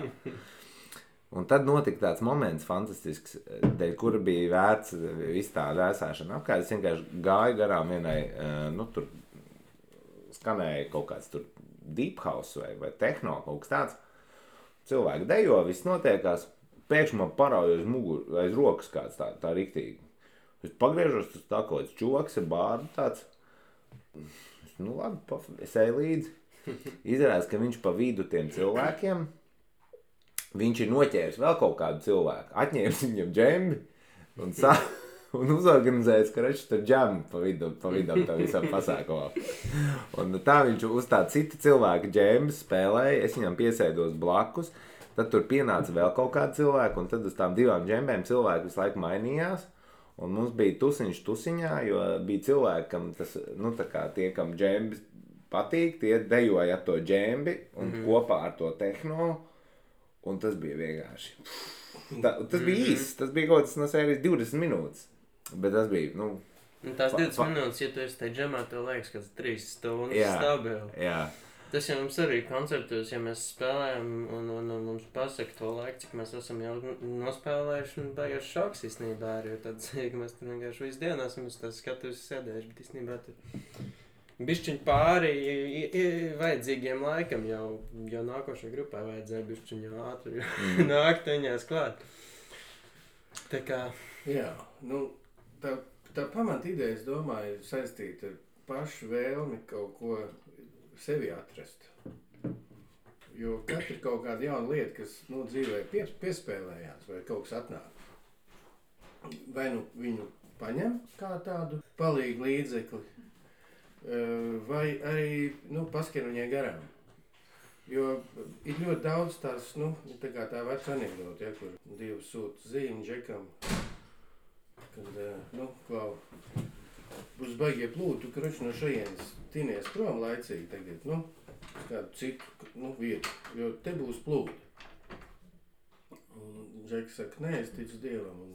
Speaker 1: Un tad notika tāds moments fantastisks, dēļ kura bija vērts visu tā vēsāšana apkārt. Es vienkārši gāju garām vienai, tur skanēja kaut kāds tur deep house vai techno, kaut kas tāds. Cilvēki dejo, viss notiekās. Pēkšņi man parauja aiz rokas kāds tā riktīgi. Es pagriežos, tas tā kaut kāds čoks ar bārdu tāds. Nu labi, es eju līdzi. Izrādās, ka viņš pa vidu tiem cilvēkiem, viņš ir noķēris vēl kaut kādu cilvēku, atņēmis viņam džembi un uzorganizējis, ka reči tur džemi pa vidam tā visam pasākumā. Un tā viņš uz tā cita cilvēka džembas spēlēja, es viņam piesēdos blakus, tad tur pienāca vēl kaut kāda cilvēka, un tad uz tām 2 džembēm cilvēki visu laiku mainījās, un mums bija tusiņš tusiņā, jo bija cilvēki, kam tas, nu tā kā tie, kam džembis patīk, tie dejoja ar to džembi un kopā ar to tehno, un tas bija vienkārši. Tas bija īsts, tas bija kaut kas no sērijas 20 minūtes. Bet tas bija, nu...
Speaker 3: Tās 20 minūtes, ja tu esi tai džemā, tev liekas, ka 3 stundas stabili.
Speaker 1: Jā.
Speaker 3: Tas jau mums arī koncertos, ja mēs spēlējam un mums pasaka to laiku, cik mēs esam jau nospēlējuši, un baigas šoks īstenībā arī, jo tad, ka mēs tur vienkārši visu dienu esam uz tās skatuves sēdējuši, bet īstenībā tur bišķiņ pāri vajadzīgiem laikam, jau nākošajai grupai vajadzēja bišķiņ jau ātri nākt viņās klāt. Tā kā...
Speaker 2: Jā, nu... Tā pamata ideja, es domāju, ir saistīta ar pašu vēlmi kaut ko sevi atrast. Jo katra ir kaut kāda jauna lieta, kas dzīvē piespēlējās vai kaut kas atnāk. Vai nu viņu paņem kā tādu palīgu līdzekli, vai arī paskan viņai garām. Jo ir ļoti daudz tās, tā kā tā veca anekdote, kur 2 sūta zīmi džekam. Kad, klau, būs baigie plūdi, tu krači no šajienes tinies prom laicīgi tagad, uz kādu citu, vietu, jo te būs plūdi. Un Džeks saka, nē, es ticu Dievam un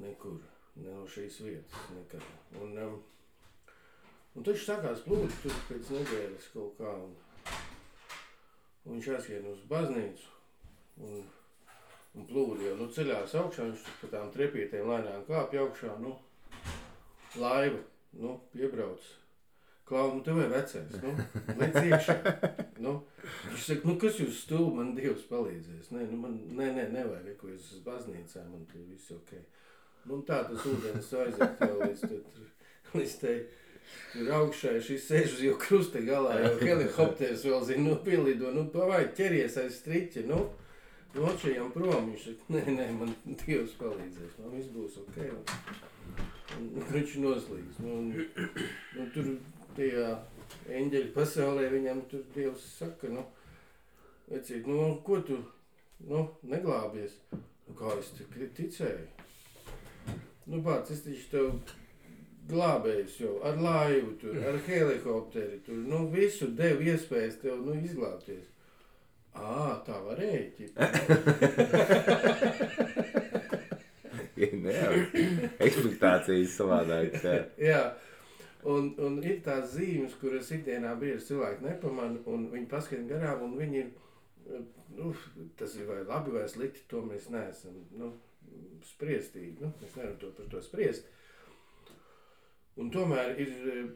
Speaker 2: nekur, ne no šīs vietas, nekad. Un taču sākās plūdi tur pēc nedēļas kaut kā, un viņš aizskrien uz baznīcu, un plūdi jau ceļās augšā, viņš pa tām trepītēm lēnām kāpj augšā, laiva, piebrauc. Klau, tev ir vecais, lec iekšā. Viņš saka, kas jūs stulbi, man Dievs palīdzēs. Nē, nevajag, ko es uz baznīcā, man te viss ok. Tā tas ūdens aiziet jau līdz te tur augšā, šis sēž uz jau krusta galā, jau helikopters vēl zina, pielido, pavai, ķeries aiz striķa, Nočajam prom, viņš saka, nē, man Dievs palīdzēs, viss būs ok. viņš noslīgs. Nu, tur tajā eņģeļu pasaulē viņam tur Dievs saka, vecīt, ko tu, neglābies? Kā es ticēju? Bāc, es taču tev glābējis jau ar laivu tur, ar helikopteri tur, visu devu iespējas tev, izglābties. Tā varēja, ķipa.
Speaker 1: Ekspektācijas savādāk.
Speaker 2: Jā, un ir tās zīmes, kuras ikdienā bieži cilvēki nepamana, un viņi paskatīt garām, un viņi ir, tas ir vai labi vai slikti, to mēs neesam, spriestīgi, mēs nevaram par to spriest. Un tomēr ir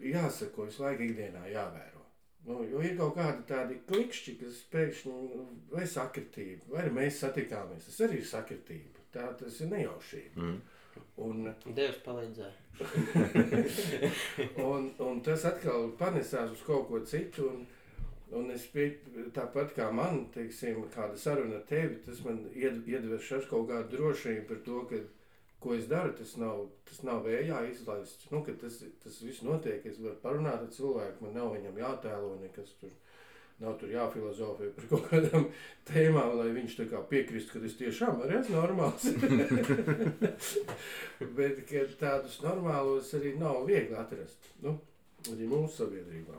Speaker 2: jāsako visu laiku ikdienā jāvēro. Jo ir kaut kādi tādi klikšķi, kas pēkšņi vai sakritība, vai mēs satikāmies, tas arī ir sakritība, tas ir nejaušība.
Speaker 3: Dievs palīdzēja.
Speaker 2: un tas atkal panesās uz kaut ko citu, un es tāpat kā man, teiksim, kāda saruna ar tevi, tas man iedveš kaut kādu drošību par to, ka ko es daru, tas nav vējā izlaists. Kad tas viss notiek, es varu parunāt ar cilvēku, man nav viņam jātēlo nekas tur, nav tur jāfilozofē par kaut kādām tēmām, lai viņš tā kā piekristu, ka es tiešām arī esmu normāls. Bet, ka tādus normālos arī nav viegli atrast, arī mūsu sabiedrībā.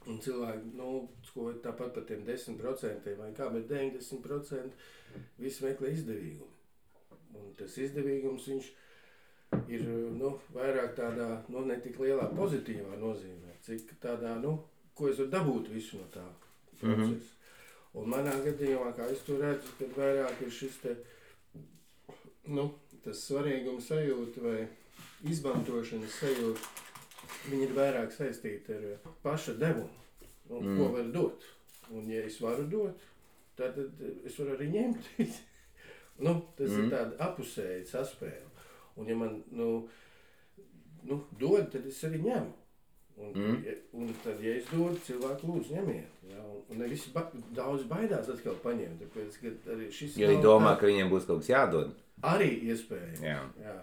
Speaker 2: Un cilvēki, tāpat par tiem 10% vai kā, bet 90% visi meklē izdevīgumu. Un tas izdevīgums, viņš ir, vairāk tādā, ne tik lielā pozitīvā nozīmē, cik tādā, ko es varu dabūt visu no tā procesa. Un manā gadījumā, kā es to redzu, kad vairāk ir šis te, tas svarīguma sajūta vai izmantošanas sajūta, viņi ir vairāk saistīti ar paša devumu, ko var dot. Un ja es varu dot, tad es varu arī ņemt. Tas ir tāda apusēja saspēle. Un ja man, dod, tad es arī ņemu. Un tad, ja es dodu, cilvēku lūdzu ņemiet. Ja? Un ne visi daudz baidās atkal paņemt. Tāpēc, ka arī šis
Speaker 1: jo viņi domā, ka viņiem būs kaut kas jādod.
Speaker 2: Arī iespējams.
Speaker 1: Jā.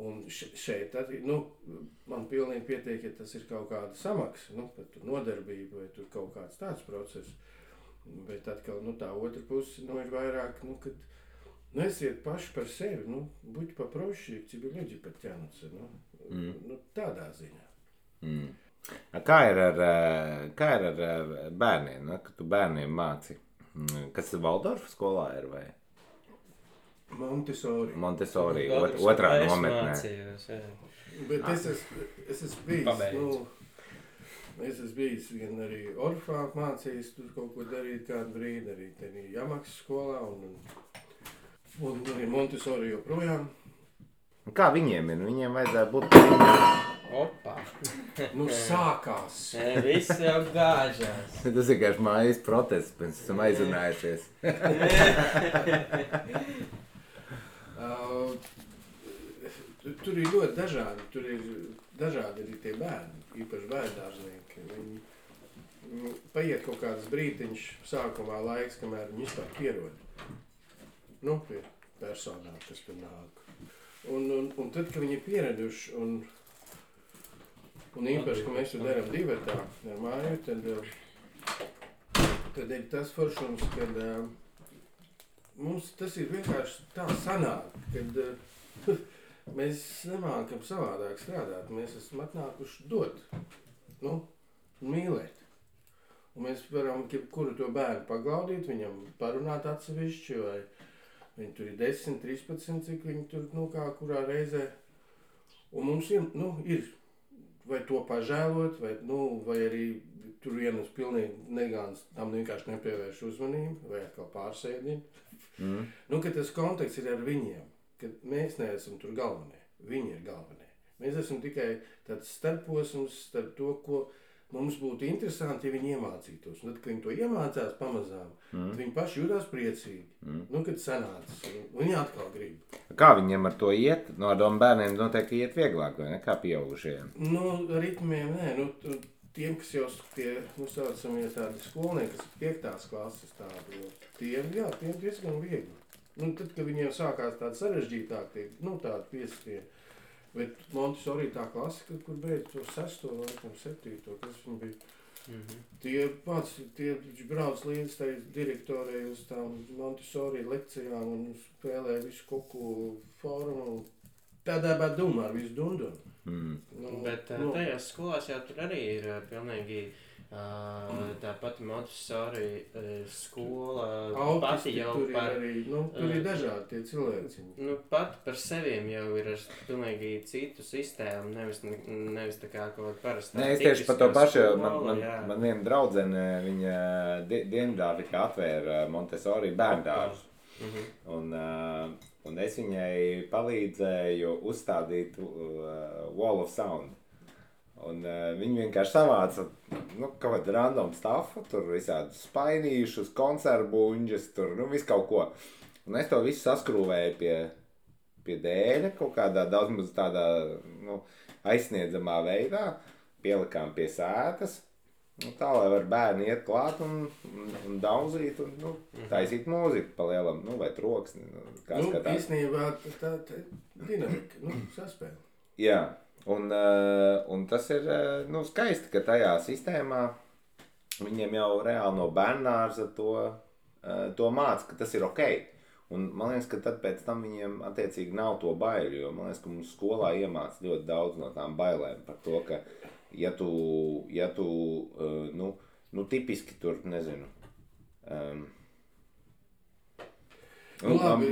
Speaker 2: Un šeit arī, man pilnīgi pietiek, ja tas ir kaut kāda samaksa, par tur nodarbību vai tur kaut kāds tāds process. Bet atkal, tā otra puse, ir vairāk, kad esiet paši par sevi, buďte попроще, к тебе люди подтянутся, tādā ziņā.
Speaker 1: Kā ir ar bērniem, kad tu bērniem māci? Kas ir Valdorfa skolā ir vai? Montessori, otrā nometnē.
Speaker 3: Mācījos, jā.
Speaker 2: Bet es esmu bijis gan arī Orfā mācījis, tur kaut ko darīt kādu brīdi, arī tenī Jamaksas skolā un arī Montessori joprojām.
Speaker 1: Kā viņiem ir? Viņiem vajadzētu būt
Speaker 3: Opa!
Speaker 2: Sākās!
Speaker 3: Viss jau gāžās.
Speaker 1: Tas ir kāds mājas protests, pēc esam aizrunājušies.
Speaker 2: Tur ir ļoti dažādi, arī tie bērni, īpaši bērndārznieki. Viņi paiet kaut kāds brītiņš sākumā laiks, kamēr viņi vispār pierod. Pie personām, kas tur nāk. Un tad, kad viņi ir pieraduši, un īpaši, ka mēs to darām divatā ar māju, tad ir tas foršums, kad mums tas ir vienkārši tā sanāk, kad mēs nemākam savādāk strādāt. Mēs esam atnākuši dot, mīlēt. Un mēs varam kuru to bērnu paglaudīt, viņam parunāt atsevišķi, vai viņi tur ir 10, 13, cik viņi tur, kurā reizē. Un mums ir vai to pažēlot, vai arī tur vienas pilnīgi negāns, tam vienkārši nepievērš uzmanību, vai atkal pārsēdina. Ka tas konteksts ir ar viņiem, ka mēs neesam tur galvenie, viņi ir galvenie. Mēs esam tikai tāds starposms starp to, ko mums būtu interesanti, ja viņi iemācītos. Un tad, kad viņi to iemācās pamazām, tad viņi paši jūtās priecīgi. Kad sanācis, un viņi atkal grib.
Speaker 1: Kā viņiem ar to iet? No tiem bērniem noteikti iet vieglāk, vai ne? Kā pieaugušajiem?
Speaker 2: Ritmiem nē. Tiem, kas jau tie, saucamie tādi skolnieki, kas ir 5. klases tādi, tiem diezgan viegli. Tad, kad viņiem sākās tādi sarežģītāki, tādi 5. Bet Montessori tā klasika, kur beidz to 6. vai 7. kas viņi bija. Tie brauc līdz tai direktorei uz tām Montessori lekcijām un spēlē visu kuku formu. Tādā bad dumā ar visu dundunu.
Speaker 3: Bet tajās skolās jau tur arī ir pilnīgi tā pati Montessori skola. Pati jau
Speaker 2: tur par... Arī, tur ir dažādi tie cilvēki.
Speaker 3: Pati par seviem jau ir ar pilnīgi citu sistēmu, nevis tā kā kaut parastā.
Speaker 1: Nē, es tieši par to pašu, man viena draudzene, viņa Dienvidāfrikā atvēra Montessori bērndārzu. Un es viņai palīdzēju uzstādīt Wall of Sound. Un viņi vienkārši savāca kaut kādu random staffu, tur visādus spainīšus, konservbuņģus, tur visu kaut ko. Un es to visu saskrūvēju pie dēļa kaut kādā daudz maz tādā aizsniedzamā veidā, pielikām pie sētas, tā, lai var bērni iet klāt un dauzīt un taisīt mūziku pa lielam, vai troksni.
Speaker 2: Īstenībā tā dinamika, saspēle.
Speaker 1: Jā. Un tas ir skaisti, ka tajā sistēmā viņiem jau reāli no bērnārza to māca, ka tas ir ok. Un man liekas, ka tad pēc tam viņiem attiecīgi nav to baiļu, jo man liekas, ka mums skolā iemāca ļoti daudz no tām bailēm par to, ka ja tu tipiski tur, nezinu,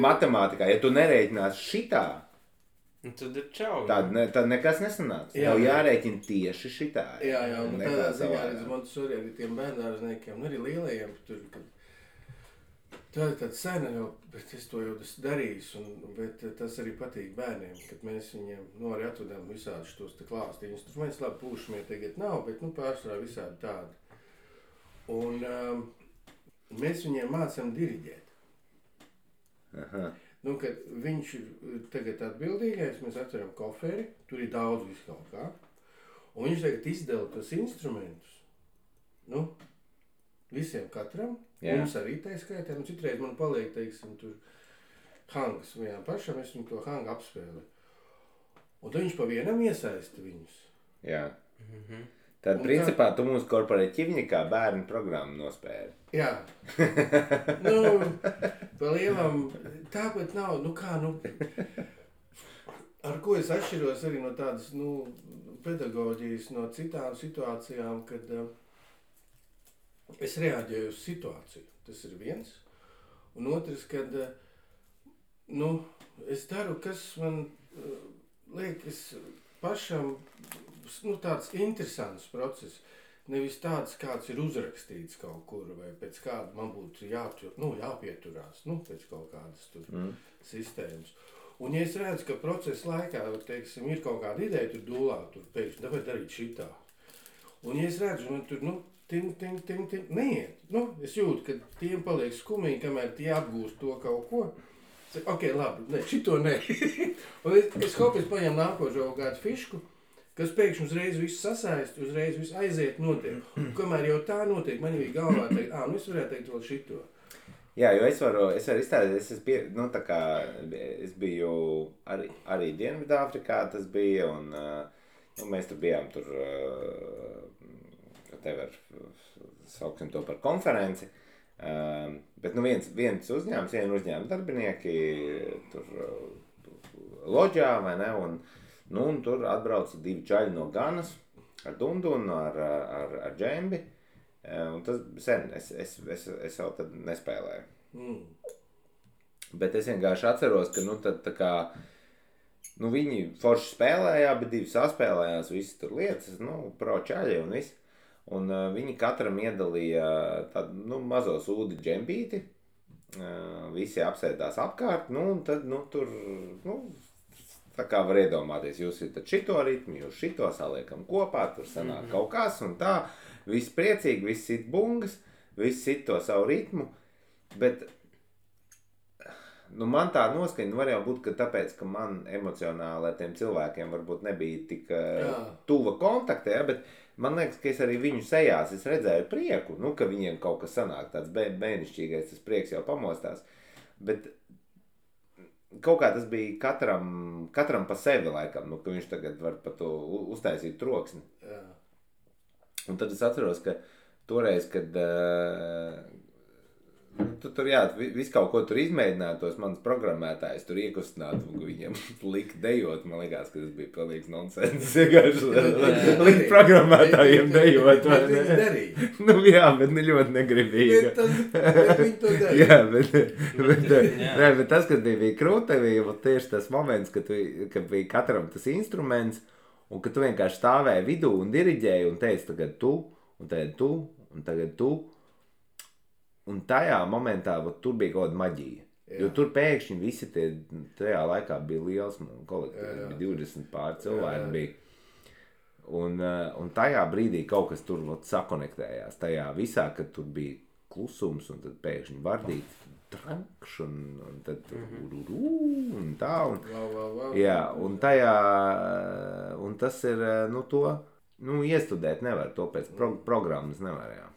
Speaker 1: matemātikā, ja tu nerēķinās šitā,
Speaker 3: tad ir čau.
Speaker 1: Tad nekas nesanāks. Jau jārēķina tieši šitā.
Speaker 2: Jā, un tādā ziņā arī Montessori arī tiem bērnārzniekiem, arī lielajiem tur, kad tā ir tāda sena jau, bet es to jau esmu darījis, bet tas arī patīk bērniem, kad mēs viņiem arī atvedām visādus tos te klāstu instrumentus, labi, pūšamie tagad nav, bet pārsvarā visādi tādi. Un mēs viņiem mācām diriģēt.
Speaker 1: Aha.
Speaker 2: Kad viņš ir tagad atbildīgais, mēs atveram koferi, tur ir daudz visu kaut kā, un viņš tagad izdala tos instrumentus, visiem katram, mums arī tā skaitā, citreiz man paliek, teiksim, tur hangas vienam pašam, es viņu to hangu apspēlēju, un tad viņš pa vienam iesaista viņus.
Speaker 1: Jā. Tad, principā, tu mums korporatīvnikā bērnu programmu nospēli.
Speaker 2: Jā. Pa lielam, tāpat nav, ar ko es atšķiros arī no tādas, pedagoģijas, no citām situācijām, kad es reaģēju uz situāciju. Tas ir viens. Un otrs, kad, es daru, kas man liekas pašam, tāds interesants process, nevis tāds, kāds ir uzrakstīts kaut kur, vai pēc kāda man būtu jāpieturās, pēc kaut kādas tur sistēmas. Un ja es redzu, ka procesa laikā, teiksim, ir kaut kāda ideja tur dūlā, tur pēkšņi, tāpēc darīt šitā. Un ja es redzu, man tur, ting, neiet. Es jūtu, ka tiem paliek skumīgi, kamēr tie apgūst to kaut ko. Ok, labi, šito ne. Un es paņem nākošo kādu fišku, kas pēkšņi uzreiz visu sasaist, uzreiz visu aiziet notiek. Un kamēr jau tā notiek, man bija galvā teikt, es varētu teikt vēl šito.
Speaker 1: Jā, jo es varu izstādīt, es biju arī Dienvidāfrikā, tas bija, un mēs tur bijām tur, sauksim to par konferenci, bet viens uzņēmums darbinieki tur loģā, vai ne, un tur atbrauca 2 čaļi no Ganas ar dundunu, ar džembi. Un tas sen, es jau tad nespēlēju. Bet es vienkārši atceros, ka tad tā kā, viņi forši spēlējā, bet 2 saspēlējās visas tur lietas, pro čaļi un viss. Un viņi katram iedalīja tādu, mazo sūdi džembīti, visi apsēdās apkārt, un tad, tur, tā kā var iedomāties, jūs ir tad šito ritmu, jūs šito saliekam kopā, tur sanāk kaut kas un tā, viss priecīgi, viss sit bungas, viss sit to savu ritmu, bet man tā noskaņa var jau būt, ka tāpēc, ka man emocionāli ar tiem cilvēkiem varbūt nebija tik tuva kontakta, bet man liekas, ka es arī viņu sejās, es redzēju prieku, ka viņiem kaut kas sanāk, tāds bērnišķīgais, tas prieks jau pamostās, bet kaut kā tas bija katram pa sevi laikam, nu, ka viņš tagad var par to uztaisīt troksni.
Speaker 2: Jā.
Speaker 1: Un tad es atceros, ka toreiz, kad tu tur, jā, visu kaut ko tur izmēģināja, tos manas programmētājs tur iekustināt, un viņiem lika dejot, man liekas, ka tas bija pilnīgs nonsens, likt programmētājiem dejot, vai ne?
Speaker 2: Bet darīja.
Speaker 1: Nu jā, bet ne ļoti negribīgi.
Speaker 2: Bet viņi to darīja.
Speaker 1: Jā, bet tas, kas bija krūti, bija tieši tas moments, kad bija katram tas instruments, un ka tu vienkārši stāvēji vidū un diriģēji un teici tagad tu, un tagad tu, un tagad tu. Un tajā momentā tur bija kaut kāda maģija. Jā. Jo tur pēkšņi visi tajā laikā bija liels kolektīvs, bija 20 pār cilvēki bija. Un tajā brīdī kaut kas tur sakonektējās. Tajā visā, kad tur bija klusums un tad pēkšņi vardīt trankš un tad un tā. Jā, un tajā, un tas ir, nu to, nu iestudēt nevar, to pēc programmas nevar, jā.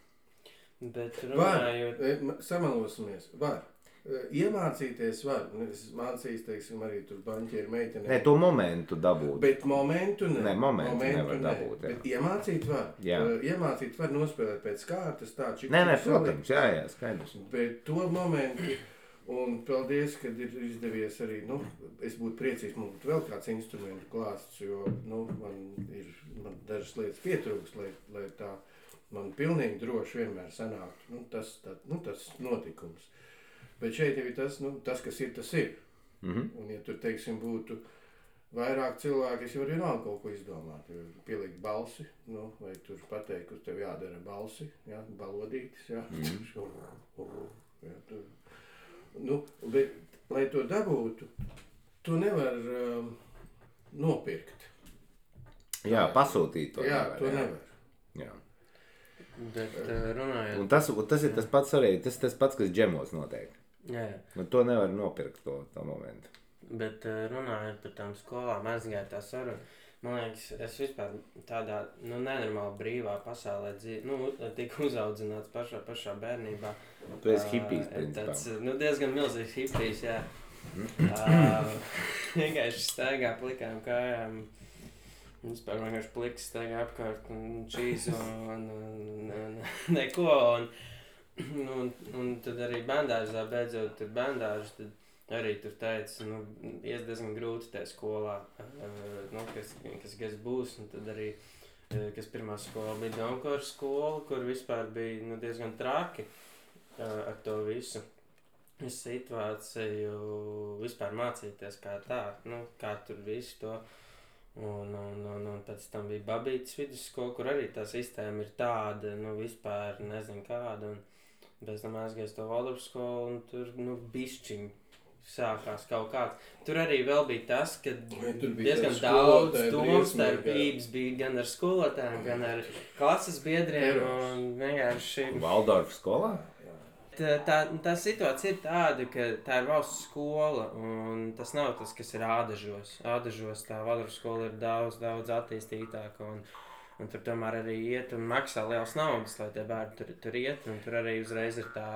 Speaker 3: Bet runājot...
Speaker 2: Samalosimies, var. Iemācīties var. Es mācījos, teiksim, arī tur baņķieru meitenē.
Speaker 1: Nē, to momentu dabūt.
Speaker 2: Bet momentu ne.
Speaker 1: Nē, momentu nevar dabūt, jā.
Speaker 2: Bet iemācīt var.
Speaker 1: Jā.
Speaker 2: Iemācīt var nospēlēt pēc kārtas tā, čik.
Speaker 1: Nē, protams, jā, skaidrs.
Speaker 2: Bet to momentu, un paldies, kad ir izdevies arī, nu, es būtu priecīgs, man būtu vēl kāds instrumentu klāsts, jo, nu, man dažas lietas pietrūks, lai tā man pilnīgi droši vienmēr sanāktu, nu, tas notikums. Bet šeit jau ir tas, nu, tas, kas ir, tas ir. Un, ja tur, teiksim, būtu vairāk cilvēki, es jau arī nav kaut ko izdomāt, jo pielikt balsi, nu, vai tur pateikt, kur tev jādara balsi, jā, balodītis, jā, jā tur. Nu, bet, lai to dabūtu, to nevar nopirkt.
Speaker 1: Jā, pasūtīt to
Speaker 2: jā,
Speaker 1: nevar.
Speaker 2: To nevar.
Speaker 1: Jā.
Speaker 3: Bet runājot...
Speaker 1: Un tas ir tas pats arī, tas pats, kas džemos notiek.
Speaker 3: Jā.
Speaker 1: Nu, to nevar nopirkt to momentu.
Speaker 3: Bet runājot par tām skolām, aizgāja tā saruna. Man liekas, es vispār tādā, nu, nenormāli brīvā pasaulē tika uzaudzināts pašā bērnībā.
Speaker 1: Tu esi hipijs, principā.
Speaker 3: Tāds, nu, diezgan milzīgs hipijs, jā. Vienkārši staigā plikām kājām. Vispār vienkārši pliks staigā apkārt un čīzu un neko. Un tad arī bērndārzā, beidzot tur bērndārs, tad arī tur teica, nu, ies diezgan grūti tajā skolā, nu, kas būs. Un tad arī, kas pirmā skola bija Donkors skola, kur vispār bija, nu, diezgan traki ar to visu situāciju vispār mācīties kā tā, nu, kā tur visu to. Un pēc tam bija Babītas vidusskola, kur arī tā sistēma ir tāda, nu, vispār nezinu kāda. Un pēc tam aizgājis to Valdorfu skolu, un tur, nu, bišķiņ sākās kaut kāds. Tur arī vēl bija tas, ka diezgan daudz domstarpības bija gan ar skolotājiem, gan ar klases biedriem, un vienkārši...
Speaker 1: Valdorfu skolā?
Speaker 3: Tā situācija ir tāda, ka tā ir valsts skola, un tas nav tas, kas ir Ādažos. Ādažos tā Valdorfu skola ir daudz attīstītāka, un tur tomēr arī iet un maksā liels naudas, lai tie bērni tur iet, un tur arī uzreiz ir tā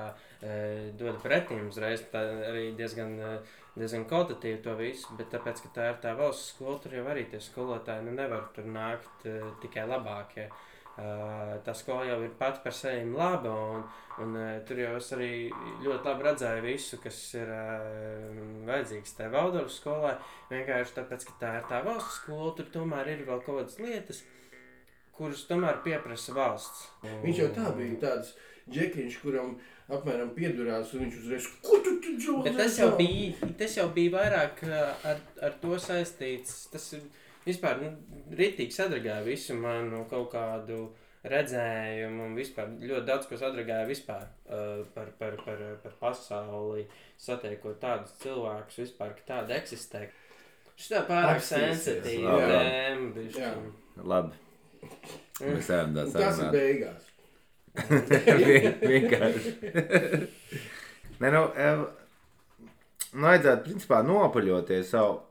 Speaker 3: dod pretīm, uzreiz tā arī diezgan kvalitatīvi to visu, bet tāpēc, ka tā ir tā valsts skola, tur jau arī tie skolotāji, nu, nevar tur nākt tikai labākie. Tā skola jau ir pati par sevi laba, un tur jau es arī ļoti labi redzēju visu, kas ir vajadzīgs tajā Valdorfu skolai. Vienkārši tāpēc, ka tā ir tā valsts skola, tur tomēr ir vēl kaut kādas lietas, kuras tomēr pieprasa valsts.
Speaker 2: Viņš jau tā bija tāds džekiņš, kuram apmēram piedurās, un viņš uzreiz, ko tu džo?
Speaker 3: Bet tas jau bija vairāk ar to saistīts, tas ir... Vispār, nu, ritīgi sadragāja visu manu kaut kādu redzējumu un vispār ļoti daudz, ko sadragāja vispār par pasauli, satiekot tādus cilvēkus vispār, ka tāda eksistē. Šitā pārāk sensitīva tēma, bišķi.
Speaker 1: Labi. Mēs ejam tā sarunāt.
Speaker 2: Tas ir beigās.
Speaker 1: Vienkārši. Nē, nu, vajadzētu principā nopaļoties savu.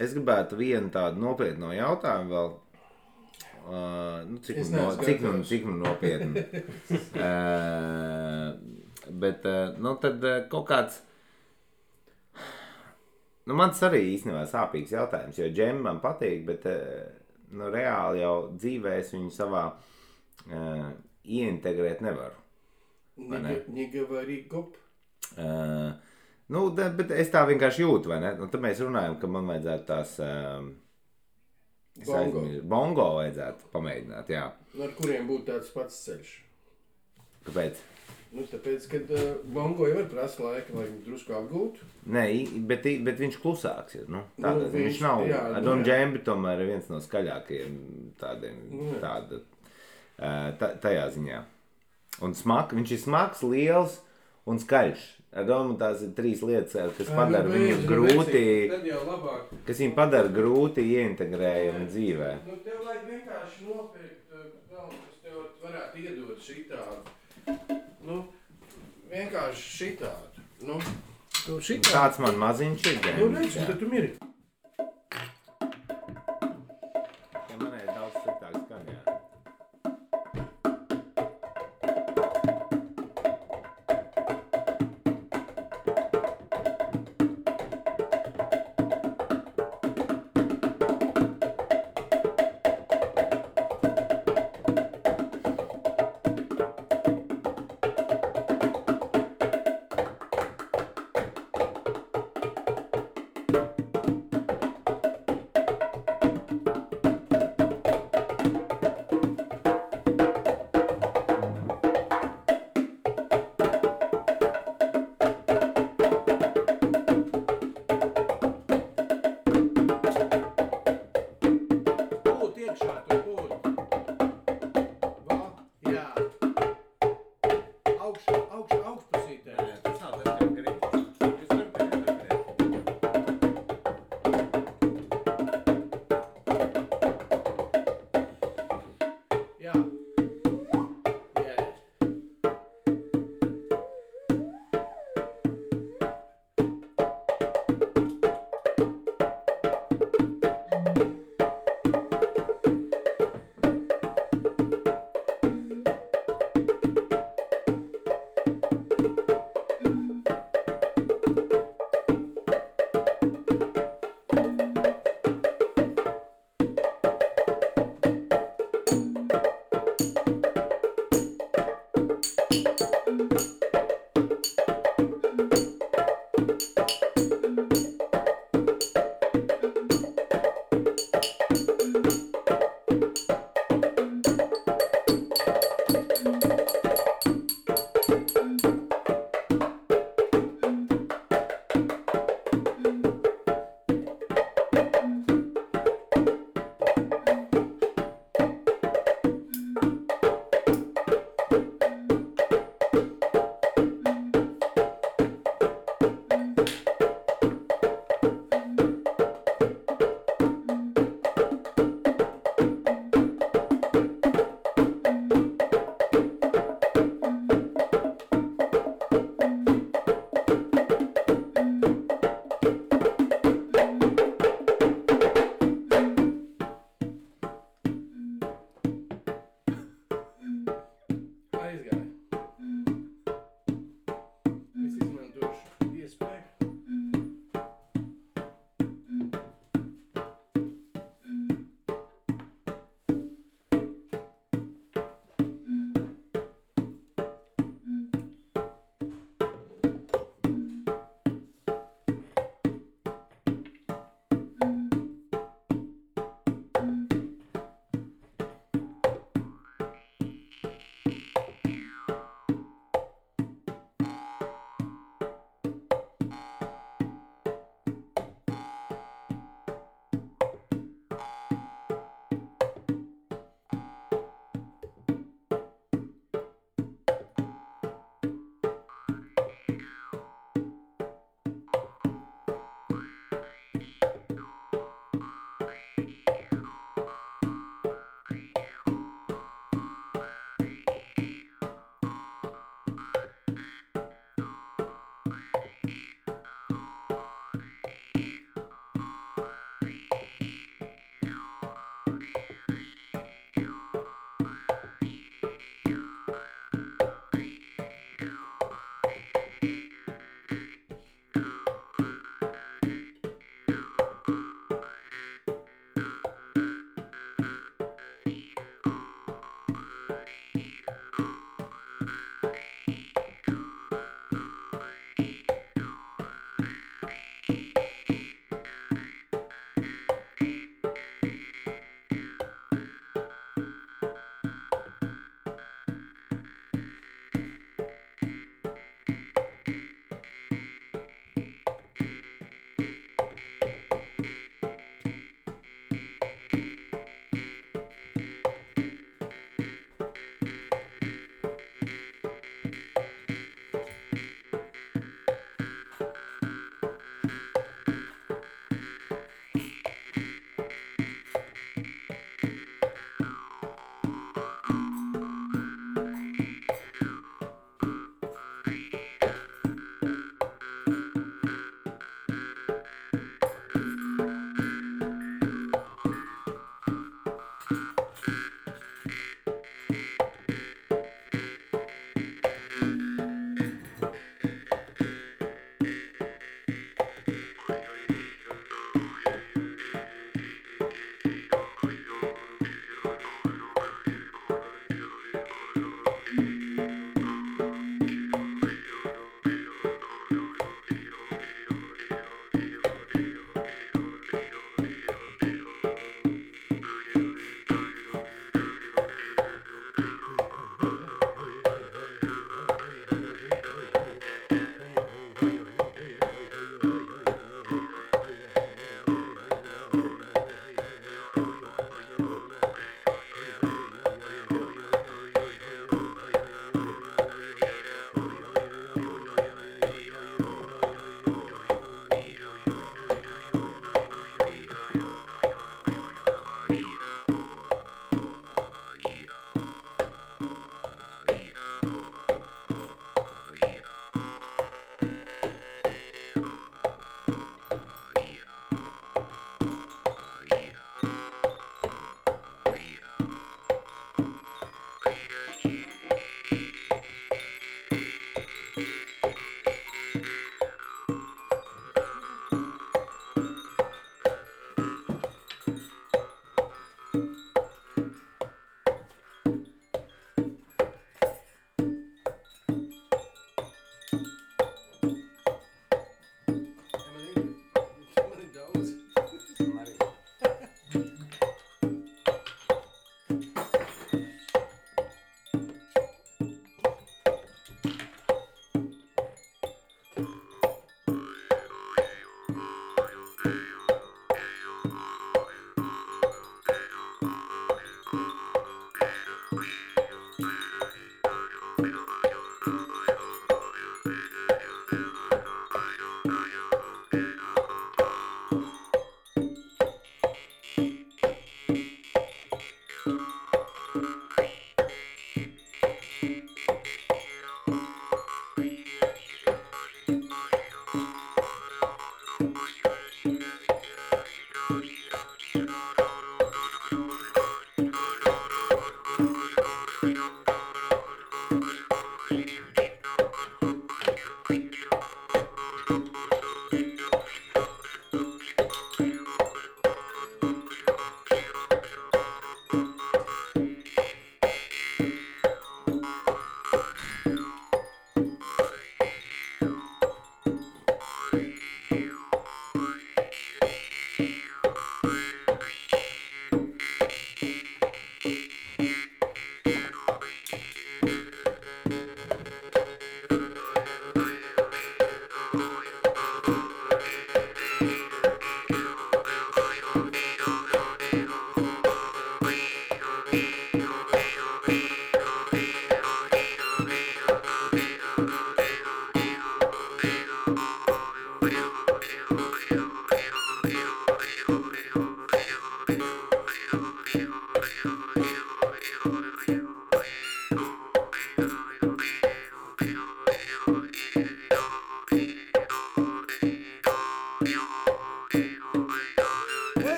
Speaker 1: Es gribētu vienu tādu nopietnu jautājumu vēl, cik nu nopietni. Bet, nu, tad kaut kāds, Nu, man tas arī īstenībā sāpīgs jautājums, jo džemi man patīk, bet nu, reāli jau dzīvē es viņu savā ieintegrēt nevaru.
Speaker 2: Не говори гоп.
Speaker 1: Nu, bet es tā vienkārši jūtu, vai ne? Un tad mēs runājam, ka man vajadzētu tās bongo vajadzētu pamēģināt, jā.
Speaker 2: Ar kuriem būtu tāds pats ceļš?
Speaker 1: Kāpēc?
Speaker 2: Nu, tāpēc, kad bongo jau var prasa laika, lai drusku apgūtu.
Speaker 1: Nē, bet viņš klusāks ir, nu. Tāda, viņš nav, Don Džembi tomēr ir viens no skaļākajiem tādiem, tajā ziņā. Un viņš ir smags, liels un skaļš. Ar domu tās ir 3 lietas, kas padara viņu grūti, kas viņu padara grūti ieintegrējami dzīvē.
Speaker 2: Nu, tev vajag vienkārši nopirkt, kas tev varētu iedot šitādu. Nu, vienkārši šitādu. Nu, šitādu.
Speaker 1: Tāds man maziņš ir.
Speaker 2: Nu, redz, tad tu miri.
Speaker 1: Ja manai ir daudz sliktāks skan, jā.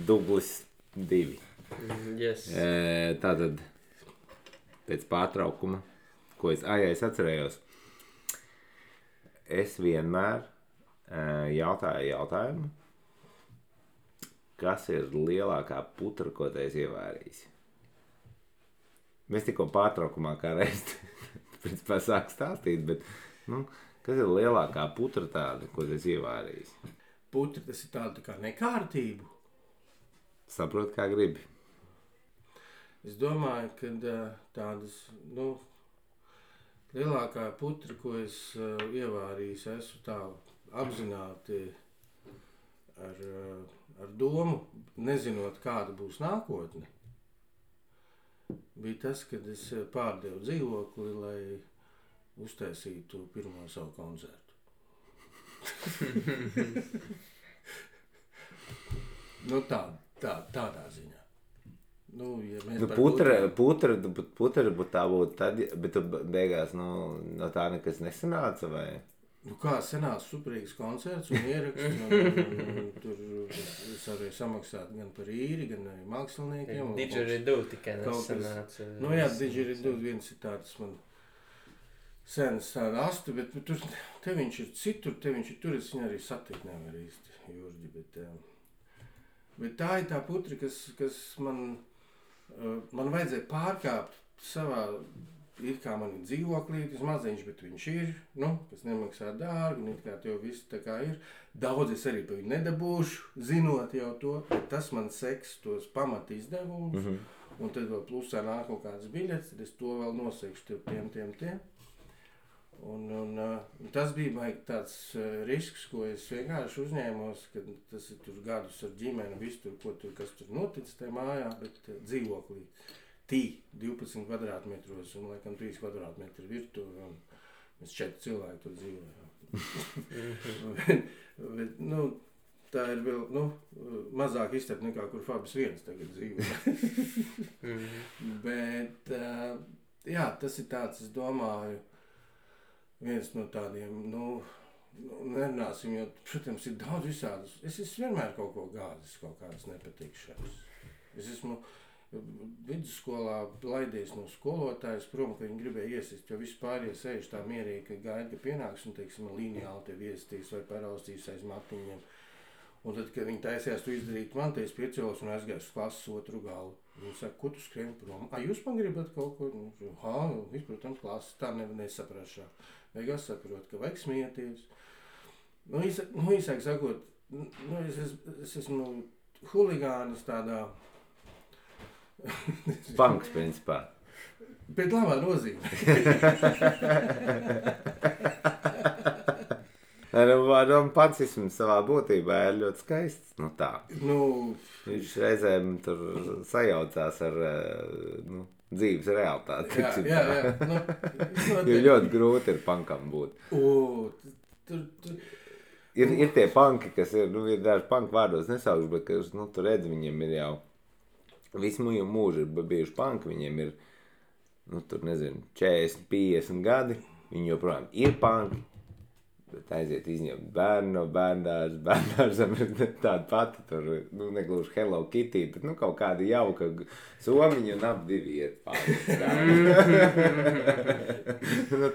Speaker 1: Dublis 2.
Speaker 4: Yes.
Speaker 1: Tātad pēc pārtraukuma, ko es atcerējos, es vienmēr jautāju jautājumu, kas ir lielākā putra, ko tu esi ievērījis. Mēs tikko pārtraukumā kā reiz principā sāk stāstīt, bet kas ir lielākā putra tāda, ko tu esi ievērījis?
Speaker 2: Putra, tas ir tāda kā nekārtību.
Speaker 1: Saprot, kā gribi.
Speaker 2: Es domāju, ka tādas, lielākā putra, ko es ievārījis, esmu tā apzināti ar domu, nezinot, kāda būs nākotne. Bija tas, kad es pārdevu dzīvokli, lai uztaisītu pirmo savu koncertu. Tādā ziņā. Ja mēs
Speaker 1: putra būtu tā būtu tad, bet tu beigās no tā nekas nesanāca, vai?
Speaker 2: Kā sanāca superīgs koncerts un ieraksts, un tur es arī samaksātu gan par īri, gan arī māksliniekiem.
Speaker 3: Didgeridoo tikai nesanāca.
Speaker 2: Didgeridoo viens ir tāds man sens tāda astu, bet te viņš ir citur, te viņš ir tur, es viņu arī satikt nevar īsti, Jurģi, bet tā ir tā putra, kas man vajadzēja pārkāpt savā, ir kā man ir dzīvoklītis maziņš, bet viņš ir, kas nemaksā dārgi, un it kā tev viss tā kā ir. Daudz es arī pa viņu nedabūšu, zinot jau to, bet tas man seks tos pamat izdevumus, un tad vēl plusā nāk kaut kādas biļetes, tad es to vēl nosekšu tiem. Un tas bija tāds risks, ko es vienkārši uzņēmos, kad tas ir tur gadus ar ģimeni, visu tur, kas tur notic tajā mājā, bet dzīvoklī. 12 kvadrātmetros un laikam 3 kvadrātmetri virtuve, un mēs 4 cilvēki tur dzīvojam. bet, tā ir vēl, mazāk iztapa nekā, kur Fabis 1 tagad dzīvo. Bet, jā, tas ir tāds, es domāju, viens no tādiem, nerunāsim, jo, protams, ir daudz visādus. Es esmu vienmēr kaut ko gāzis, kaut kādas nepatikšanas. Es esmu vidusskolā laidies no skolotājas prom, ka viņi gribēja iesist, jo vispār sēž tā mierīgi, ka gaida, ka pienāks un, teiksim, lineāli tev iesistīs vai paraustīs aiz matiņiem. Un tad, kad viņi taisījās to izdarīt man, es piecēlos un aizgāju uz klases otru galu. Viņi saka, ko tu skrien prom? Jūs man gribat kaut ko? Protams, klases tā nesaprašā. Beigās saprot, ka vajag smieties. Īsāk sakot, es esmu huligānis tādā
Speaker 1: Banks, principā.
Speaker 2: Bet labā nozīmē.
Speaker 1: Pacisms savā būtībā ir ļoti skaists. Tā. Viņš reizēm tur sajaucās ar dzīves realitāti. Jā. Jo ļoti grūti ir punkam būt. Ir tie punki, kas ir daži punku vārdos nesaukšu, bet kas, tu redzi, viņiem ir jau visu mūžu ir bijuši punki, viņiem ir, 40, 50 gadi, viņi joprojām ir punki, bet aiziet izņemt bērnu no bērndārzam ir tāda pati, tur, negluži Hello Kitty, bet, kaut kāda jauka somiņa un ap divi iet pāri.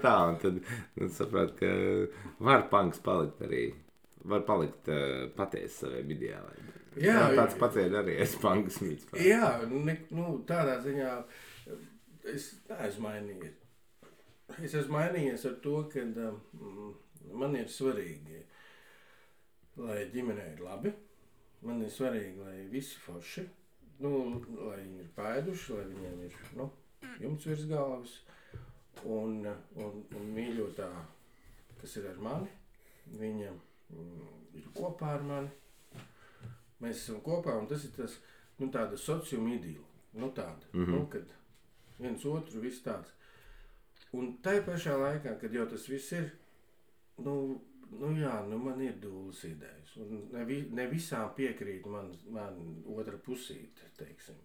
Speaker 1: Tā, un tad, saprāt, ka var punks palikt arī, var palikt patiesi saviem ideāliem. Jā, tāds pats ir arī es punks mīts.
Speaker 2: Jā, tādā ziņā es neesmu mainījies. Es esmu mainījies ar to, ka man ir svarīgi, lai ģimenei ir labi. Man ir svarīgi, lai visi forši, lai viņi ir pēduši, lai viņiem ir, jumts virs galvas. Un mīļotā, kas ir ar mani, viņa ir kopā ar mani. Mēs esam kopā, un tas ir tas, tāda sociuma idila, tāda, kad viens otru viss tāds. Un tai pašā laikā, kad jau tas viss ir, man ir dūles idejas, un ne visām piekrīt man otra pusīte, teiksim.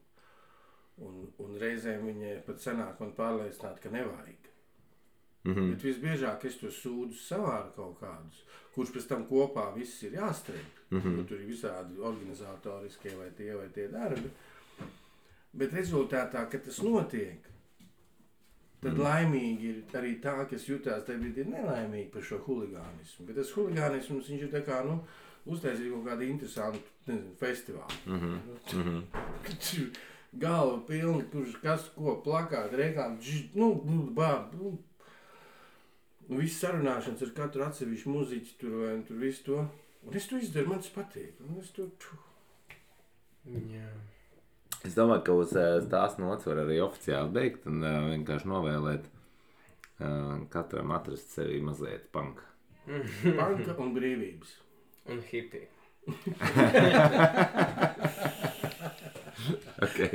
Speaker 2: Un reizēm viņai pat sanāk man pārliecināt, ka nevajag. Bet visbiežāk es to sūdzu savāru kaut kādus, kurš pēc tam kopā viss ir jāstrēp. Tur ir visādi organizatoriskie vai tie darbi. Bet rezultātā, kad tas notiek, tad laimīgi ir arī tā, kas jutās tajā brīdī nelaimīgi par šo huligānismu. Bet tas huligānisms, viņš ir tā kā, uztaisīja kaut kādu interesantu, festivālu. Galva pilni, kurš kas ko plakāt, reklāmi, viss sarunāšanas ar katru atsevišķu muziķi tur vai tur visu to. Un es to izdaru, man tas patīk. Un es to...
Speaker 3: Jā.
Speaker 1: Es domāju, ka uz tās nots var arī oficiāli beigt un vienkārši novēlēt katram atrast sevi mazliet panka.
Speaker 2: Panka un brīvības.
Speaker 3: Un hippie.
Speaker 1: Okay.